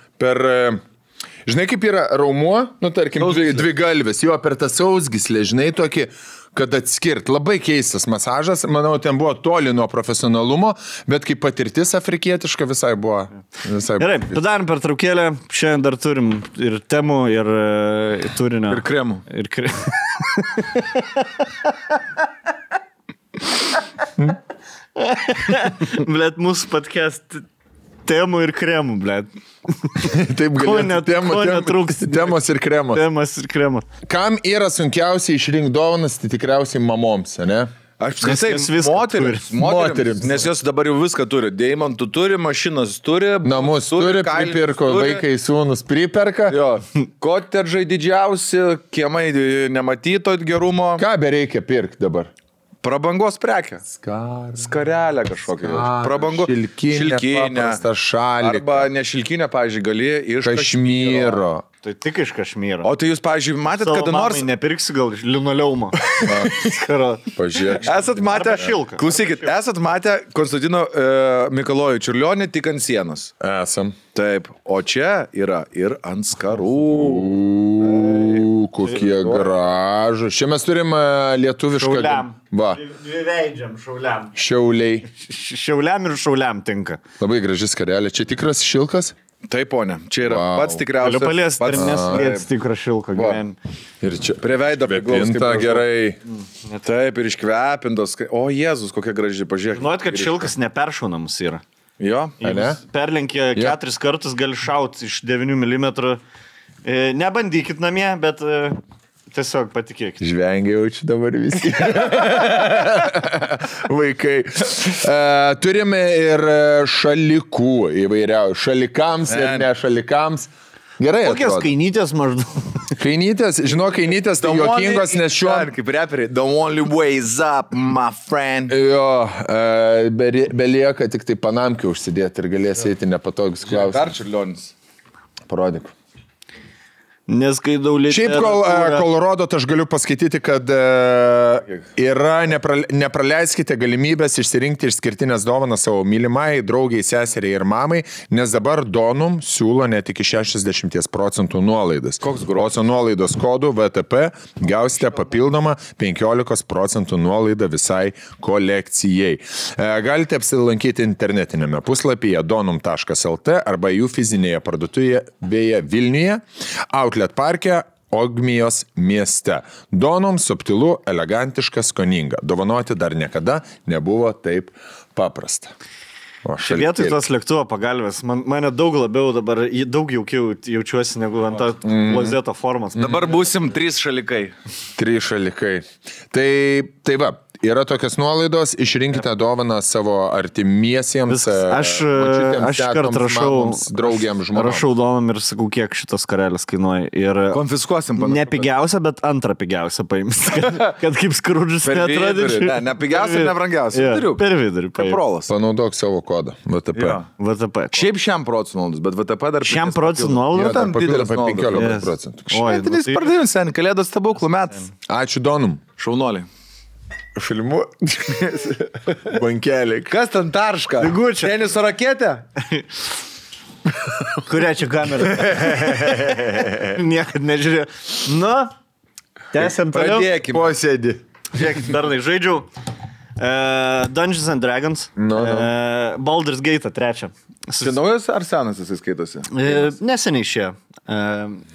žinai, kaip yra raumuo, tarkim, dvi galvės, jo, per tą sausgyslę, žinai, tokį, kad atskirt. Labai keistas masažas, manau, ten buvo toli nuo profesionalumo, bet kaip patirtis afrikietiška visai buvo. Gerai, padarom pertraukėlę, šiandien dar turim ir temų, ir turinio. Ir kremų. Blet, mūsų podcast temų ir kremų, blet. Taip galėtų. Netrūks. Temos ir kremos. Temas ir kremos. Kam yra sunkiausiai išrinkti dovanas, tai tikriausiai mamoms, ne? Aš apskritai moterims, nes jos dabar jau viską turi. Deimantų turi, mašinas turi, namus turi, pripirko, vaikai sūnus priperka. Jo, kotedžai didžiausi, kiemai nematyto gerumo. Ką bereikia pirkti dabar? Prabangos prekę. Skarelę kažkokią. Prabangos. Šilkinę. Šaliką. Arba ne šilkinę, pavyzdžiui, gali iš Kašmyro. Tai tik iš Kašmyro. O tai jūs, pavyzdžiui, matėt, kada nors... Nepirksi gal linoleumo. Pažiūrėk. Esat matę... Klausykit, esat matę Konstantino Mikalojų Čiurlionį tik ant sienos. Esam. Taip, o čia yra ir ant skarų. Kokie gražu. Čia mes turim lietuvišką... Šauliam. Va. Dviveidžiam šauliam. Šiauliai. Šiauliam ir šauliam tinka. Labai graži skarelė. Čia tikras šilkas? Taip, ponė. Čia yra pats tikriausias. Galiu paliesti, ir neslėts tikras šilko gyvenime. Ir čia prie veido priglaustas gerai. Taip, ir iškvepintos. O, Jėzus, kokia graži, pažiūrėk. Žinot, kad šilkas neperšaunamas yra. Jo, ne? Perlenkė 4 kartus, gali šauti iš 9 mm. Nebandykit namie, bet tiesiog patikėkit. Žvengia jaučiu dabar visi. Vaikai. Turime ir šalikų įvairiausių. Šalikams ir ne šalikams. Gerai. Kokios kainytės maždaug? Kainytės, kainytės tai juokingos, nes šiuo... Kaip reperiai, the only way is up, my friend. Jo, belieka tik tai panamkį užsidėti ir galės eiti nepatogus klausimus. Dar Čiurlionis. Parodyk. Neskaidau literatūrą. Šiaip, kol rodot, aš galiu paskaityti, kad yra, nepraleiskite galimybės išsirinkti išskirtinės dovanas savo mylimai, draugiai, seseriai ir mamai, nes dabar Donum siūlo net iki 60% nuolaidas. Koks grožis? O su nuolaidos kodu VTP gausite papildomą 15% nuolaidą visai kolekcijai. Galite apsilankyti internetinėme puslapyje donum.lt arba jų fizinėje parduotuvėje Vilniuje, Outlet parke, Ogmijos mieste. Donum subtilu, elegantiška, skoninga. Dovanoti dar niekada nebuvo taip paprasta. Čia vietoj tos lėktuvo pagalbės, mane daug labiau dabar, daug jaukiau jaučiuosi negu ant tą klozeto formos. Dabar būsim 3 šalikai. 3 šalikai. Tai va. Yra tokios nuolaidos, išrinkite dovaną savo artimiesiems. Aš kart rašau draugiams žmonėms. Rašau dovanom ir sakau, kiek šitas karelis kainuoja. Ir konfiskuosim. Ne pigiausia, bet antrą pigiausią paims. Kad kaip Skrudžas neatrodyčiau. Ne pigiausia ir nebrangiausia. Per vidurį. Kaprolas. Panaudok savo kodą. VTP. VTP. Šiaip šiam procentų nuolaidos, bet VTP dar... Šiam procentų nuolaidos? Tam didelis 15%. Šventinis pardavimas, kalėdos stebuklų metas. Ačiū Donum. Šaunoliai. Filmu. Bankeliai. Kas ten tarška? Ligučia. Teniso raketė? Kurią čia kamerą? Niekad nežiūrėjau. Nu, tęsiam toliau. Pradėkime. Posėdį. Žiūrėkit, bernai, žaidžiau Dungeons and Dragons. Baldur's Gate 3. Tai naujas ar senas jis skaitosi? Neseniai išėjo.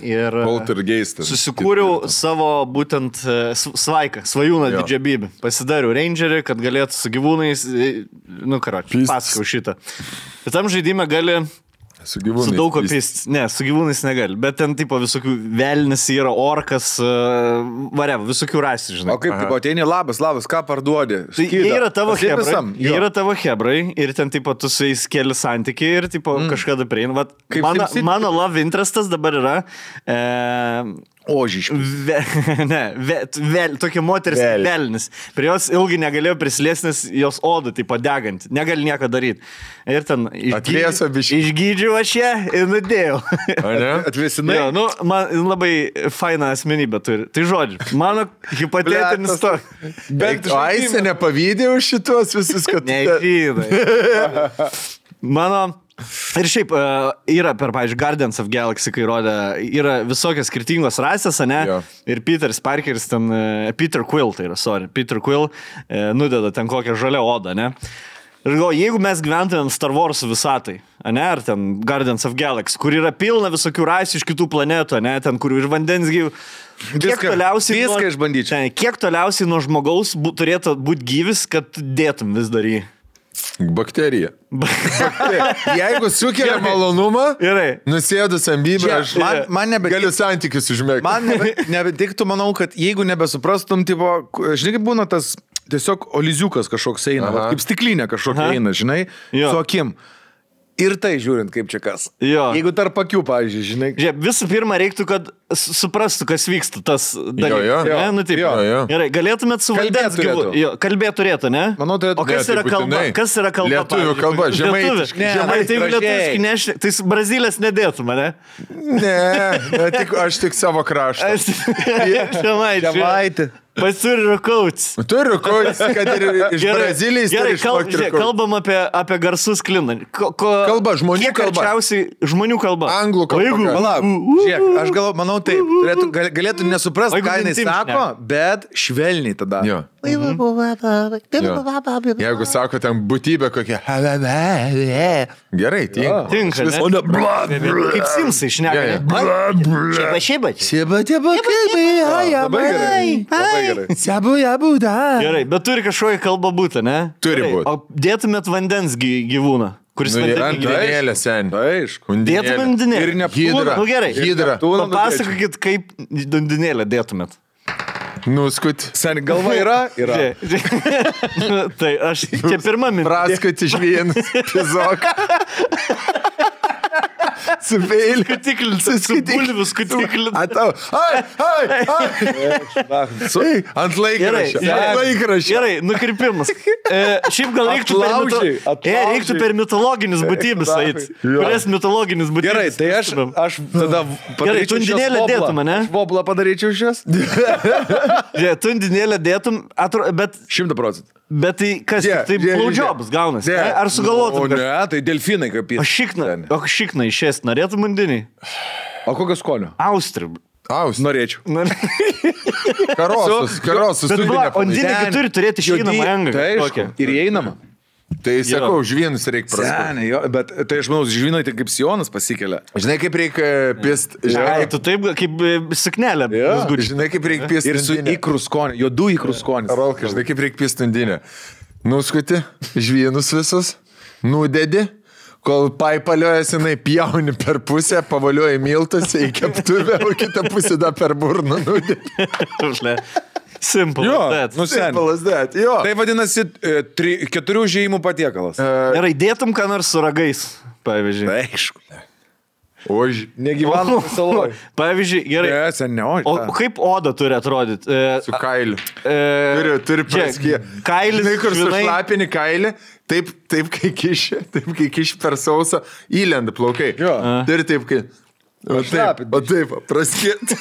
Ir Poltergeistas. Susikūriau savo būtent svaiką, svajūną didžiabybę. Pasidariau rangerį, kad galėtų su gyvūnais, pasakau šitą. Bet tam žaidime gali su gyvūnais. Su daug kopist. Ne, su gyvūnais negali. Bet ten tipo visokių velnis yra, orkas, visokių rasių, žinai. O kaip, tipo, ateini labas, ką parduodi? Tai jie yra tavo hebrai. Jie yra tavo hebrai ir ten tipo tu su jais keli santykiai ir tipo kažkada prieina. Mano love interestas dabar yra... Ožiškis. Tokia moteris velnis. Prie jos ilgai negalėjo prisilėsti, nes jos oda tipo deganti. Negali nieko daryti. Ir ten išgydžiau aš ją ir nudėjau. Atvėsinai? Jo, man labai faina asmenybė turi. Tai žodžiu, mano hipotetinis to. Bet Aisė nepavydė už šitos visus, kad... Nežydai. Mano... Ir šiaip yra per, pavyzdžiui, Guardians of Galaxy, kai rodė, yra visokios skirtingos rasės, ne? Jo. Ir Peteris Parkeris ten, Peter Quill nudeda ten kokią žalią odą, ne? Ir galvoju, jeigu mes gyventumėm Star Wars visatai, ne? Ar ten Guardians of Galaxy, kur yra pilna visokių rasių iš kitų planetų, ne? Ten, kur iš vandens gyvų. Kiek toliausiai nuo žmogaus turėtų būti gyvis, kad dėtum vis dar jį? Bakterija. Jeigu sukelia malonumą, nusėdus ambybę, aš galiu santykius užmėgti. Man nebetiktų, manau, kad jeigu nebesuprastum, tipo, žinai, kaip būna tas tiesiog oliziukas kažkoks eina, va, kaip stiklinė kažkokia eina, žinai, su akim. Ir tai žiūrint, kaip čia kas. Jo. Jeigu tarp akių, pavyzdžiui, žinai. Žiūrėk, visų pirma, reiktų, kad suprastų, kas vyksta tas dalykas. Jo. Nu, taip. Jo. Gerai, galėtumėt su vandens gyvūnu. Kalbėt turėtų, ne? Manau, turėtų. O kas yra kalba? Kas yra kalba? Lietuvių kalba, žemaitiškai. Tai lietuviškai nešti. Tai Brazilės nedėtų mane? Ne, aš tik savo kraštą. Žemaitį. Turi rukauts. Turi rukauts, kad ir iš Brazilijos. Gerai, kalbam apie garsus kliną. Kalba, žmonių kalba. Žmonių kalba. Anglų kalba. Palauk, žiūrėk, aš manau taip, galėtų nesuprasti, ką jinai sako, bet švelniai tada. Jo. Jeigu sako ten būtybė kokia. Gerai, tinka. Tinka, ne? Kaip Simsai šneka. Šieba. Labai gerai. Gerai, bet turi kažkokią kalbą būti, ne? Turi būti. O dėtumėt vandens gyvūną, kuris undinėlė, sen. Aišku. Dėtumėt undinėlę. Ir Neptūną. Nu gerai. Hidra. Papasakokit, kaip undinėlę dėtumėt. Nuskut. Sen, galva yra? Yra. Tai aš čia pirmą mintį. Praskut iš vienas. Pizok. Su peiliu. Su bulviu skutikliu. Atau. Ant laikraščio. Gerai, nukirpimas. Šiaip gal reiktų per mitologinius būtybės eiti. Kurias mitologinis būtybės. Gerai, tai aš tada Gerai, tu undinėlę dėtum, ne? Voblą padaryčiau šios. Tu undinėlę dėtum, bet... 100%. Bet tai kas, tai blowjobs gaunasi. Ar sugalvotum? O ne, tai delfinai kaip jis. O šikna išėst, norėtum undinį? O kokio skonio? Austrį. Norėčiau. Karosus. O undinį turi turėti šinamą engą. Tai ir įeinama. Tai sakau, žvynus reikia praskuti. Bet tai aš manau, žvynai tai kaip sijonas pasikelia. Žinai, kaip reikia pist. Tu taip kaip suknelė. Žinai, kaip reikia pist. Ir su ikrų skoniu, juodų ikrų skonis. Rolka, žinai, kaip reikia pist undinę. Nuskuti žvynus visus, nudedi, kol paipaliojas jinai pjauni per pusę, pavalioji miltus į keptuvę, o kitą pusę da per burną nudedi. Simple as that. Jo. Tai vadinasi 4 užėjimų patiekalas. Gerai, dėtum ką nors su ragais, pavyzdžiui. Aišku. Negyvenu saloj. Pavyzdžiui, gerai. O kaip oda turi atrodyti? Su kailiu. Turi praskė. Kailis. Žinai, kur sušlapini kailį, taip kai kiši per sausą, įlenda plaukai. Turi taip, kai... O taip, praskėt.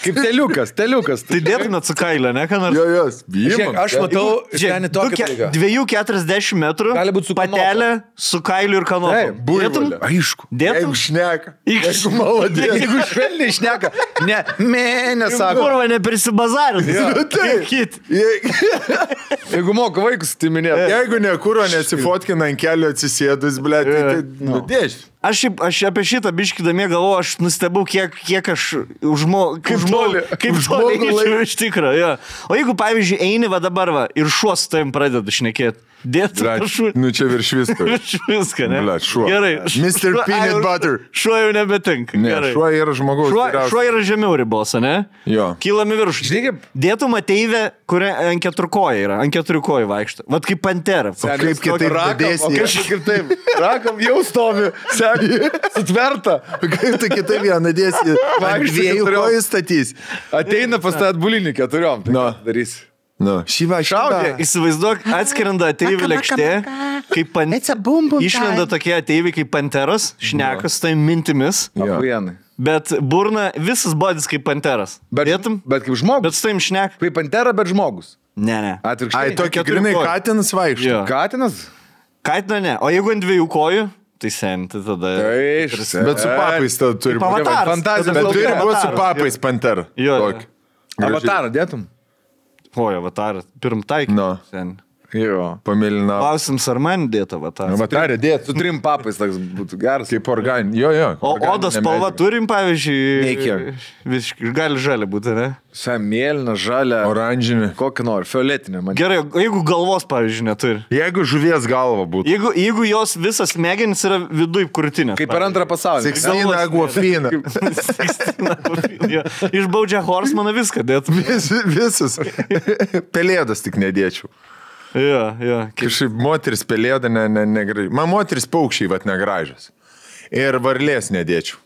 Kaip teliukas. Tai dėtumėt su kailio, ne, ką nors? Jos, Žiūrėk, aš matau, šiandien tokia lyga. 2,40 metrų, patelė su kailiu ir kanopu. Taip, buivolė. Aišku. Jeigu šneka. Jeigu maladės. Jeigu švelniai šneka. Nesako. Kurva, neprisibazarinti. Taip. Jeigu moka vaikus, tai minėt. Jeigu nekuro nesifotkina ant kelio atsisėdus, blėt, tai nudėš. Aš apie šitą biškidamie galvoju, aš nustebau, kiek aš kaip toli eičiau iš tikro. Ja. O jeigu, pavyzdžiui, eini va dabar ir šuo su tavim pradedu šnekėti. Dėtų šuo. Nu čia virš visko. Virš visko, ne? Blet, šuo. Gerai. Mr. Peanut Butter. Šuo jau nebetinka. Ne, šuo yra žmogaus. Šuo yra žemiau ribos, ne? Jo. Kylami virš. Dėtum ateivę, kuri ant keturkoja yra, ant keturiukojų vaikšto. Vat kaip pantera. Kaip kitaip dadėsi. Kaip taip. Rakam jau stovi. Sutverta. Kaip tai kitaip ją nadėsi. Ant dviejų kojų statys. Ateina pas tą atbulinį 4. Tai darys. Šyva. Įsivaizduok, atskiranda ateivių lėkštė, kaip išlenda tokie ateiviai kaip panteras, šnekas tai mintimis, bet burna visas bodis kaip panteras. Bet kaip žmogus. Bet su taim šnek. Kaip pantera, bet žmogus. Ne. Atvirkščiai. Ai, tokia grinai katinas vaikšto. Katinas? Katino ne. O jeigu ant 2 kojų? Tai senti tada. Bet su papais tada turi būti. Fantazija. Bet turi būti su papais pantera. Jo. Avatarą dėtum? Oi, avatarą. Pirm taikį. Jo. Pamėlynavo. Klausims, ar man dėta va tą. Vatarė dėt. Su 3 papais toks būtų geras. Kaip organi. Jo. O odos spalva turim, pavyzdžiui. Nekiek. Visiškai gali žalia būti, ne? Mėlyna, žalia. Oranžinė. Kokį nori, fioletinė. Man. Gerai, jeigu galvos, pavyzdžiui, neturi. Jeigu žuvies galva būtų. Jeigu jos visas smegenys yra viduj krūtinės. Kaip per antrą pasaulį. Sixtina Aguafina. Išbaudžia Horsemaną viską dėt. Visus. Pelėdas tik nedėčiau. Jo. Kažkaip moteris pelėda negražiai. Man moteris paukščiai vat negražios. Ir varlės nedėčiau.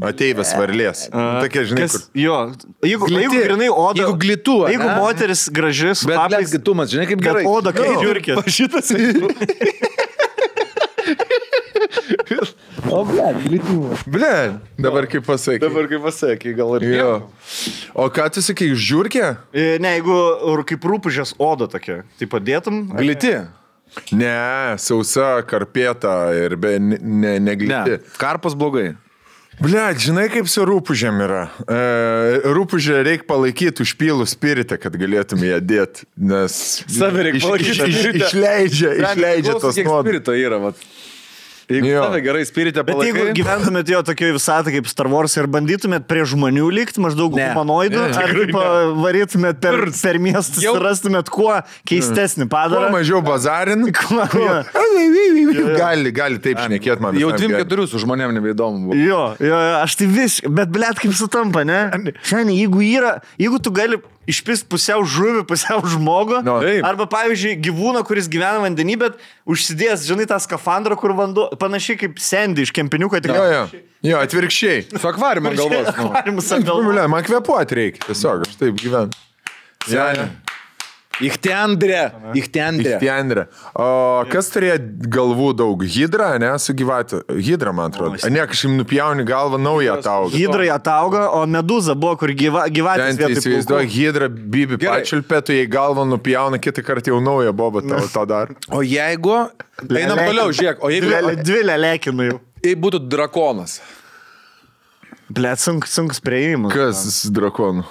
Ateivės varlės. Tokie, žinai, kur. Jo, jeigu grinai oda. Jeigu glitų. Jeigu moteris graži su papais. Bet glitumas, žinai, kaip gerai. Oda, kaip žiūrkė. Šitas. O, glitumas. Dabar kaip pasakai. Gal ir jo. O ką tu sakai, žiūrkė? Ne, jeigu kaip rūpužės oda tokia, tai padėtum. Gliti. Ne, sausa, karpėta ir negliti. Ne, karpas blogai. Žinai, kaip su rūpužėm yra. Rūpužę reikia palaikyti užpylų spiritą, kad galėtum ją dėti, nes... Save reikia palaikyti. Išleidžia tos nuodus. Kiek spirito yra, vat. Jeigu tave gerai spiritę palaikai... Bet jeigu gyventumėt jo tokioje visatą kaip Star Wars ir bandytumėt prie žmonių likti, maždaug humanoidų, ar kaip varytumėt per miestus ir rastumėt kuo keistesnį padarą. Kuo mažiau bazarin. Gali taip šnekėt man. Jau 3-4 su žmonėm nebeįdomu buvo. Jo, aš tai bet blėt kaip sutampa, ne? Šiandien, jeigu tu gali išpist pusiau žuvį, pusiau žmogų, arba pavyzdžiui gyvūną, kuris gyvena vandenį, bet užsidėjęs, žinai, tą skafandrą, kur vanduo, panašiai kaip Sandy iš kempiniuko. Jo, atvirkščiai. Su akvariumu ant galvos. Akvariumas ant galvos. Man kvepuoti reikia, tiesiog, aš taip gyvenu. Ichtendrė. O kas turėjo galvų daug? Hidra, ne, su gyvatė? Hidra, man atrodo. Ne, kažkaip nupjauni galvą, naują atauga. Hidra atauga, o meduza buvo, kur gyvatės vietoj. Įsivaizduoju, Hidra bibi pačiulpė, tu jai galvą nupjauna, kitą kartą jau naują bobą tą dar. O jeigu... Einam toliau, žiūrėk. O jeigu... Dvi lelekinu jau. Jei būtų drakonas. Blet, sunkus prieimas. Kas drakonų?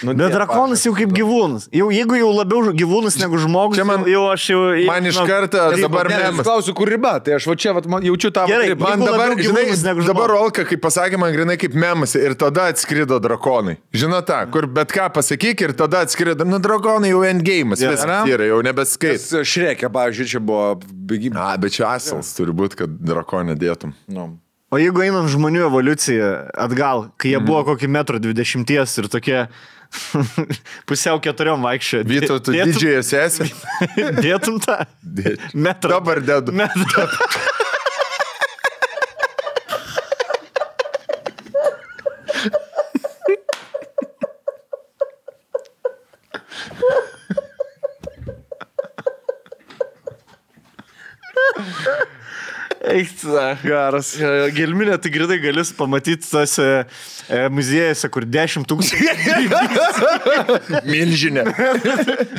Bet drakonas jau kaip gyvūnas. Jeigu jau labiau gyvūnas negu žmogus, man iš karto dabar memas. Klausiu, kur riba, tai aš va čia jaučiu tą ribą. Man dabar, žinai, dabar Olka, kaip pasakė man grinai kaip memas ir tada atskrido drakonai. Žinai tą, kur bet ką pasakyk ir tada atskrido, drakonai jau endgame'as, viskas yra, jau nebeskait. Šrekė, pavyzdžiui, čia buvo... Bet čia asals turi būti, kad drakonę dėtum. O jeigu einant žmonių evoliuciją atgal, kai jie buvo kokį 1,20 m ir tokie pusiau 4 vaikščio. Vytautų didžiąją sesę. Dėtum tą? Metrą. Dabar dedu. Metrą. Geras. Gelminė, tai gridai galis pamatyti tose muziejose, kur 10 000. Milžinė.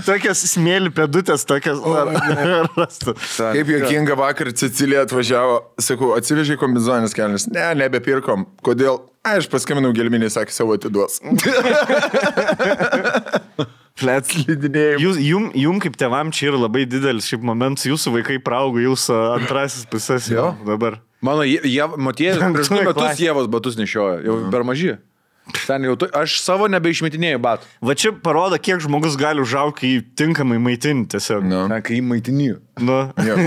Tokias smėlių pėdutės, tokias rastų. Kaip juokinga vakar Cecilija atvažiavo, sakau, atsivežė kombizonės kelnes. Ne, nebepirkom. Kodėl? Aš paskambinau Gelminį, sakė, savo atiduos. Flets lydinėjim. Jum kaip tėvam čia yra labai didelis šiaip momentas, jūsų vaikai praaugo, jūsų antrasis pusės jau dabar. Mano Motiejus prieš 2 metus Ievos batus nešiojo, jau per maži. Ten jau aš savo nebeišmetinėjau batų. Va čia parodo, kiek žmogus gali užaugti, kai tinkamai maitinti tiesiog. Kai maitiniju.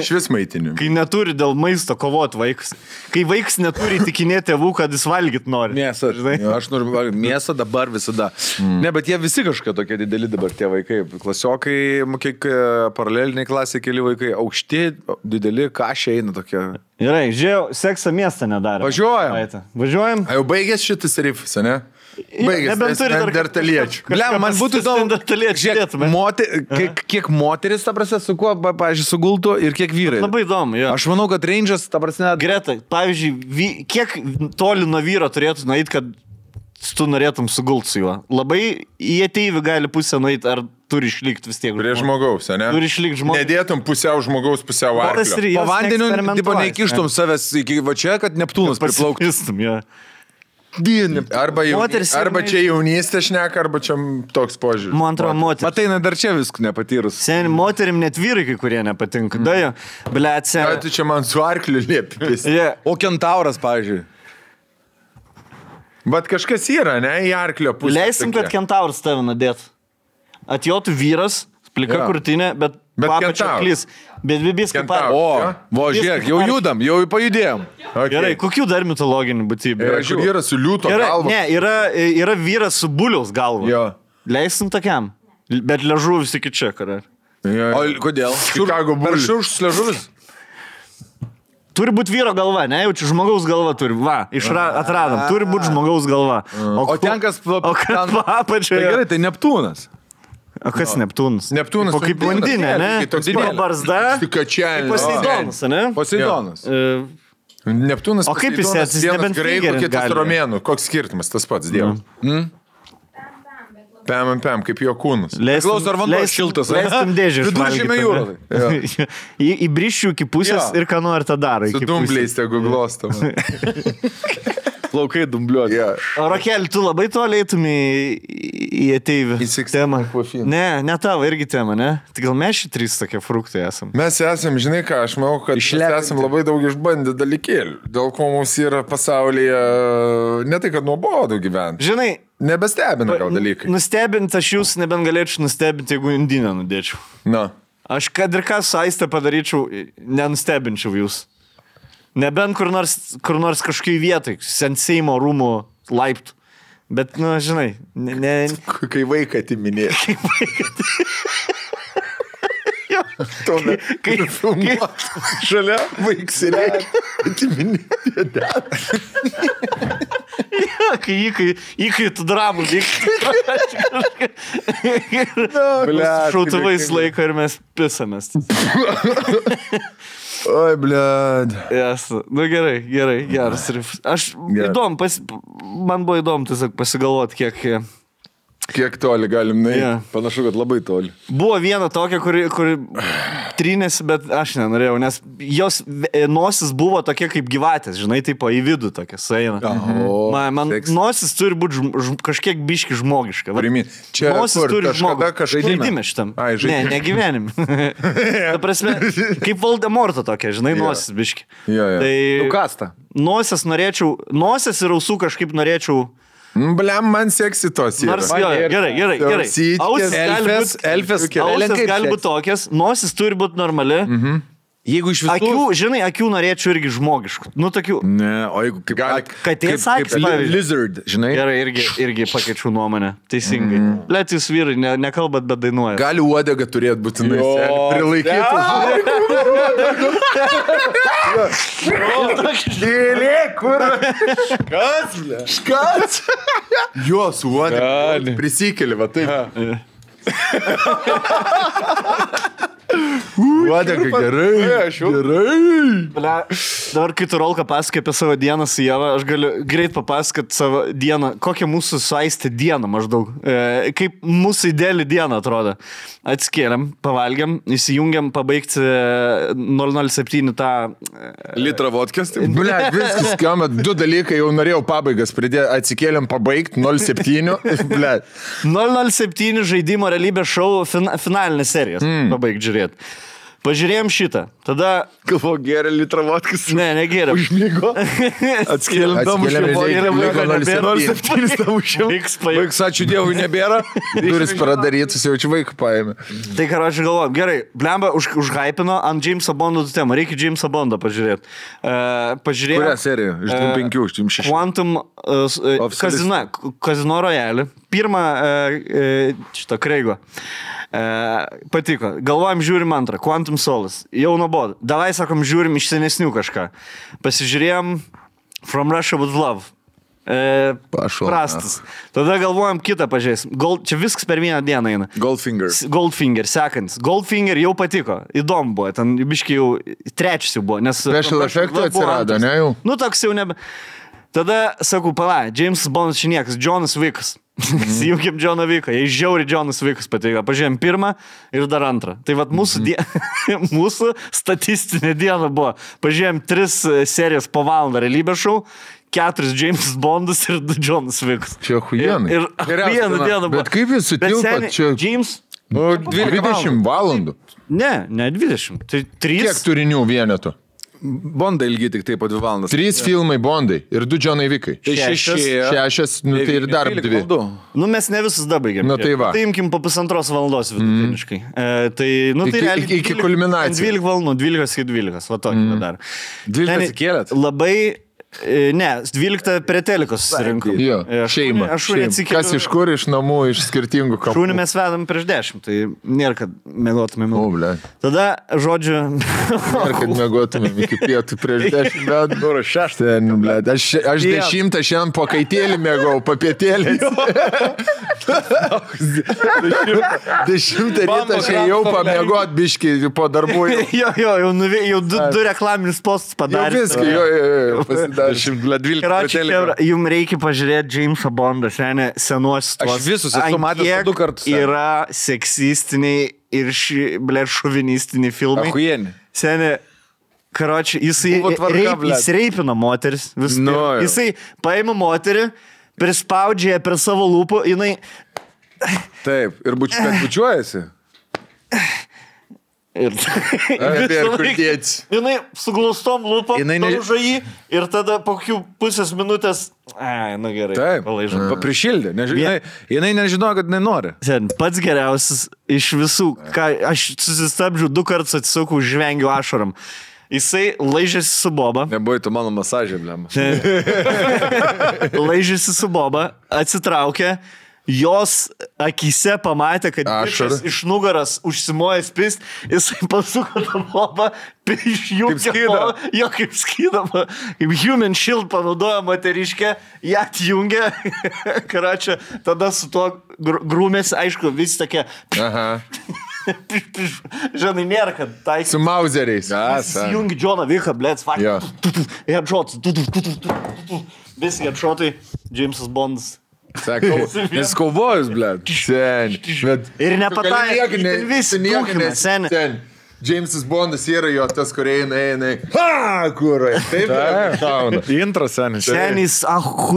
Švis maitiniu. Kai neturi dėl maisto kovoti vaikas. Kai vaikas neturi tikinėti tėvų, kad jis valgyt nori. Mėsą. Aš noriu valgyti mėsą dabar visada. Ne, bet jie visi kažkokie tokie dideli dabar tie vaikai. Klasiokai, kiek paraleliniai klasiai keli vaikai. Aukšti, dideli, kašiai eina tokie. Gerai, žiūrėjau, seksą miestą nedarė. Važiuojam. A jau baigės šitas rifas, ne? Baigės, dar taliečių. Man būtų įdomu, kiek moteris, ta prasme, su kuo, pavyzdžiui, sugultų ir kiek vyrai. Labai įdomu, jo. Aš manau, kad range'as, ta prasme... Greta, pavyzdžiui, kiek toli nuo vyro turėtų nueiti, kad tu norėtum sugulti su juo? Labai į ateivį gali pusę nueiti, ar turi išlikti vis tiek. Prie žmogaus, ne? Turi išlikti žmogaus. Nedėtum pusiau žmogaus, pusiau arklio. Po vandeniu, tipo, neįkištum savęs iki va čia, kad Neptūnas priplauktų. Arba čia jaunystė šneka, arba čia toks požiūris. Man atrodo, moteris. Matai, dar čia viskų nepatyrus. Seniai, moterim net vyrai, kai kurie nepatinka. Dajo, blėt, seniai. Tu čia man su arkliu liepis. O kentauras, pavyzdžiui. Bet kažkas yra, ne, į arklio pusę. Leisim, kad kentauras tave nadėt. Atjotų vyras, plika krūtinė, bet papačia klys. Bet bibis kaip par. Žiūrėk, jau judam, jau pajudėjom. Okay. Gerai, kokių dar mitologinių būtybių? Vyras su liūto galva. Ne, yra vyras su buliaus galva. Jo. Leisim tokiam. Bet liežuvis iki čia, karai. O kodėl? Chicago bulius. Šurš liežuvis? Turi būti vyro galva, ne? Jau čia žmogaus galva turi. Va, atradom. Turi būti žmogaus galva. O ten kas... O kas papačia? Gerai, tai Neptūnas. O kas Neptūnas? Neptūnas. O kaip blondinė, ne? Toks barzda. Stikačianis. Poseidonas, ne? Poseidonas. Neptūnas. O kaip jis esi? Vienas graikų, kitas romėnų. Koks skirtumas? Tas pats dievas. Pem, kaip jo kūnas. Klauso, ar vanduo šiltas. Leiskim dėžį. Viduržemio jūroje. Įbrišiu iki pusės ir ką nori tą daro. Su dumbliais tegu glostam. Plaukai dumbliuoti. O Rokelį, tu labai toliai eitumį į ateivį temą. Ne tavo irgi tema, ne? Tai gal mes šį trys tokie fruktai esam. Mes esam, žinai ką, aš manau, kad mes esam labai daug išbandę dalykėlių. Dėl ko mums yra pasaulyje, ne tai, kad nuobodu gyventi. Žinai, nebestebina gal dalykai. Nustebint aš jūs nebent galėčiau nustebinti, jeigu indinę nudėčiau. Na. Aš kad ir ką su Aiste padaryčiau, nenustebinčiau jūs. Nebent kur nors kažkokiai vietai, Seimo rūmų laiptų. Bet, žinai, Kai vaiką atiminė. Kai filmuot. Šalia vaiksirė. Atiminė. Kai tu dramų vykti. Šautuvais laiko ir mes pisamės. Oi, blėd. Yes. Gerai, geras. Aš įdomu, man buvo įdomu tiesiog pasigalvoti, kiek toli galim nueiti. Panašu, kad labai toli. Buvo viena tokia, kuri trynėsi, bet aš nenorėjau, nes jos nosis buvo tokia kaip gyvatės, žinai, taip į vidų tokia sueina. Man nosis turi būti kažkiek biški žmogiška. Čia nosis turi žaidime šitam. Ne gyvenim. Ta prasme, kaip Voldemorto tokia, žinai, nosis biški. Nukasta. Nosis ir ausų kažkaip norėčiau. Bliam, man seksi tos yra. Gerai. Elfės gali būti tokias, nosis turi būti normali. Jeigu iš visų... Akių norėčiau irgi žmogiškų. Tokių... Ne, o jeigu katės akis, pavyzdžiui. Lizard, žinai. Gerai, irgi pakeičiau nuomonę. Teisingai. Let jūs vyrai, nekalbat, bet dainuoja. Gali uodega turėti būtinai. Prilaikytų. Dėlė, kur? Škas? Jos uodega. Prisikeli, va taip. Uodega, gerai. Dabar, kai tu Rolka pasakai apie savo dieną su Ieva, aš galiu greit papasakoti savo dieną, kokią mūsų su Aiste dieną maždaug. Kaip mūsų ideali diena atrodo. Atskėlėm, pavalgiam, įsijungiam pabaigti 007 tą... Litrą vodkės. Blet, viskas skamba, 2 dalykai jau norėjau pabaigas pridėti. Atsikėlėm pabaigti 07. Blet. 007 žaidimo realybės šou finalinės serijas. Pabaigti žiūrėti. Pažiūrėjom šitą. Tada... Galvo, geria litrą vodkės. Ne, negeria. Užmygo. Atskėlėm Vaiks, ačiū Dievui, nebėra. Duris pradarytus, jau čia vaikų paėmė. Tai ką aš galvoju. Gerai, blemba užhypino ant Jamesa Bondo temą. Reikia Jamesa Bondą pažiūrėti. Pažiūrėjom... Kurią seriją? Iš 5, iš 6. Quantum Casino Royale. Pirmą šitą Kreigo. Patiko. Galvojam, žiūrim antrą. Quantum Solace. Jau nuobodu. Davai, sakom, žiūrim iš senesnių kažką. Pasižiūrėjom From Russia with Love. Prastas. Tada galvojam kitą pažiūrėsim. Čia viskas per vieną dieną eina. Goldfinger, sekantis. Goldfinger jau patiko. Įdomu buvo. Ten biškai jau trečias jau buvo. Special efektų atsirado, ne jau? Toks jau nebe... Tada, sakau, James Bondas šiniekas, Jonas Vickas. Įjungiam Joną Vicką. Jei žiauri Jonas Vickas patiko. Pažiūrėjom pirmą ir dar antrą. Tai vat mūsų statistinė diena buvo. Pažiūrėjom 3 serijas po valandą realybės šou. 4 James Bondus ir 2 Jonas Vicks. Čia huijenai. Ir vieną dieną buvo. Bet kaip jūs sutilpat čia? James... 20 valandų. Ne 20. Tai 3... Kiek turinių vienetų? Bondai ilgi tik taip po 2 valandas. 3 filmai Bondai ir 2 Jonai Vickai. Tai 6, nu tai ir dar 2. Nu mes ne visus dabaigėm. Nu tai va. Tai imkim po 1,5 valandos vidutiniškai. Tai, nu tai realiai... Iki kulminacijos. 12 valandų, 12 iki 12, va tokį dar. 12 atsikėlėt? Labai... Ne, 12 prie telikos susirinkom. Jo, šeima. Kas iš kur, iš namų, iš skirtingų kapų. Šūnį mes vedam prieš 10, tai nėra, kad mėgotumėm. Tada, žodžiu... Nėra, kad mėgotumėm iki pietų prieš 10 metų. Dūro 6. Aš 10 šiandien po kaitėlį mėgau, papietėlį. 10 rytą aš jau pamėgot biškį po darbų. Jo, jau 2 reklaminis postus padarė. Jau viską, jo, pasidaro. Jums reikia pažiūrėti Jamesą Bondą, senuosius tuos. Aš visus esu matęs 2 kartus. Yra seksistiniai ir šovinistiniai filmai. Achujieni. Seni, karoči, jisai reipina moteris. Jisai paima moterį, prispaudžia per savo lūpų, jinai... Taip, ir bučiuojasi. Ir kur dėts. Jinai su glaustom lūpom daužo jį ir tada po kokių pusės minutės... Na gerai. Taip, prišildė. Jinai nežinojo, kad nenori. Pats geriausias iš visų, ką aš susistabdžiu 2 kartus atsisukau, žvengiu ašaram. Jisai laižėsi su boba. Nebuvai tu mano masažė, blema. Laižėsi su boba, atsitraukė. Jos akyse pamatė, kad bičas iš nugaras užsimojęs pist, jisai pasuko tą bobą, išjungė bobą, jo kaip skydama, kaip human shield panaudojo moteriškę, ją atjungė, karačia, tada su tuo grūmėsi, aišku, visi tokie... Žinai, nėra, kad tai... Su mauzeriais. Jungi Joną Vicką, blėts, headshots, visi headshotai, Jamesas Bondas. Sakau, nes kaubojus, blėt. Ir nepataikė, visi dūkime, seni. Jamesas Bondas yra jo tas, kur eina. Kurai. Taip, intras, senis. Senis,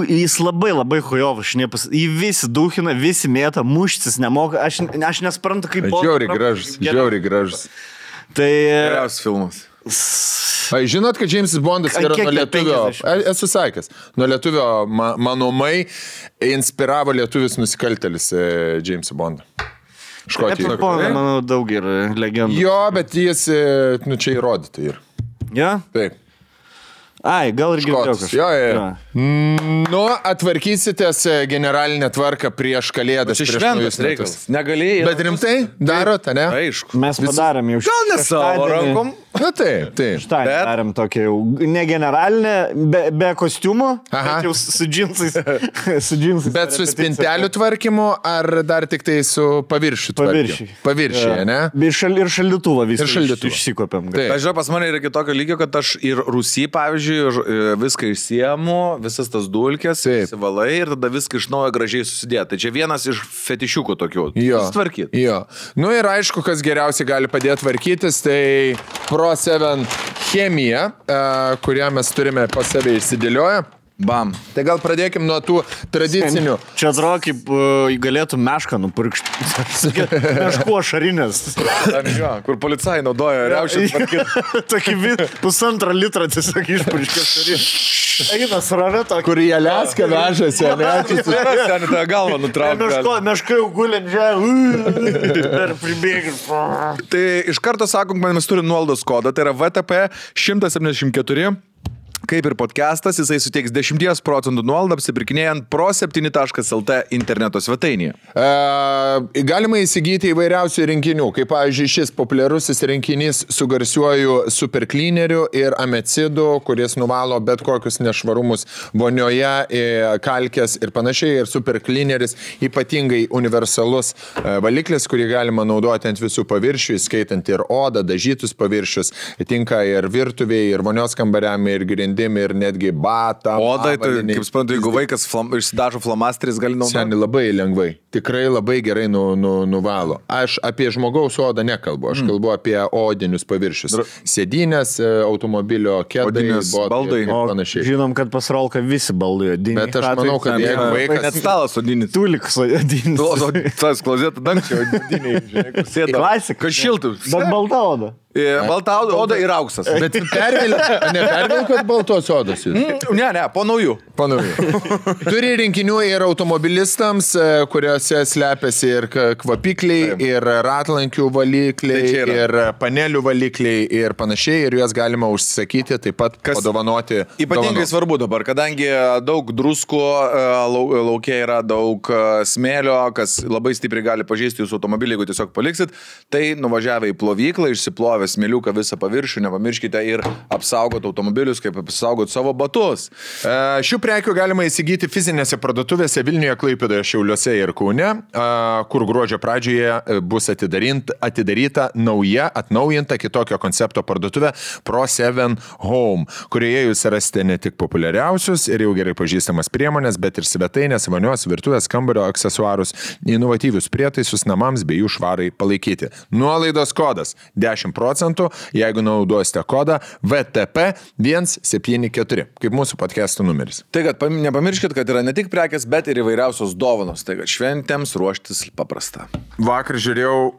jis labai hujovas, jį visi dūkina, visi mėta, muštis nemoka, aš nesprantu, kaip... Žiauriai gražus. Tai... Geriausias filmas. Žinot, kad Jamesas Bondas yra nuo lietuvio, esu sakęs, nuo lietuvio manomai inspiravo lietuvis nusikaltelis Jamesą Bondą. Škotijoje. Manau, daug yra legendų. Jo, bet jis, čia įrodyta yra. Ja? Taip. Ai, gal ir girdėjau kažką. Jo. Nu, atvarkysitės generalinę tvarką prieš kalėdas. Čia šventas reikalas. Negalėjai. Bet rimtai darot, ne? Aišku. Mes padarėm jau gal ne savo rankom. Na taip. Štai darėm tokia jau ne generalinė, be kostiumo, bet jau su džinsais. Bet su spintelių tvarkymu ar dar tik tai su paviršių tvarkymu? Paviršiai, ne? Ir šaldytuvą visą išsikopėm. Aš žinau, pas mane yra kitokio lygio, kad aš ir Rusy, pavyzdžiui, viską išsiemu, visas tas dulkės, įsivalai ir tada viską iš naujo gražiai susidėti. Tai čia vienas iš fetišiukų tokių. Sutvarkyti. Jo. Nu ir aišku, kas geriausiai gali padėti tvarkytis, tai Pro 7 chemija, kurią mes turime pas save išsidėlioję. Bam. Tai gal pradėkim nuo tų tradicinių. Čia atrodo, kaip galėtų mešką nupurkšti. Meškuo šarinės. Kur policai naudoja riaušės tvarkyti. Tokį 1,5 litrą tiesiog išpurkšti šarinės. Eina sraveto. Kur į Aliaską vežasi, ne? Seni tą galvą nutraukti. Meška jau gulint žemė. Ir pribėgim. Tai iš karto sakom, kad mes turim nuolaidos kodą. Tai yra VTP 174. Kaip ir podcastas, jisai suteiks 10% nuolaidą apsipirkinėjant pro7.lt interneto svetainėje. Galima įsigyti įvairiausių rinkinių, kaip pavyzdžiui šis populiarusis rinkinys su garsiuoju superklineriu ir amecidu, kuris nuvalo bet kokius nešvarumus vonioje, kalkės ir panašiai. Ir superklineris ypatingai universalus valiklis, kurį galima naudoti ant visų paviršių, įskaitant ir odą, dažytus paviršius, tinka ir virtuvėje, ir vonios kambariam, ir grindiniams. grandim ir netgi batą. Odai, tai kaip suprantu, jeigu vaikas išsidažo flamasteris, gali naudoti. Seniai labai lengvai, tikrai labai gerai nuvalo. Aš apie žmogaus odą nekalbu, aš kalbu apie odinius paviršius. Sėdynės, automobilio kėdai, baldai. Panašiai. Žinom, kad pas Rolką visi baldai odiniai. Bet aš manau, kad jeigu vaikas... Net stalas odinis. Tuliks odinis. Tas klozetų dangčio odiniai, žinai, kur sėda. Klasika. Kad šiltų. Bet balta oda. Balta oda ir auksas. Bet nepervilkot baltos odos jūs? Ne, po naujų. Turi rinkinių ir automobilistams, kuriuose slepiasi ir kvapikliai, ir ratlankių valikliai, ir panelių valikliai ir panašiai, ir juos galima užsisakyti, taip pat padovanoti. Ypatingai svarbu dabar, kadangi daug druskų, laukia yra daug smėlio, kas labai stipriai gali pažeisti jūsų automobilį, jeigu tiesiog paliksit, tai nuvažiavę į plovyklą, išsiplovę smėliuką visą paviršių, nepamirškite ir apsaugoti automobilius, kaip apsaugoti savo batus. Šių prekių galima įsigyti fizinėse parduotuvėse Vilniuje, Klaipėdoje, Šiauliuose ir Kaune, kur gruodžio pradžioje bus atidaryta nauja, atnaujinta kitokio koncepto parduotuvė Pro7 Home, kurioje jūs rasite ne tik populiariausius ir jau gerai pažįstamas priemonės, bet ir svetainės, vonios, virtuvės, kambario aksesuarus, inovatyvius prietaisus namams bei jų švarai palaikyti. Nuolaidos kodas 10%, jeigu naudosite kodą VTP 174, kaip mūsų podcastų numeris. Tai kad nepamirškit, kad yra ne tik prekės, bet ir įvairiausios dovanos. Tai kad šventėms ruoštis paprasta. Vakar žiūrėjau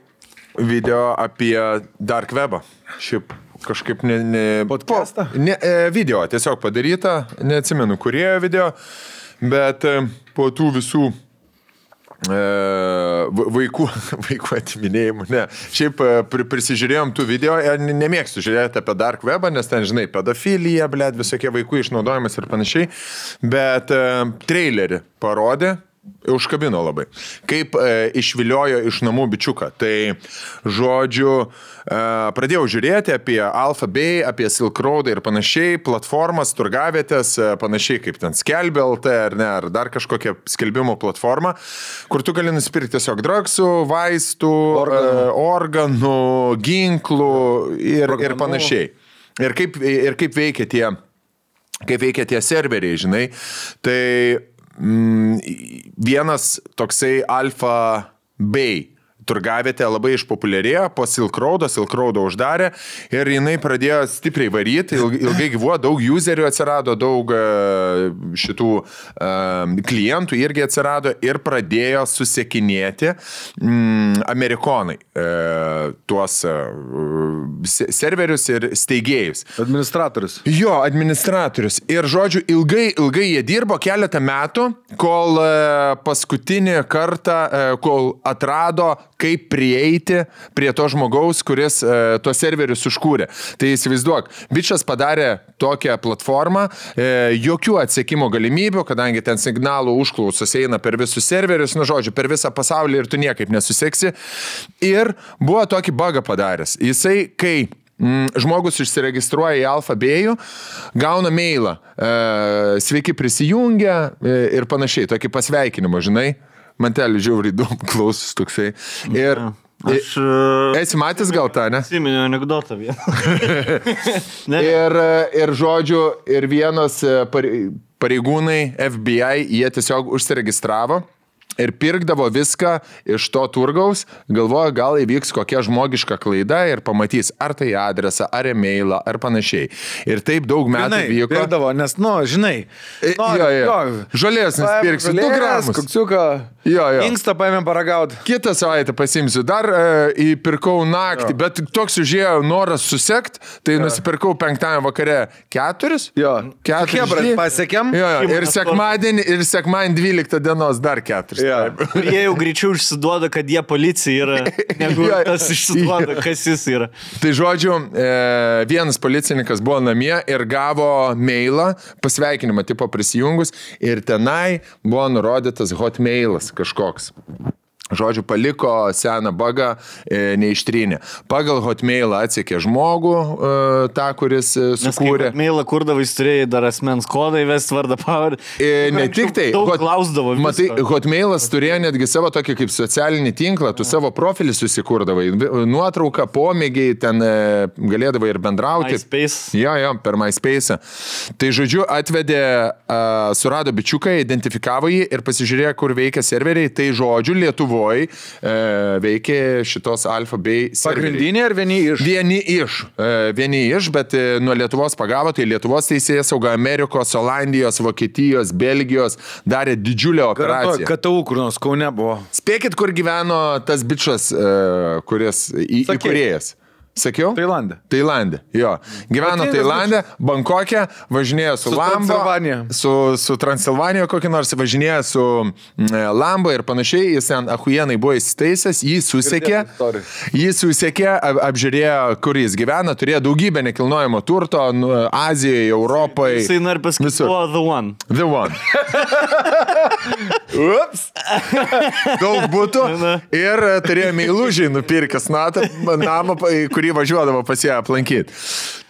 video apie Dark Webą. Šiaip kažkaip podcastą? Video tiesiog padaryta, neatsimenu, kurie video, bet po tų visų vaikų atiminėjimų, ne. Šiaip prisižiūrėjom tų video, nemėgstu žiūrėti apie Dark Webą, nes ten, žinai, pedofilija, visokie vaikų išnaudojimas ir panašiai, bet trailerį parodė, užkabino labai. Kaip išviliojo iš namų bičiuką. Tai, žodžiu, pradėjau žiūrėti apie Alpha Bay, apie Silk Road ir panašiai, platformas, turgavietės, panašiai kaip ten Skelbė LT ar dar kažkokia skelbimo platforma, kur tu gali nusipirkti tiesiog dragsų, vaistų, organų, ginklų ir panašiai. Ir kaip veikia tie serveriai, žinai. Tai vienas toksai Alpha Bay turgavietė labai išpopuliarėjo po Silk Roado uždarė ir jinai pradėjo stipriai varyti, ilgai gyvuo, daug userių atsirado, daug šitų klientų irgi atsirado ir pradėjo susiekinėti amerikonai tuos serverius ir steigėjus. Administratorius. Jo, administratorius. Ir žodžiu, ilgai jie dirbo keletą metų, kol paskutinį kartą, kol atrado kaip prieiti prie to žmogaus, kuris tuos serverius užkūrė. Tai įsivaizduok, bičas padarė tokią platformą, jokių atsekimo galimybių, kadangi ten signalų užklausos eina per visus serverius, žodžiu, per visą pasaulį ir tu niekaip nesuseksi. Ir buvo tokį bugą padaręs. Jisai, kai žmogus išsiregistruoja į Alpha Bay'ų, gauna mailą, sveiki prisijungę ir panašiai, tokį pasveikinimą, žinai. Mantelį žiauriai daug klausus toksai. Ir esi matęs gal tą, ne? Atsiminiau anekdotą vieną. Ir žodžiu, ir vienas pareigūnai FBI, jie tiesiog užsiregistravo ir pirkdavo viską iš to turgaus, galvoja, gal įvyks kokia žmogiška klaida ir pamatys, ar tai adresą, ar e-mailą, ar panašiai. Ir taip daug metų vyko. Pirkdavo, nes, žinai, žolės nusipirksiu 2 gramus. Kuksiuką, inkstą paėmėm paragauti. Kitą savaitę pasimsiu. Dar įpirkau naktį, bet toks užėjo noras susekt, tai nusipirkau 5 vakare 4. Jo. 4. Hebrat pasiekėm. Ir sekmadienį 12 dienos dar 4. Jie jau greičiau išsiduoda, kad jie policija yra, negu tas išsiduoda, kas jis yra. Tai žodžiu, vienas policininkas buvo namie ir gavo mailą, pasveikinimą tipo prisijungus ir tenai buvo nurodytas hotmailas kažkoks. Žodžiu, paliko seną bagą, neištrynė. Pagal Hotmailą atsekė žmogų, tą, kuris sukūrė. Hotmailą kurdavai, turėjai dar asmens kodą įvesti vardą pavardę. Ne tik tai. Daug klausdavo. Matai, Hotmailas turėjo netgi savo tokį kaip socialinį tinklą, tu savo profilį susikurdavai, nuotrauką, pomėgiai, ten galėdavai ir bendrauti. MySpace. Jo, per MySpace. Tai žodžiu, atvedė, surado bičiuką, identifikavo jį ir pasižiūrėjo, kur veikia serveriai. Tai žodžiu, Lietuvoje veikė šitos Alfa bei serveriai. Pagrindinė ar Vieni iš, bet nuo Lietuvos pagavo, tai Lietuvos teisėjas sauga Amerikos, Olandijos, Vokietijos, Belgijos darė didžiulę operaciją. KTU kur nors Kaune buvo. Spėkit, kur gyveno tas bičas, kuris įkūrėjas. Sakiau? Tailande, jo. Gyveno Tailande, Bankokė, važinėjo su Lambo, su Transilvanija kokį nors, važinėjo su Lambo ir panašiai, jis ten ahujenai buvo įsitaisęs, jį susekė, apžiūrėjo, kur jis gyvena, turėjo daugybę nekilnojamo turto, Azijoje, Europoje. Jisai nori pasakyti, The One. Ups. Daug būtų ir turėjo meilužiai nupirkęs namą, kurį važiuodavo pas ją aplankyti.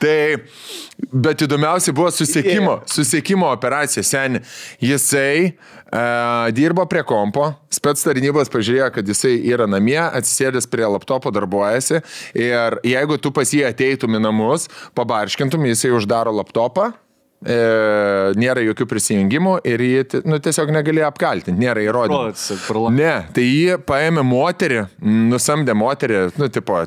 Tai, bet įdomiausia buvo susiekimo operacija. Seni, jisai dirbo prie kompo, spec tarnybos pažiūrėjo, kad jisai yra namie, atsisėdęs prie laptopo darbuojasi ir jeigu tu pas jį ateitum į namus, pabarškintum, jisai uždaro laptopą. Nėra jokių prisijungimų ir jį tiesiog negalėjo apkaltinti, nėra įrodymų. Ne, tai jį paėmė moterį, nusamdė moterį,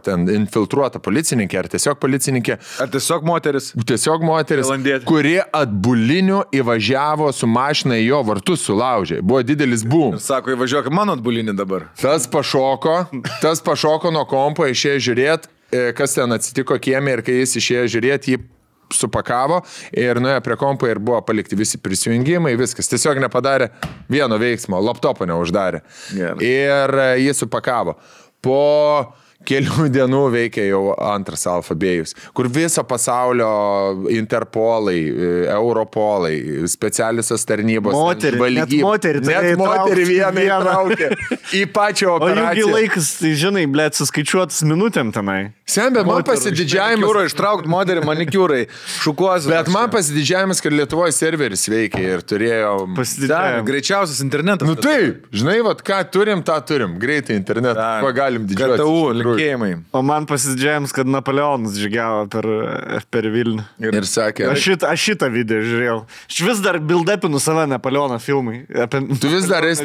ten infiltruota policininkė ar tiesiog policininkė. Ar tiesiog moteris? Tiesiog moteris, kuri atbuliniu įvažiavo su mašina į jo vartus sulaužė. Buvo didelis boom. Ir sako, įvažiuok mano atbulinį dabar. Tas pašoko nuo kompo, išėjo žiūrėti, kas ten atsitiko kieme ir kai jis išėjo žiūrėti, jį supakavo ir nuėjo prie kompo ir buvo palikti visi prisijungimai, viskas. Tiesiog nepadarė vieno veiksmo, laptopo neuždarė. Ir jį supakavo. Po kelių dienų veikia jau antras Alfabėjus, kur viso pasaulio Interpolai, Europolai, specialiosios tarnybos, net moterį vieną įtraukė į pačią operaciją. O jų laikas, tai žinai, blėt, suskaičiuotas minutėm tenai. Bet man pasididžiavimas... Manikiūro ištraukti moterį, manikiūrai, šukuosi. Bet man pasididžiavimas, kad Lietuvoje serveris veikia ir turėjo... Greičiausias internetas. Nu taip, žinai, ką turim, tą turim. Greitai internetą, kuo galim didžiuotis. KTU, linkėjimai. O man pasididžiavimas, kad Napoleonas žygiavo per Vilnių. Ir sakė... Aš šitą video žiūrėjau. Aš vis dar build-upinu save Napoleono filmai. Tu vis dar esi...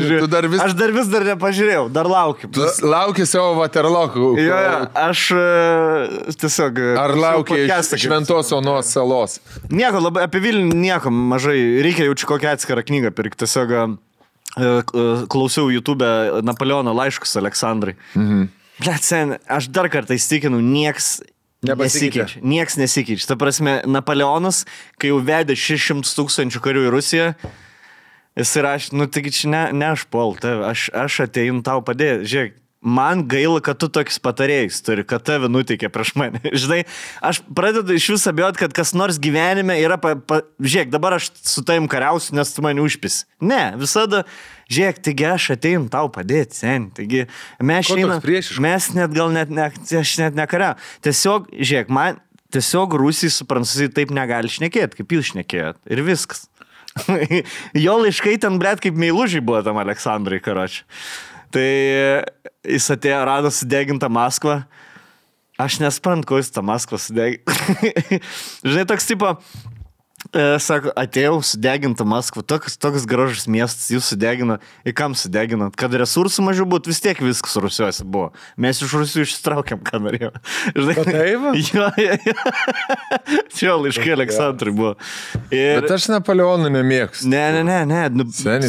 Aš dar vis dar nepažiūrėjau, dar laukiu. Tu lauki savo Waterloo. Aš tiesiog... Ar laukia iš Šventos Onos salos? Nieko, labai apie Vilnių nieko mažai. Reikia jaučiu kokią atskirą knygą pirkti. Tiesiog klausiau YouTube Napoleono laiškus Aleksandrai. Blet, sen, aš dar kartą įstikinu, nieks nesikeičia. Nieks nesikeičia. Ta prasme, Napoleonas, kai jau vedė 600 000 karių į Rusiją, jis rašė, taigi čia ne aš puol, aš ateinu tau padėti. Žiūrėk, man gaila, kad tu tokius patarėjus turi, kad tave nuteikė prieš mane. Žinai, aš pradedu iš vis abejoti, kad kas nors gyvenime yra... Žiūrėk, dabar aš su tavim kariausiu, nes tu mane užpisi. Ne, visada... Žiūrėk, taigi aš ateinu tau padėti, sen. Taigi mes net gal aš net nekariau. Tiesiog, žiūrėk, man tiesiog Rusijai su Prancūzijai taip negali šnekėti, kaip jūs šnekėjot. Ir viskas. Jo laiškai ten, blet, kaip meilužiai buvo tam Aleksandrai, karočiui. Tai jis atėjo, rado sudegintą Maskvą. Aš nesprantu, ko jis tą Maskvą sudegintą. Žinai, toks tipo, sako, atėjau sudegintą Maskvą, toks gražus miestas, jūs sudegino. Ir kam sudeginot? Kad resursų mažiau būtų, vis tiek viskas Rusijuose buvo. Mes iš Rusijų išsitraukėm, ką norėjom. Žinai, jo, laiškai Aleksandrai buvo. Bet aš Napoleonų nemėgstu. Ne.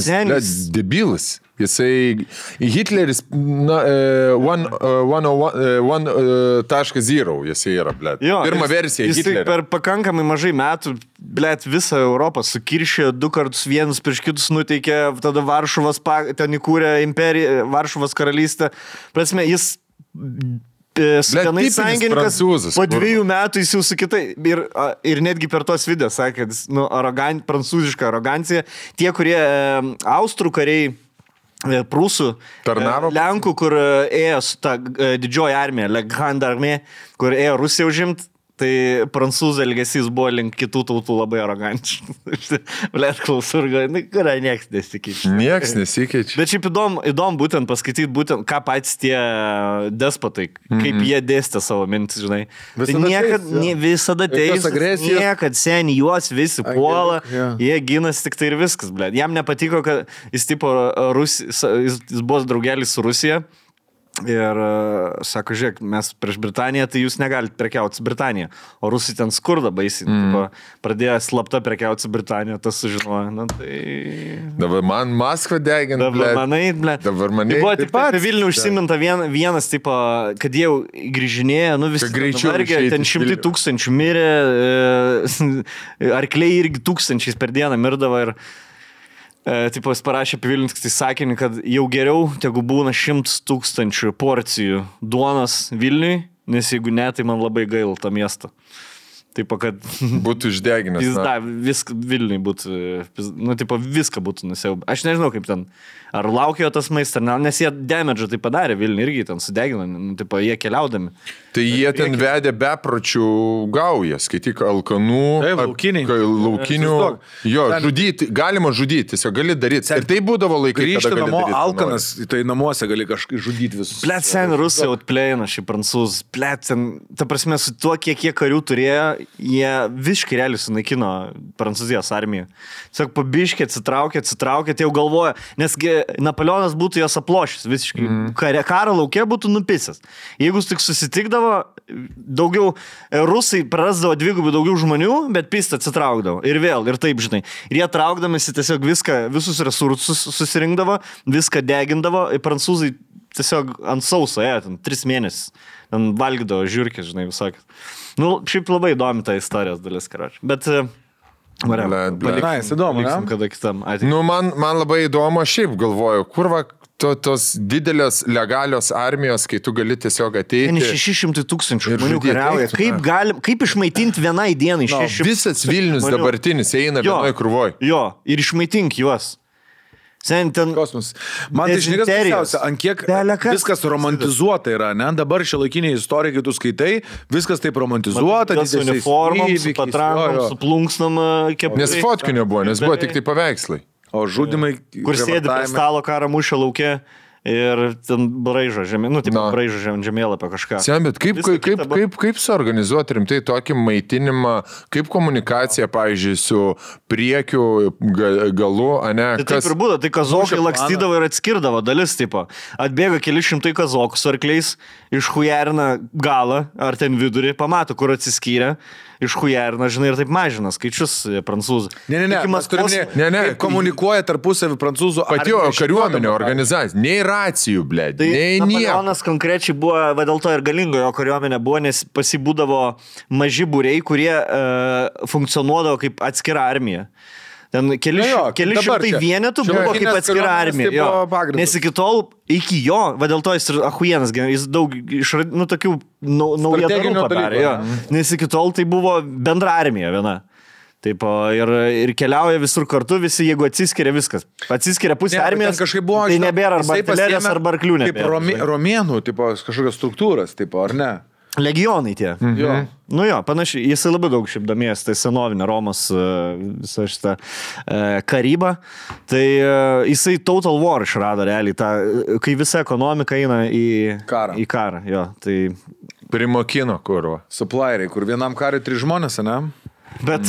Senis, debilas. Jisai Hitleris 1.0 jisai yra, blėt. Pirma versija Hitlerio. Jisai per pakankamai mažai metų, blėt, visą Europą sukiršė, 2 kartus vienus prieš kitus nuteikė, tada Varšuvos ten įkūrė imperiją, Varšuvos karalystę. Prasme, jis su tenais sąjungininkas, po 2 metų jis jau su kitai, ir netgi per tos video sakė, prancūziška arogancija, tie, kurie austrų kariai prūsų, Tarnavo? Lenkų, kur ėjo su ta didžioji armija, Grande Armée, kur ėjo Rusiją užimt. Tai prancūzų elgesys buvo link kitų tautų labai arogantiškas. Blet, klausur, kuria nieks nesikeičia. Nieks nesikeičia. Bet šiaip įdomu būtent paskaityti, būtent, ką patys tie despotai, kaip jie dėstė savo mintis, žinai. Visada teis, niekad seniai juos visi puola, jie ginasi tik tai ir viskas, blet. Jam nepatiko, kad jis jis buvo draugelis su Rusija. Ir sako, žiūrėk, mes prieš Britaniją, tai jūs negalite prekiauti su Britanija. O Rusai ten skurda baisiai. Pradėjo slapta prekiauti su Britanija, tas sužinojo. Na, tai... Dabar man Maskva degina. Dabar manai. Tai buvo taip pat Vilnių užsiminta vienas, tipo, kad jie grįžinėjo, visi vargė, ten 100 000 mirė, arkliai irgi 1000 per dieną mirdavo ir... Tipo, jis parašė apie Vilnių tik tai sakinį, kad jau geriau, tegu būna 100 000 porcijų duonos Vilniui, nes jeigu ne, tai man labai gaila tą miestą. Taip, kad... Būtų išdeginęs. Viską Vilniui būtų, viską būtų nusiaubę. Aš nežinau, kaip ten, ar laukėjo tas maistas, nes jie damage tai padarė Vilniui irgi ten sudegino, jie keliaudami. Tai jie ten vedė bepročių gaują, skaityk, alkanų, laukinių, žudyti, galima žudyti, tiesiog gali daryti. Ir tai būdavo laikai, grįžti namo alkanas, tai namuose gali kažkaip žudyti visus. Blet, sen Rusai outplayina šį prancūzų, blet, ten, ta prasme, su tuo, kiek jie karių turėjo, jie visiškai realiai sunaikino Prancūzijos armiją. Tiesiog pabiškė, atsitraukė, tai jau galvoja, nesgi Napoleonas būtų jos aplošęs visiškai. Karo lauke būtų nupisęs. Jeigu tik susitikdavo, daugiau rusai prarasdavo dvigubai daugiau žmonių, bet pistą atsitraukdavo. Ir vėl, ir taip, žinai. Ir jie traukdamasi tiesiog visus resursus susirinkdavo, viską degindavo. Ir prancūzai tiesiog ant sauso, ten 3 mėnesius. Ten valgydavo žiūrkės, žinai, visokį. Šiaip labai įdomi ta istorijos dalis, karoči. Bet... Paliksim kada kitam ateitim. Man labai įdomu, šiaip galvoju, kur tos didelės legalios armijos, kai tu gali tiesiog ateiti. 600 000 žmonių kariauja. Kaip išmaitinti vienai dienai 600 Visas Vilnius dabartinis eina vienoj krūvoj. Jo, ir išmaitink juos. Kosmos. Man tai žinikas pasiausia, ant kiek viskas romantizuota yra, ne? Dabar šiuolaikiniai istorikai, kai tu skaitai, viskas taip romantizuota. Su uniformom, su patrankom, su plunksnom. Nes fotkinio buvo, nes buvo tik tai paveikslai. O žudimai... Kur sėdi prie stalo karą mūšio lauke ir ten braižo braižo žemėlapio kažką. Bet kaip suorganizuoti rimtai tokį maitinimą, kaip komunikacija, pavyzdžiui, su priekiu galu, ane? Tai taip ir būdavo, tai kazokai lakstydavo ir atskirdavo dalis, tipo. Atbėga keli šimtai kazokų su arkliais, išhujerina galą, ar ten vidurį, pamato, kur atsiskyrė. Išhujerina, žinai, ir taip mažina skaičius prancūzų. Ne. Komunikuoja tarpusavį prancūzų patio kariuomenė organizacija. Nei racijų, blėd. Tai Napoleonas konkrečiai buvo, dėl to ir galingo jo kariuomenė buvo, nes pasibūdavo maži būriai, kurie funkcionuodavo kaip atskira armija. Ten keli šimtai vienetų buvo kaip atskira armija. Nes iki tol, iki jo, dėl to jis ir ahujenas, jis daug tokių naujadarų padarė. Nes iki tol tai buvo bendra armija viena. Taip, ir keliauja visur kartu, visi, jeigu atsiskiria viskas. Atsiskiria pusė armijos, tai nebėra arba artilerijos, arba arklių nebėra. Kaip romėnų, kažkokios struktūros, ar ne? Legionai tie. Panašiai, jisai labai daug šiaip domėjęs, tai senovinė Romos visą šitą karybą. Tai jisai Total War išrado realiai, kai visa ekonomika eina į karą. Tai... Primokino kurvo. Supplieriai, kur vienam kariui 3 žmonės, ne? Bet...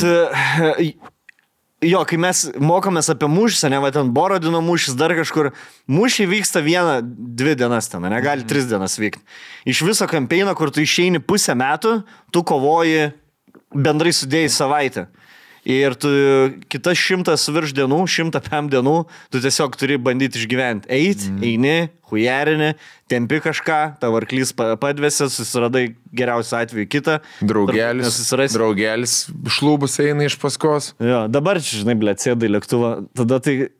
kai mes mokomės apie mūšį, ne, ten Borodino mūšis, dar kažkur, mūšiai vyksta 1-2 dienas ten, negali 3 dienas vykti. Iš viso kampeino, kur tu išeini pusę metų, tu kovoji bendrai sudėjai savaitę. Ir tu kitas 100 virš dienų, 105 dienų, tu tiesiog turi bandyti išgyventi. Eini, hujarini, tempi kažką, tavo arklys padvėsi, susiradai geriausiu atveju kitą. Draugelis šlūbus eina iš paskos. Jo, dabar, žinai, sėdai lėktuvą, tada tai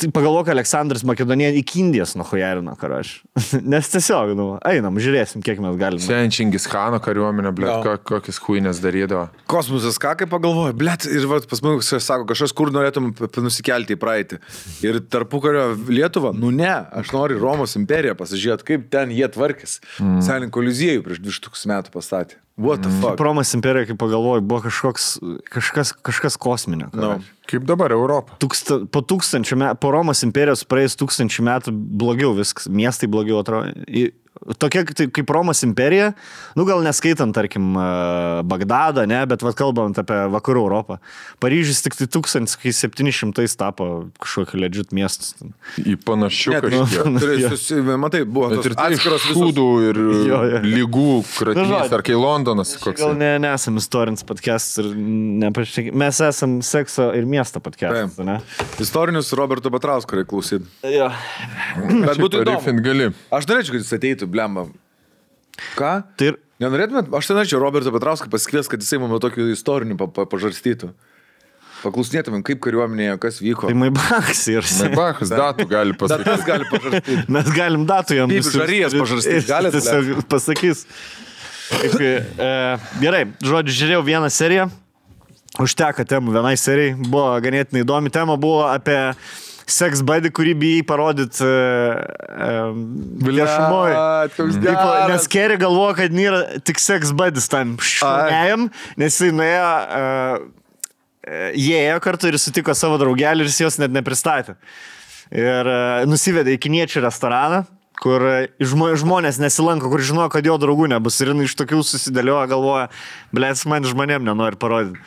pagalvok, Aleksandras Makedonija iki Indijos nuhujarino, karaš. Nes tiesiog, einam, žiūrėsim, kiek mes galime. Sen Čingis Khano kariuomenė, kokias huinės darydavo. Kosmosas, ką kaip pagalvoja, ir pas mus sako, kažkas kur norėtum nusikelti į praeitį. Ir tarpukario Lietuvą, ne, aš noriu Romos imperiją pasižiūrėti, kaip ten jie tvarkės. Sąjungų koliziejų prieš 2000 metų pastatė. What the fuck? Romos imperija, kaip pagalvoju, buvo kažkas kosminio. Kaip dabar Europą. Po Romos imperijos praėjus 1000 metų blogiau viskas, miestai blogiau atrodo. Tokia kaip Romos imperija, gal neskaitant, tarkim, Bagdadą, ne, bet kalbant apie vakarų Europą. Paryžius tik 1700 tapo kažkokį legit miestus. Į panašių kažkiek. Matai, buvo atskiros šūdų ir lygų kratinys, ar kai Londonas koks. Gal nesam istorinis podcast ir mes esam sekso ir miesto podcast, ne? Istorinius Roberto Petrausko reikia klausyti. Jo. Bet būtų įdomu. Gali. Aš norėčiau, kad jis ateitų, blemba. Ką? Tai nenorėtumėt? Aš tai norėčiau Roberto Petrauską pasikvies, kad jisai mano tokių istorinių pažarstytų. Paklausinėtumėm, kaip kariuomenėje, kas vyko. Tai Maibachas ir... Maibachas datų gali pasakyti. Datas gali pažarstyti. Mes galim datų jam. Kaip žarijas pažarstyti. Galit tiesiog pasakys. Gerai, žodžiu, žiūrėjau vieną seriją. Užteka temų vienai serijai. Buvo ganėtinai įdomi tema. Buvo apie sex buddy, kurį bijai parodyti viešumoj. Nes Kerry galvoja, kad nėra tik sex buddies tam šunėjam, nes jis nuėjo, jie ėjo kartu ir sutiko savo draugelį ir jis jos net nepristatė. Ir nusivedė į kiniečių restoraną, kur žmonės nesilanko, kur žinojo, kad jo draugų nebus. Ir iš tokių susidėlioja, galvoja, blėt, man žmonėm nenori parodyti.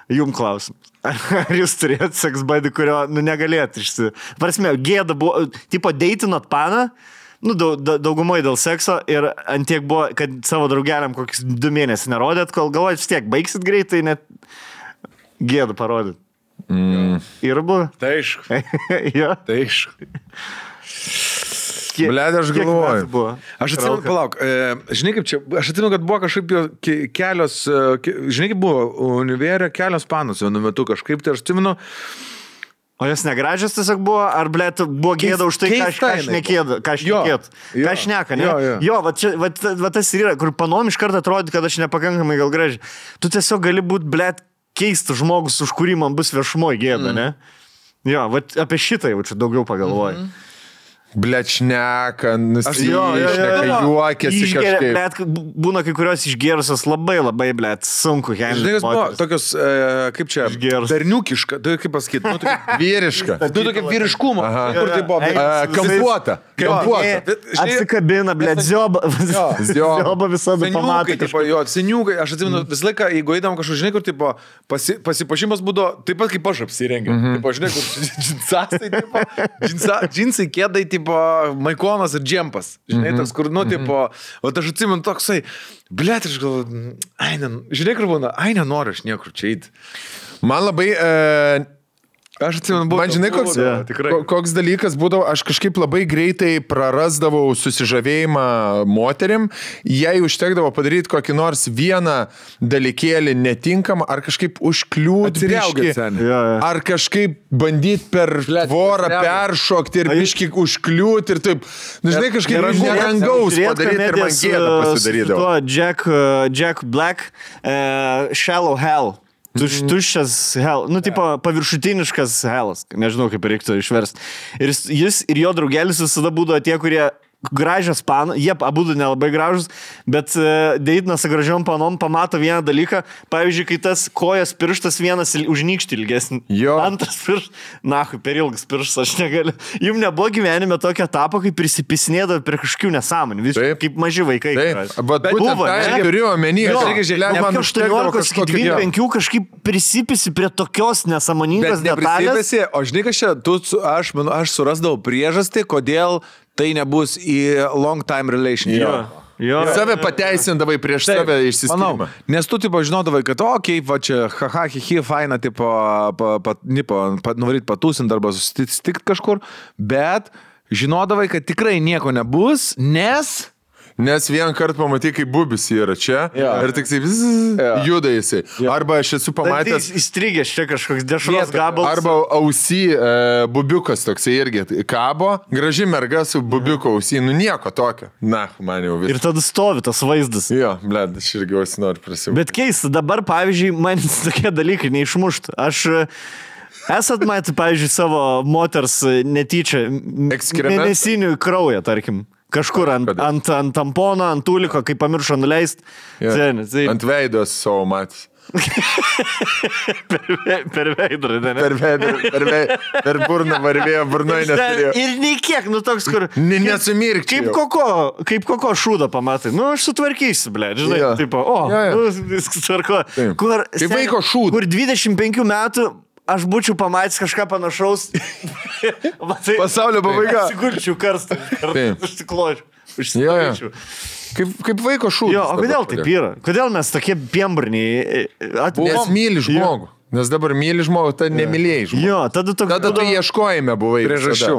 Jum klausim. Ar jūs turėt sex buddy, kurio negalėt Prasme, gėda buvo, tipo deitinot paną, daugumai dėl sekso ir antiek buvo, kad savo draugeliam kokius 2 mėnesius nerodėt, kol galvojat, vis tiek baigsit greitai, net gėdą parodyt. Ir buvo? Tai aišku. Jo. Tai aišku. Blet, aš galvoju. Aš atsimenu, palauk, žinai kaip čia, aš atsimenu, kad buvo kažkaip kelios, žinai kaip buvo, univerė kelios panos vienu metu kažkaip, tai aš atsimenu. O jos negražios tiesiog buvo, ar blet buvo gėda už tai, ką aš šneka, ne? Jo, va tas ir yra, kur panom iš karto atrodė, kad aš nepakankamai gal gražiai. Tu tiesiog gali būti, blet, keistas žmogus, už kurį man bus viešumoje gėda, ne? Jo, va apie šitą jau čia daugiau pagalvoju. Blet, šneka, nusišneka, juokiasi kažkaip. Blet, būna kai kurios išgėrusios labai, blet, sunku. Žinai, jos buvo tokios, kaip čia, berniukiška, tai kaip pasakyti, vyriška. Tokia vyriškumo. Kur tai buvo? Kampuota. Apsikabina, blet, zioba visada pamatė. Seniukai, aš atsimenu, visą laiką, jeigu eidam kažkur, žinai, kur tipo, pasipašimas būdavo, taip pat kaip aš apsirengiu. Tipo, žinai, kur džinsai, kėdai, tipo, maikonas ir džempas. Žinai, toks, kur, tipo, o aš atsimenu toksai, blet, aš galvoju, žinai, kur būna, nenoriu aš niekur čia eiti. Man labai... Aš atsimenu, buvo. Man žinai, koks dalykas būdavo, aš kažkaip labai greitai prarasdavau susižavėjimą moterim, jei užtekdavo padaryti kokį nors vieną dalykėlį netinkamą, ar kažkaip užkliūti biškį, ar kažkaip bandyti per tvorą peršokti ir biškį užkliūti ir taip, žinai, kažkaip nerangaus padaryti ir man gėdą pasidarydavo. Jack Black, Shallow Hell. Tuščias hell, tipo paviršutiniškas hellas, nežinau kaip reiktų išversti. Ir jis ir jo draugelis visada būdavo tie, kurie gražios panos, jie abudu nelabai gražus, bet deitinas su gražiom panom pamato vieną dalyką, pavyzdžiui, kai tas kojas pirštas vienas užnykšti ilgesnį, antras pirštas, per ilgas pirštas, aš negaliu. Jums nebuvo gyvenime tokio etapo, kai prisipisinėdavo prie kažkokių nesąmonių, kaip maži vaikai. Bet buvo, ne? Turiu omeny, man 18-25 kažkaip prisipisi prie tokios nesąmoningos detalės. O žinai, kas čia, aš surasdavau priežastį, kodėl tai nebus į long time relationship. Save pateisindavai prieš save išsiskirimą. Nes tu, tipo, žinodavai, kad, va čia, haha, hihi, faina, tipo, nuvaryt patūsint arba susitikti kažkur, bet žinodavai, kad tikrai nieko nebus, Nes vieną kartą pamatai, kaip bubis yra čia ir tik juda jisai. Arba aš esu pamatęs... Įstrigęs čia kažkoks dešros gabalas. Arba ausy bubiukas toksai irgi kabo, graži merga su bubiuko ausy, nu nieko tokio. Na, man jau vis. Ir tada stovi tas vaizdas. Jo, bled, aš irgi ausy noriu prisimti. Bet keista, dabar, pavyzdžiui, man tokie dalykai neišmušt. Esat matę, pavyzdžiui, savo moters netyčia mėnesinių kraują, tarkim. Kažkur ant tampono, ant tuliko, kai pamiršo nuleist. Ant veidos savo matys. per veidrodį, ne? Per burną varvėjo, burnoje neturėjo. Ir nei kiek, nu toks, kur... Nesumirkčiau. Kaip koko šūdą pamatai. Nu, aš sutvarkysiu, ble, žinai, tipo, viskas tvarko. Kaip vaiko šūdą. Kur 25 metų aš būčiau pamatęs kažką panašaus. Pasaulio pabaiga. Atsigulčiau karstą. Užsikločiau. Kaip vaiko šūdas. Jo, o kodėl taip yra? Kodėl mes tokie piemburniai? Nes myli žmogų. Nes dabar myli žmogų, tai nemylėjai žmogų. Jo, tada tu ieškojime buvai. Priežasčių.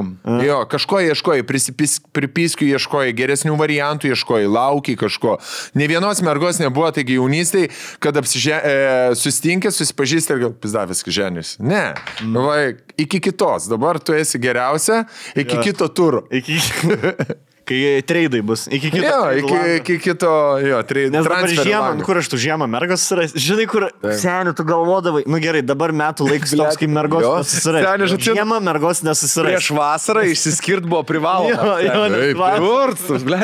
Jo, kažko ieškojai, pripiskių ieškojai, geresnių variantų ieškojai, laukiai kažko. Ne vienos mergos nebuvo, taigi jaunystėj, kad sustinkė, susipažįsti ir gal pizdavęs ženis. Ne, iki kitos. Dabar tu esi geriausia, iki kito turo. Kai treidai bus. Iki kito, treidai. Nes dabar žiemą, kur aš tu žiemą mergos susirais. Žinai, kur senių tu galvodavai. Nu gerai, dabar metų laiks toks, kai mergos nesusirais. Žiemą mergos nesusirais. Prieš vasarą išsiskirt buvo privaloma.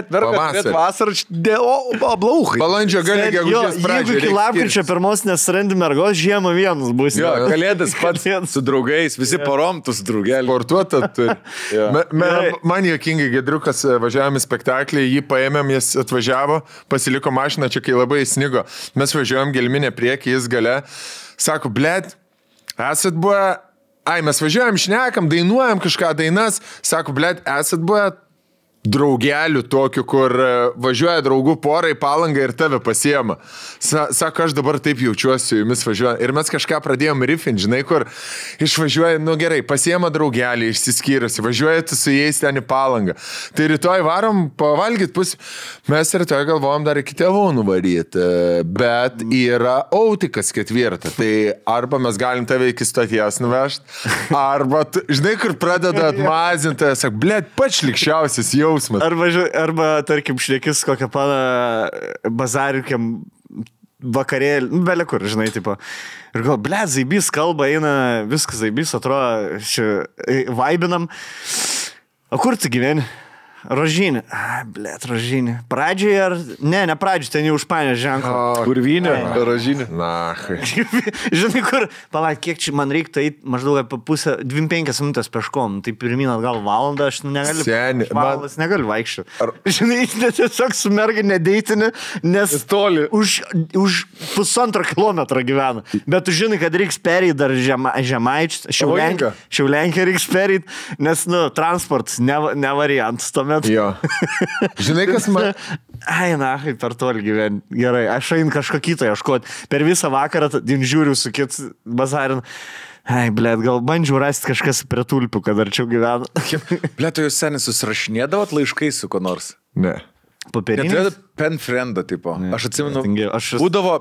Prieš vasarą blauchai. Balandžio gali gegužės pradžioje. Jeigu iki lapkričio pirmos nesirandi mergos, žiemą vienas bus. Jo, kalėdas pats su draugais, visi porom tu su draugelį. Sportuota turi. Man juokingai Gedriukas važiavome spektaklį, jį paėmėm, jis atvažiavo, pasiliko mašiną, čia kai labai snigo. Mes važiuojam gelminę priekį, jis gale. Sako, bled, esat buvę... mes važiuojam, šnekam, dainuojam kažką dainas. Sako, bled, esat buvę draugelių tokių, kur važiuoja draugų porai Palangą ir tave pasiema. Sako, aš dabar taip jaučiuosi su jumis važiuoju. Ir mes kažką pradėjom riffint, žinai, kur išvažiuoja, nu gerai, pasiema draugelį, išsiskyrusi, važiuoja tu su jais ten į Palangą. Tai rytoj varom pavalgyt pusę. Mes rytoj galvojom dar iki tėvų nuvaryti, bet yra autikas 4. Tai arba mes galim tave iki stoties nuvežti, arba, žinai, kur pradeda atmazinti, sako, blėt, pats šlikščiausias jau. Arba tarkim, šnekis kokią paną bazarikiam vakarėlį, belė kur, žinai, tipo. Ir gal, blėt, zaibys kalba, eina, viskas zaibys, atrodo, vaibinam. O kur tu gyveni? Rožinė. Blėt, Rožinė. Pradžioje ar... Ne pradžioje, ten jau užpanė ženklą. Kurvinė, Rožinė. Na, žinai, kur... Palauk, kiek čia man reiktų eiti maždaug apie pusę, 25 minutės peškom. Tai pirmin atgal valandą, aš negaliu... Valandas negaliu vaikščioti. Žinai, tiesiog su merga nedeitinė, nes toli. Už 1,5 kilometro gyvena. Bet tu žinai, kad reiks perėti dar Žemaičius, Šiaulenkę reiks perėti, nes, transportas ne variantas. Jo. Žinai, kas man... Per toli gyveni. Gerai, aš einu kažko kito ieškoti. Per visą vakarą žiūriu su kit bazarin. Blėt, gal bandžiau rasti kažkas prie tulpių, kad arčiau gyvena. Blėt, jūs seniai susirašinėdavot laiškai su ko nors? Ne. Papirinis? Pen friendo tipo. Ne, aš atsimenu, būdavo...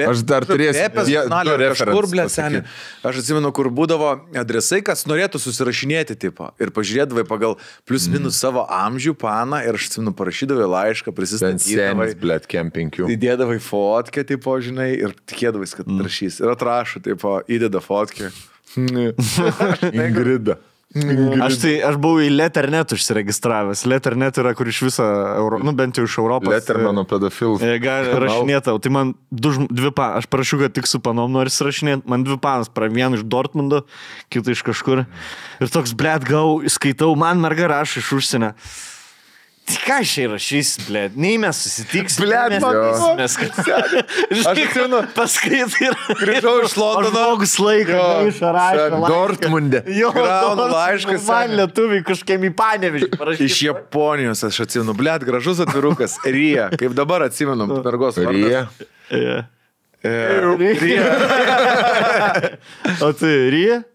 Aš dar turėsiu kažkur, blėt, seniai. Aš atsimenu, kur būdavo adresai, kas norėtų susirašinėti tipo. Ir pažiūrėdavai pagal plius minus savo amžių paną ir aš atsimenu, parašydavai laišką, prisistatydavai. Senis, blėt, kempinkių. Įdėdavai fotkę, tipo, žinai, ir tikėdavais, kad rašys. Ir atrašo, tipo, įdeda fotkę. Ingrida. Aš buvau į Letternet užsiregistravęs. Letternet yra, kur iš viso, bent jau iš Europos. Lettermano pedofilų. Gali rašinėtau. Tai man aš parašiau, kad tik su panom noriu rašinėti. Man 2 panas, vieną iš Dortmundo, kitą iš kažkur. Ir toks, blėt, skaitau, man merga rašo iš užsienio. Tai ką šiai rašys, blėt? Nei mes susitiksim. Blėt, mes aš atsimenu, paskaitai ir... Grįžau iš Londono. Žmogus laiką. Dortmunde. Gaunu laiškas. Man lietuviai kažkaip į Panevėžį parašyti. Iš Japonijos aš atsimenu. Blėt, gražus atvirukas. Rija. Kaip dabar atsimenu. Mergos vardas. Rija. O tai Rija?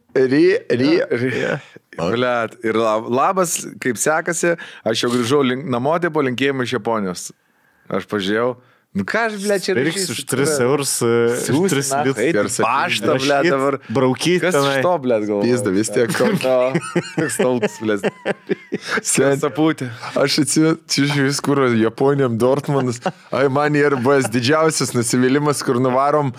Blet, ir labas, kaip sekasi, aš jau grįžau namo, tai po linkėjimą iš Japonijos. Aš pažiūrėjau. Nu ką aš, ble, čia reiks už 3 eurus, 3 litrus. Paštą, ble, dabar. Braukyti. Kas iš to, ble, galvoju? Pizda, vis tiek. Toks tautas, ble. Sapūtė. Aš atsižiūrėjau vis, kur Japonijam Dortmundas. Ai, man ir buvęs didžiausias nusivylimas, kur nuvarom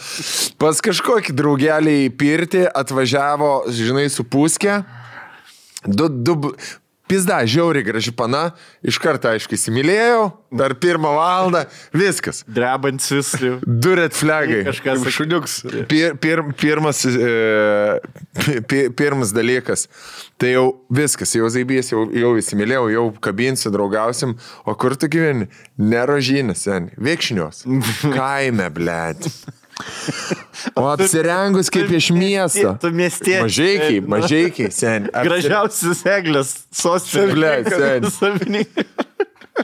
pas kažkokį draugelį į pirtį, atvažiavo, žinai, su puskė. Pizda, žiauriai graži pana, iš karto, aišku, įsimylėjau, dar 1 valandą, viskas. Drebantis. 2 red flagai. Kažkas šuniuks. Pirmas dalykas. Tai jau viskas, jau zaibys, jau įsimylėjau, jau kabinsiu, draugausim. O kur tu gyveni? Nerožinės, seniai. Vėkšnios. Kaime, blėt. O apsirengus kaip iš miesto. Tu miestiečiai. Mažeikiai, seniai. Gražiausias eglės sostinės.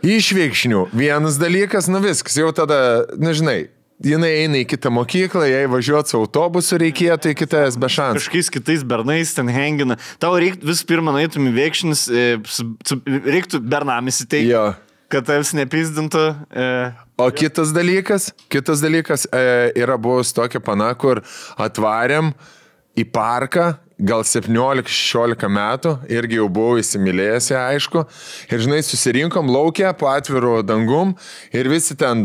Iš Vėkšnių. Vienas dalykas, nu viskas, jau tada, nežinai, jinai eina į kitą mokyklą, jei važiuoti su autobusu reikėtų į kitas be šansų. Kažkokiais kitais bernais ten hengina. Tau reiktų vis pirma nueitum į Vėkšnis, reiktų bernamis įteikti. Jo. Kad tavs nepizdintų. O kitas dalykas yra buvus tokia pana, kur atvarėm į parką, gal 17-16 metų, irgi jau buvau įsimylėjęs, aišku, ir žinai, susirinkom laukia po atviru dangum ir visi ten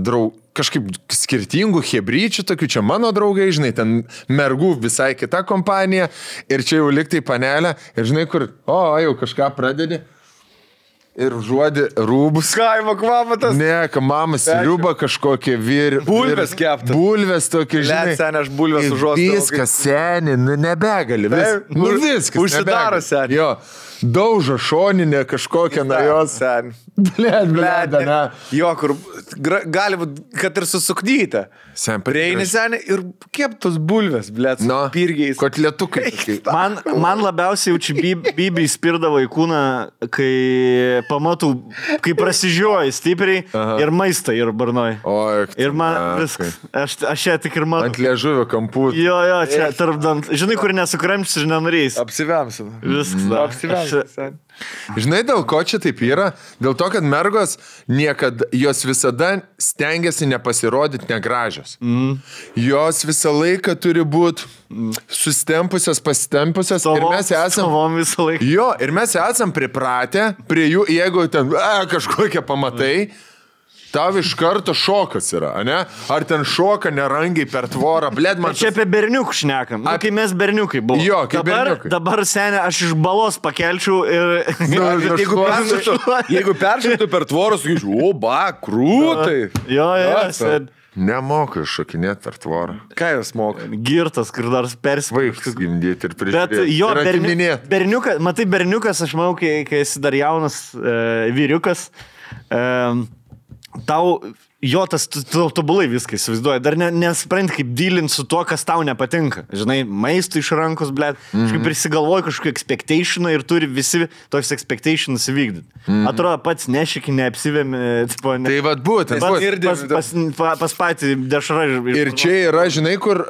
kažkaip skirtingų hebryčių, tokių čia mano draugai, žinai, ten mergų visai kita kompanija ir čia jau liktai panelė ir žinai, kur, jau kažką pradedi. Ir žuodi rūbus. Kaimo kvapatas. Ne, mama sriuba kažkokie bulvės keptas. Bulvės tokie, žinai. Let, seni, aš bulvės užuostau. Viskas, seni, nu nebegali. Viskas. Užsidaro, seni. Jo. Daužo šoninė kažkokią nuo jos. Seni. Blėd, ne. Jo, kur gali būt, kad ir susuknyta. Prieini, seni, ir keptos bulvės, blėd, su pirgiais. Kotletukai. Man labiausiai jaučiu Bibi įspirdavo į kūną, kai pamatau, kai prasižioji stipriai ir maistą ir barnoj. Ir man viskas. Aš ją tik ir matau. Ant liežuvio kampų. Jo, čia tarp dant. Žinai, kur nesukramštis ir nenorėjai. Apsivemsim. Viskas. Apsivemsim. Žinai, dėl ko čia taip yra? Dėl to, kad mergos jos visada stengiasi nepasirodyti negražios. Jos visą laiką turi būti sustempusios, pasitempusios. Ir mes esam... Jo, ir mes esam pripratę prie jų, jeigu ten kažkokie pamatai, tau iš karto šokas yra, ne? Ar ten šoka nerangiai per tvorą, blėd man... Čia apie berniukų šnekam. Kai mes berniukai buvom. Jo, kaip berniukai. Dabar, senė, aš iš balos pakelčiau ir... Jeigu peršoktų per tvorą, sakyčiau, krūtai. Jo, sen. Nemoka šokinėti per tvorą. Ką jūs moka? Girtas, kur dar Vaikus gimdyti ir prižiūrėti. Bet jo, berniukas, matai, berniukas, aš manau, kai esi dar jaunas vyriukas, tau tas tobulai viską įsivaizduoja. Dar nesprant kaip dylinti su tuo, kas tau nepatinka. Žinai, maistų iš rankos, blėt. Kažkaip prisigalvoja kažkokį expectationą ir turi visi toks expectations įvykdyti. Atrodo, pats nešiki, neapsivėmi. Tai vad būtent. Pas patį dešrą. Ir čia yra, žinai, kur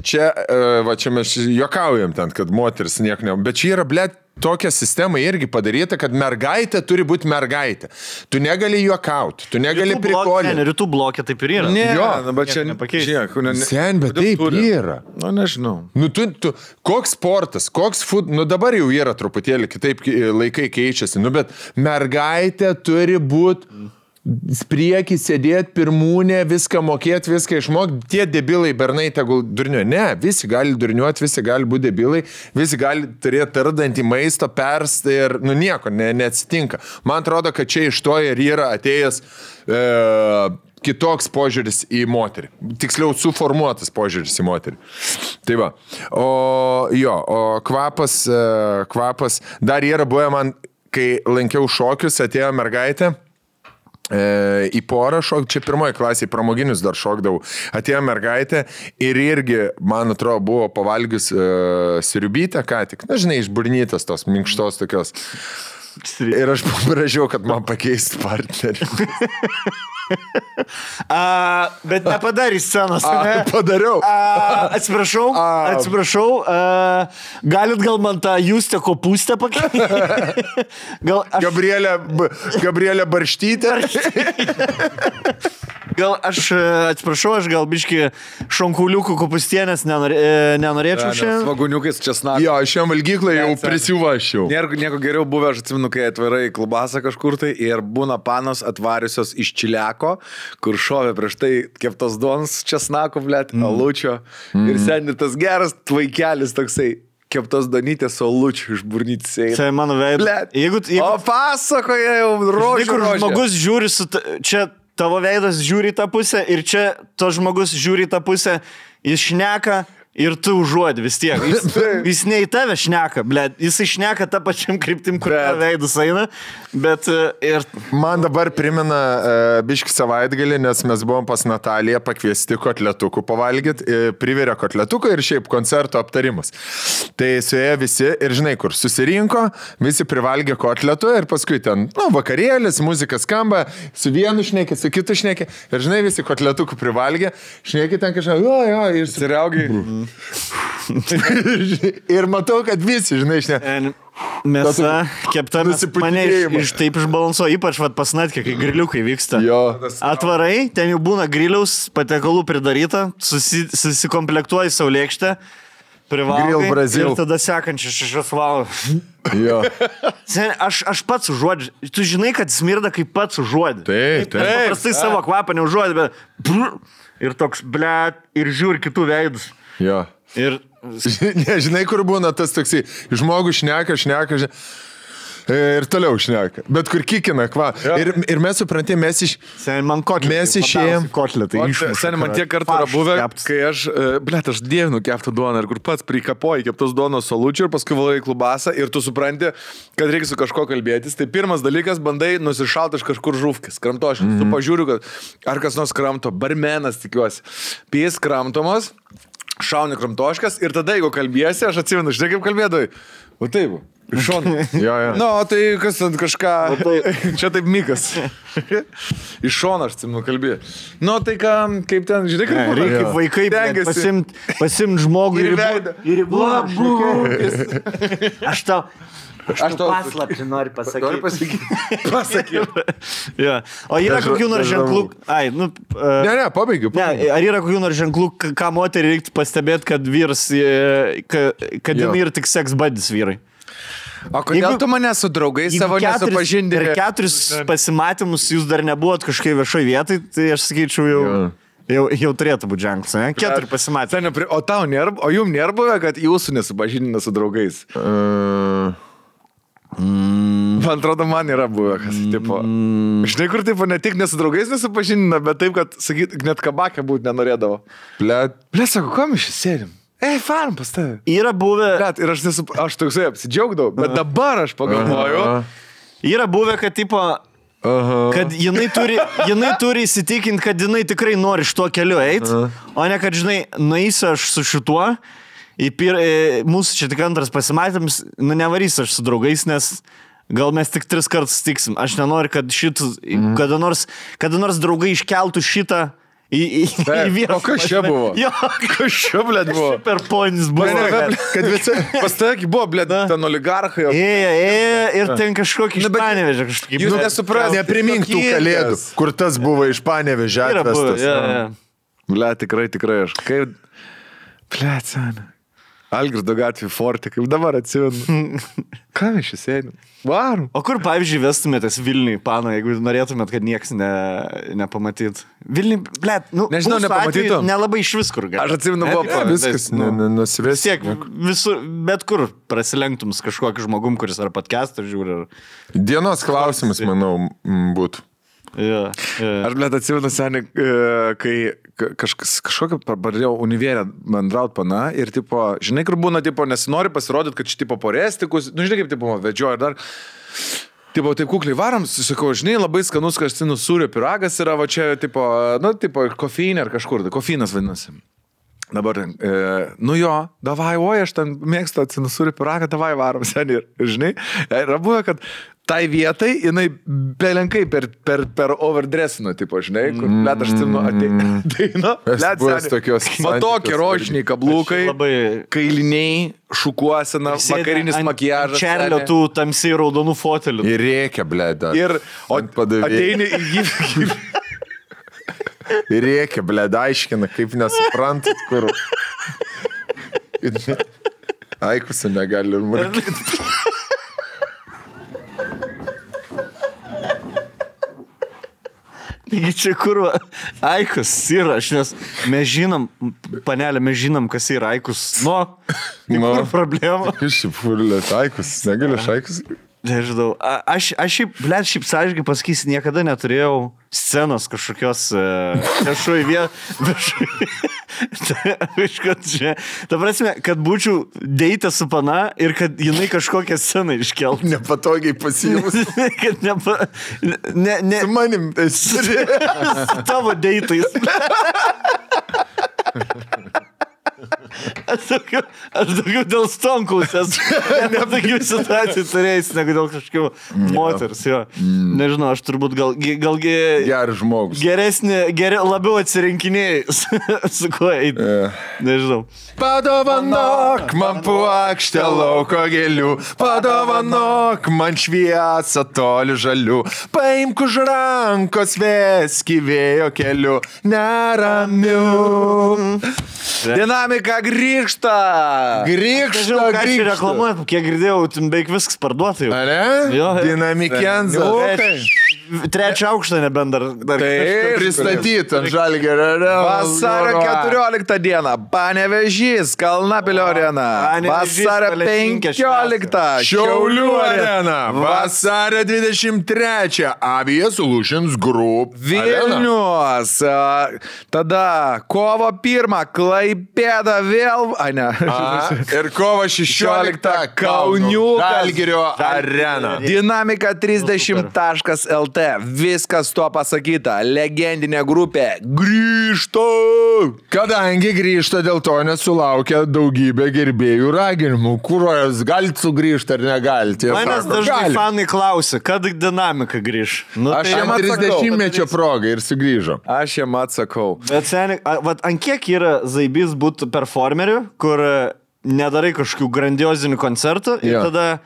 čia mes juokaujam ten, kad moteris nieko ne... Bet čia yra, blėt, tokia sistema irgi padaryta, kad mergaitė turi būti mergaitė. Tu negali juokauti, tu negali prikolinti. Rytų blokė taip ir yra. Ne, jo, bet čia nepakeičiak. Sen, bet taip yra. Nu, nežinau. Nu, koks sportas, koks dabar jau yra truputėlį kitaip laikai keičiasi, bet mergaitė turi būti priekį sėdėti, pirmūnė, viską mokėti, viską išmokti. Tie debilai bernai tegul durniuoja. Ne, visi gali durniuoti, visi gali būti debilai, visi gali turėti tardantį maisto, perstą ir, nieko, neatsitinka. Man atrodo, kad čia iš to ir yra atėjęs kitoks požiūris į moterį. Tiksliau, suformuotas požiūris į moterį. Tai va. O kvapas, dar yra buvę man, kai lankiau šokius, atėjo mergaitė, į porą šok, čia pirmoji klasė, pramoginius dar šokdavau, atėjo mergaitė ir irgi, man atrodo, buvo pavalgius sriubytę ką tik, žinai, išburnytas tos minkštos tokios. Ir aš paprašiau, kad man pakeistų partnerį. Bet nepadarė scenos, ne? Padariau. Atsiprašau, galit gal man tą Justę kopūstę pakeisti? Gabrielė Barštytė. Gal atsiprašau, aš gal biški šonkuliukų kopūstienės nenorėčiau šiandien. Svaguniukais česnakas. Jo, šiam valgyklai jau prisivašiau. Nieko geriau buvę, aš atsimenu, kai atvarai į klubasą kažkur tai ir būna panos atvariusios iš čiliako, kur šovė prieš tai keptos duonos česnako, blėt, alučio. Ir seniai tas geras tvaikelis toksai. Keptos donytės su alučiu iš burnytis eina. Tai mano veidas. O pasakoja jau rožė. Kur žmogus žiūri čia tavo veidas žiūri į tą pusę ir čia to žmogus žiūri į tą pusę, jis šneka ir tu užuodi vis tiek. Jis ne į tave šneka, blėt, jis šneka tą pačiam kryptim, kur veidus eina, bet ir... Man dabar primena biški savaitgalį, nes mes buvom pas Nataliją pakviesti kotletukų pavalgyti, privirė kotletuką ir šiaip koncerto aptarimus. Tai suėjo visi ir žinai kur, susirinko, visi privalgė kotletų ir paskui ten, vakarėlis, muzika skamba, su vienu šnekė, su kitu šnekė ir žinai visi kotletukų privalgė, šnekė ten kažką, jo, ir siriaugiai. Ir matau, kad visi, žinai, mėsa kepta, mane taip išbalansuo, ypač pas Natkę, kai griliukai vyksta. Jo. Atvarai, ten jau būna griliaus, patekalų pridaryta, susikomplektuoji saulėkštę, privalgai ir tada sekančią 6 valandas. Jo. Aš pats užuodžiu. Tu žinai, kad smirda, kaip pats užuodžiu. Taip. Paprastai savo kvapą neužuodžiu, bet... Ir toks, blėt, ir žiūri kitų veidus. Jo. Ir... Nežinai, kur būna tas toksai, žmogus šneka, ir toliau šneka. Bet kur kikina, kva. Ir mes suprantėm, mes išėjom. Seniai, man tiek kartų yra buvę, kai aš dievinu keptą duoną ir kur pats prikapoji keptos duonos salučių ir paskui valai klubasą ir tu supranti, kad reikia su kažko kalbėtis. Tai pirmas dalykas, bandai nusišalti iš kažkur žuvkis, kramtoškis. Tu pažiūriu, kad ar kas nors kramto, barmenas tikiuosi. Pės kramtomos, šauni kramtoškas ir tada, jeigu kalbėsi, aš atsimenu, žinai kaip kalbėdavai. O taip. Iš šono. Jo. Nu, tai kas ten kažką... Čia taip Mikas. Iš šono aš atsimenu kalbėjau. Nu, tai kaip ten, žinai, kaip... Reikia vaikai pasimt žmogų ir Aš tau paslaptį noriu pasakyti. O yra kokių nors ženklų... Pabaigiu. Ar yra kokių nors ženklų, ką moterį reiktų pastebėti, kad vyras, kad jinai yra tik seks buddies vyrai? O kodėl tu mane su draugais savo nesupažindinai? Per 4 pasimatymus jūs dar nebuvot kažkai viešoj vietai, tai aš sakyčiau jau turėtų būti ženklas, ne? 4 pasimatymai. O jums nėra buvę, kad jūsų nesupažindina su draugais? Man atrodo, man yra buvę, kas tipo... Žinai, kur tipo ne tik nesu draugais nesupažindina, bet taip, kad, sakyt, net kabakę būti nenorėdavo. Blet, sako, ko mes čia sėdim? Faram pas tave. Yra buvę... Ir aš toksai apsidžiaugdavau, bet dabar aš pagalvoju. Yra buvę, kad tipo... Kad jinai turi įsitikinti, kad jinai tikrai nori šituo keliu eiti, o ne kad, žinai, nueisiu aš su šituo, mūsų čia tik antras pasimatymas, nevarysiu aš su draugais, nes gal mes tik 3 kartus tiksim. Aš nenoriu, kad kada nors draugai iškeltų šitą į vieną. O kas čia buvo? Kas čia, blėt, buvo? Per ponis buvo. Kad visi pas tavęs buvo, blėt, ten oligarchai. Ir ten kažkokį iš Panevėžio kažkokį. Jūs nesupras. Neprimink tų kalėdų, kur tas buvo iš Panevėžio atvestas. Blėt, tikrai aš. Kaip... Blėt, seniai. Algirdo gatvė forte, kaip dabar atsimenu. Ką mes čia sėdim? Varom. O kur, pavyzdžiui, vestumėtės Vilniui, Pano, jeigu norėtumėt, kad nieks nepamatyt? Vilniui, blėt, nežinau, nepamatytum. Nelabai iš vis kur gali. Aš atsimenu, buvo viskas nusivės. Tiek, bet kur prasilenktum su kažkokiu žmogum, kuris ar podcastą žiūri. Dienos klausimas, manau, būtų. Aš, blėt, atsimenu, seniai, kai kažkokią pradėjau univėrę bendraut pana ir, tipo, žinai, kur būna, tipo, nesinori pasirodyti, kad čia, tipo, porestikus, žinai, kaip, tipo, vedžioja ir dar, tipo, taip kukliai varom, sakau, žinai, labai skanus kastinų sūrio piragas yra, va čia, tipo, kofeinė ar kažkur, kofeinas vadinasi. Dabar, davai, aš ten mėgstu atsinusūrį piragą, davai varom, seniai, ir žinai, yra buvę, kad tai vietai, jinai belenkai per overdressino, tipo, žinai, kur, blėt, aš atsimenu, ateina, matokie rožiniai kabliukai, kailiniai, šukuosena, vakarinis makiažas. Čerlio tų tamsiai raudonų fotelių. Ir reikia, blėda. Ir ateini į jį. Ir reikia, blėda, aiškina, kaip nesuprantat, kur. Aikusą negali ir markyti. Taigi čia kur Aikus yra, nes mes žinom, panelė, mes žinom, kas yra Aikus. Kur problema? Šiaip Aikus, negaliu Aikus. Nežinau, aš šiaip sąžininkai pasakysiu, niekada neturėjau scenos kažkokios viešoj vietoj. Ta prasme, kad būčiau deitę su pana ir kad jinai kažkokią sceną iškeltų. Nepatogiai pasijimus. Kad Su manim esi. Su tavo deitais. Aš daugiau dėl Stonkaus esu tokių situacijų turėjęs, negu dėl kažkokių moters, jo. Nežinau, aš turbūt galgi geras žmogus. Labiau atsirinkinėjai su kuo eiti. Nežinau. Padovanok man puokštę lauko gėlių, padovanok man šviesą toli žalių, paimk už rankos veski vėjo keliu, neramiu. Dinamika grįžta. Nežinau, ką čia reklamuojat, kiek girdėjau, beveik viskas parduota jau. Are? Dinamikenza. Trečią aukštą nebent dar pristatyti ant Žalgirio. Vasario 14 dieną Panevėžys, Kalnapilio arena. Vasario 15 Šiaulių arena. Vasario 23 Avia Solutions Group Vilnius. Tada kovo 1 Klaipėda vėl. Ir kovo 16 Kauniukas. Žalgirio arena. Dinamika 30.lt. Viskas tuo pasakyta. Legendinė grupė grįžta. Kadangi grįžta, dėl to nesulaukia daugybė gerbėjų raginimų. Kuros galite sugrįžti ar negalite? Manęs dažnai fanai klausia, kad dinamika grįž. Aš jam 30-mečio progą ir sugrįžo. Aš jam atsakau. Bet seniai, ant kiek yra zaibys būti performeriu, kur nedarai kažkokių grandiozinių koncertų ir tada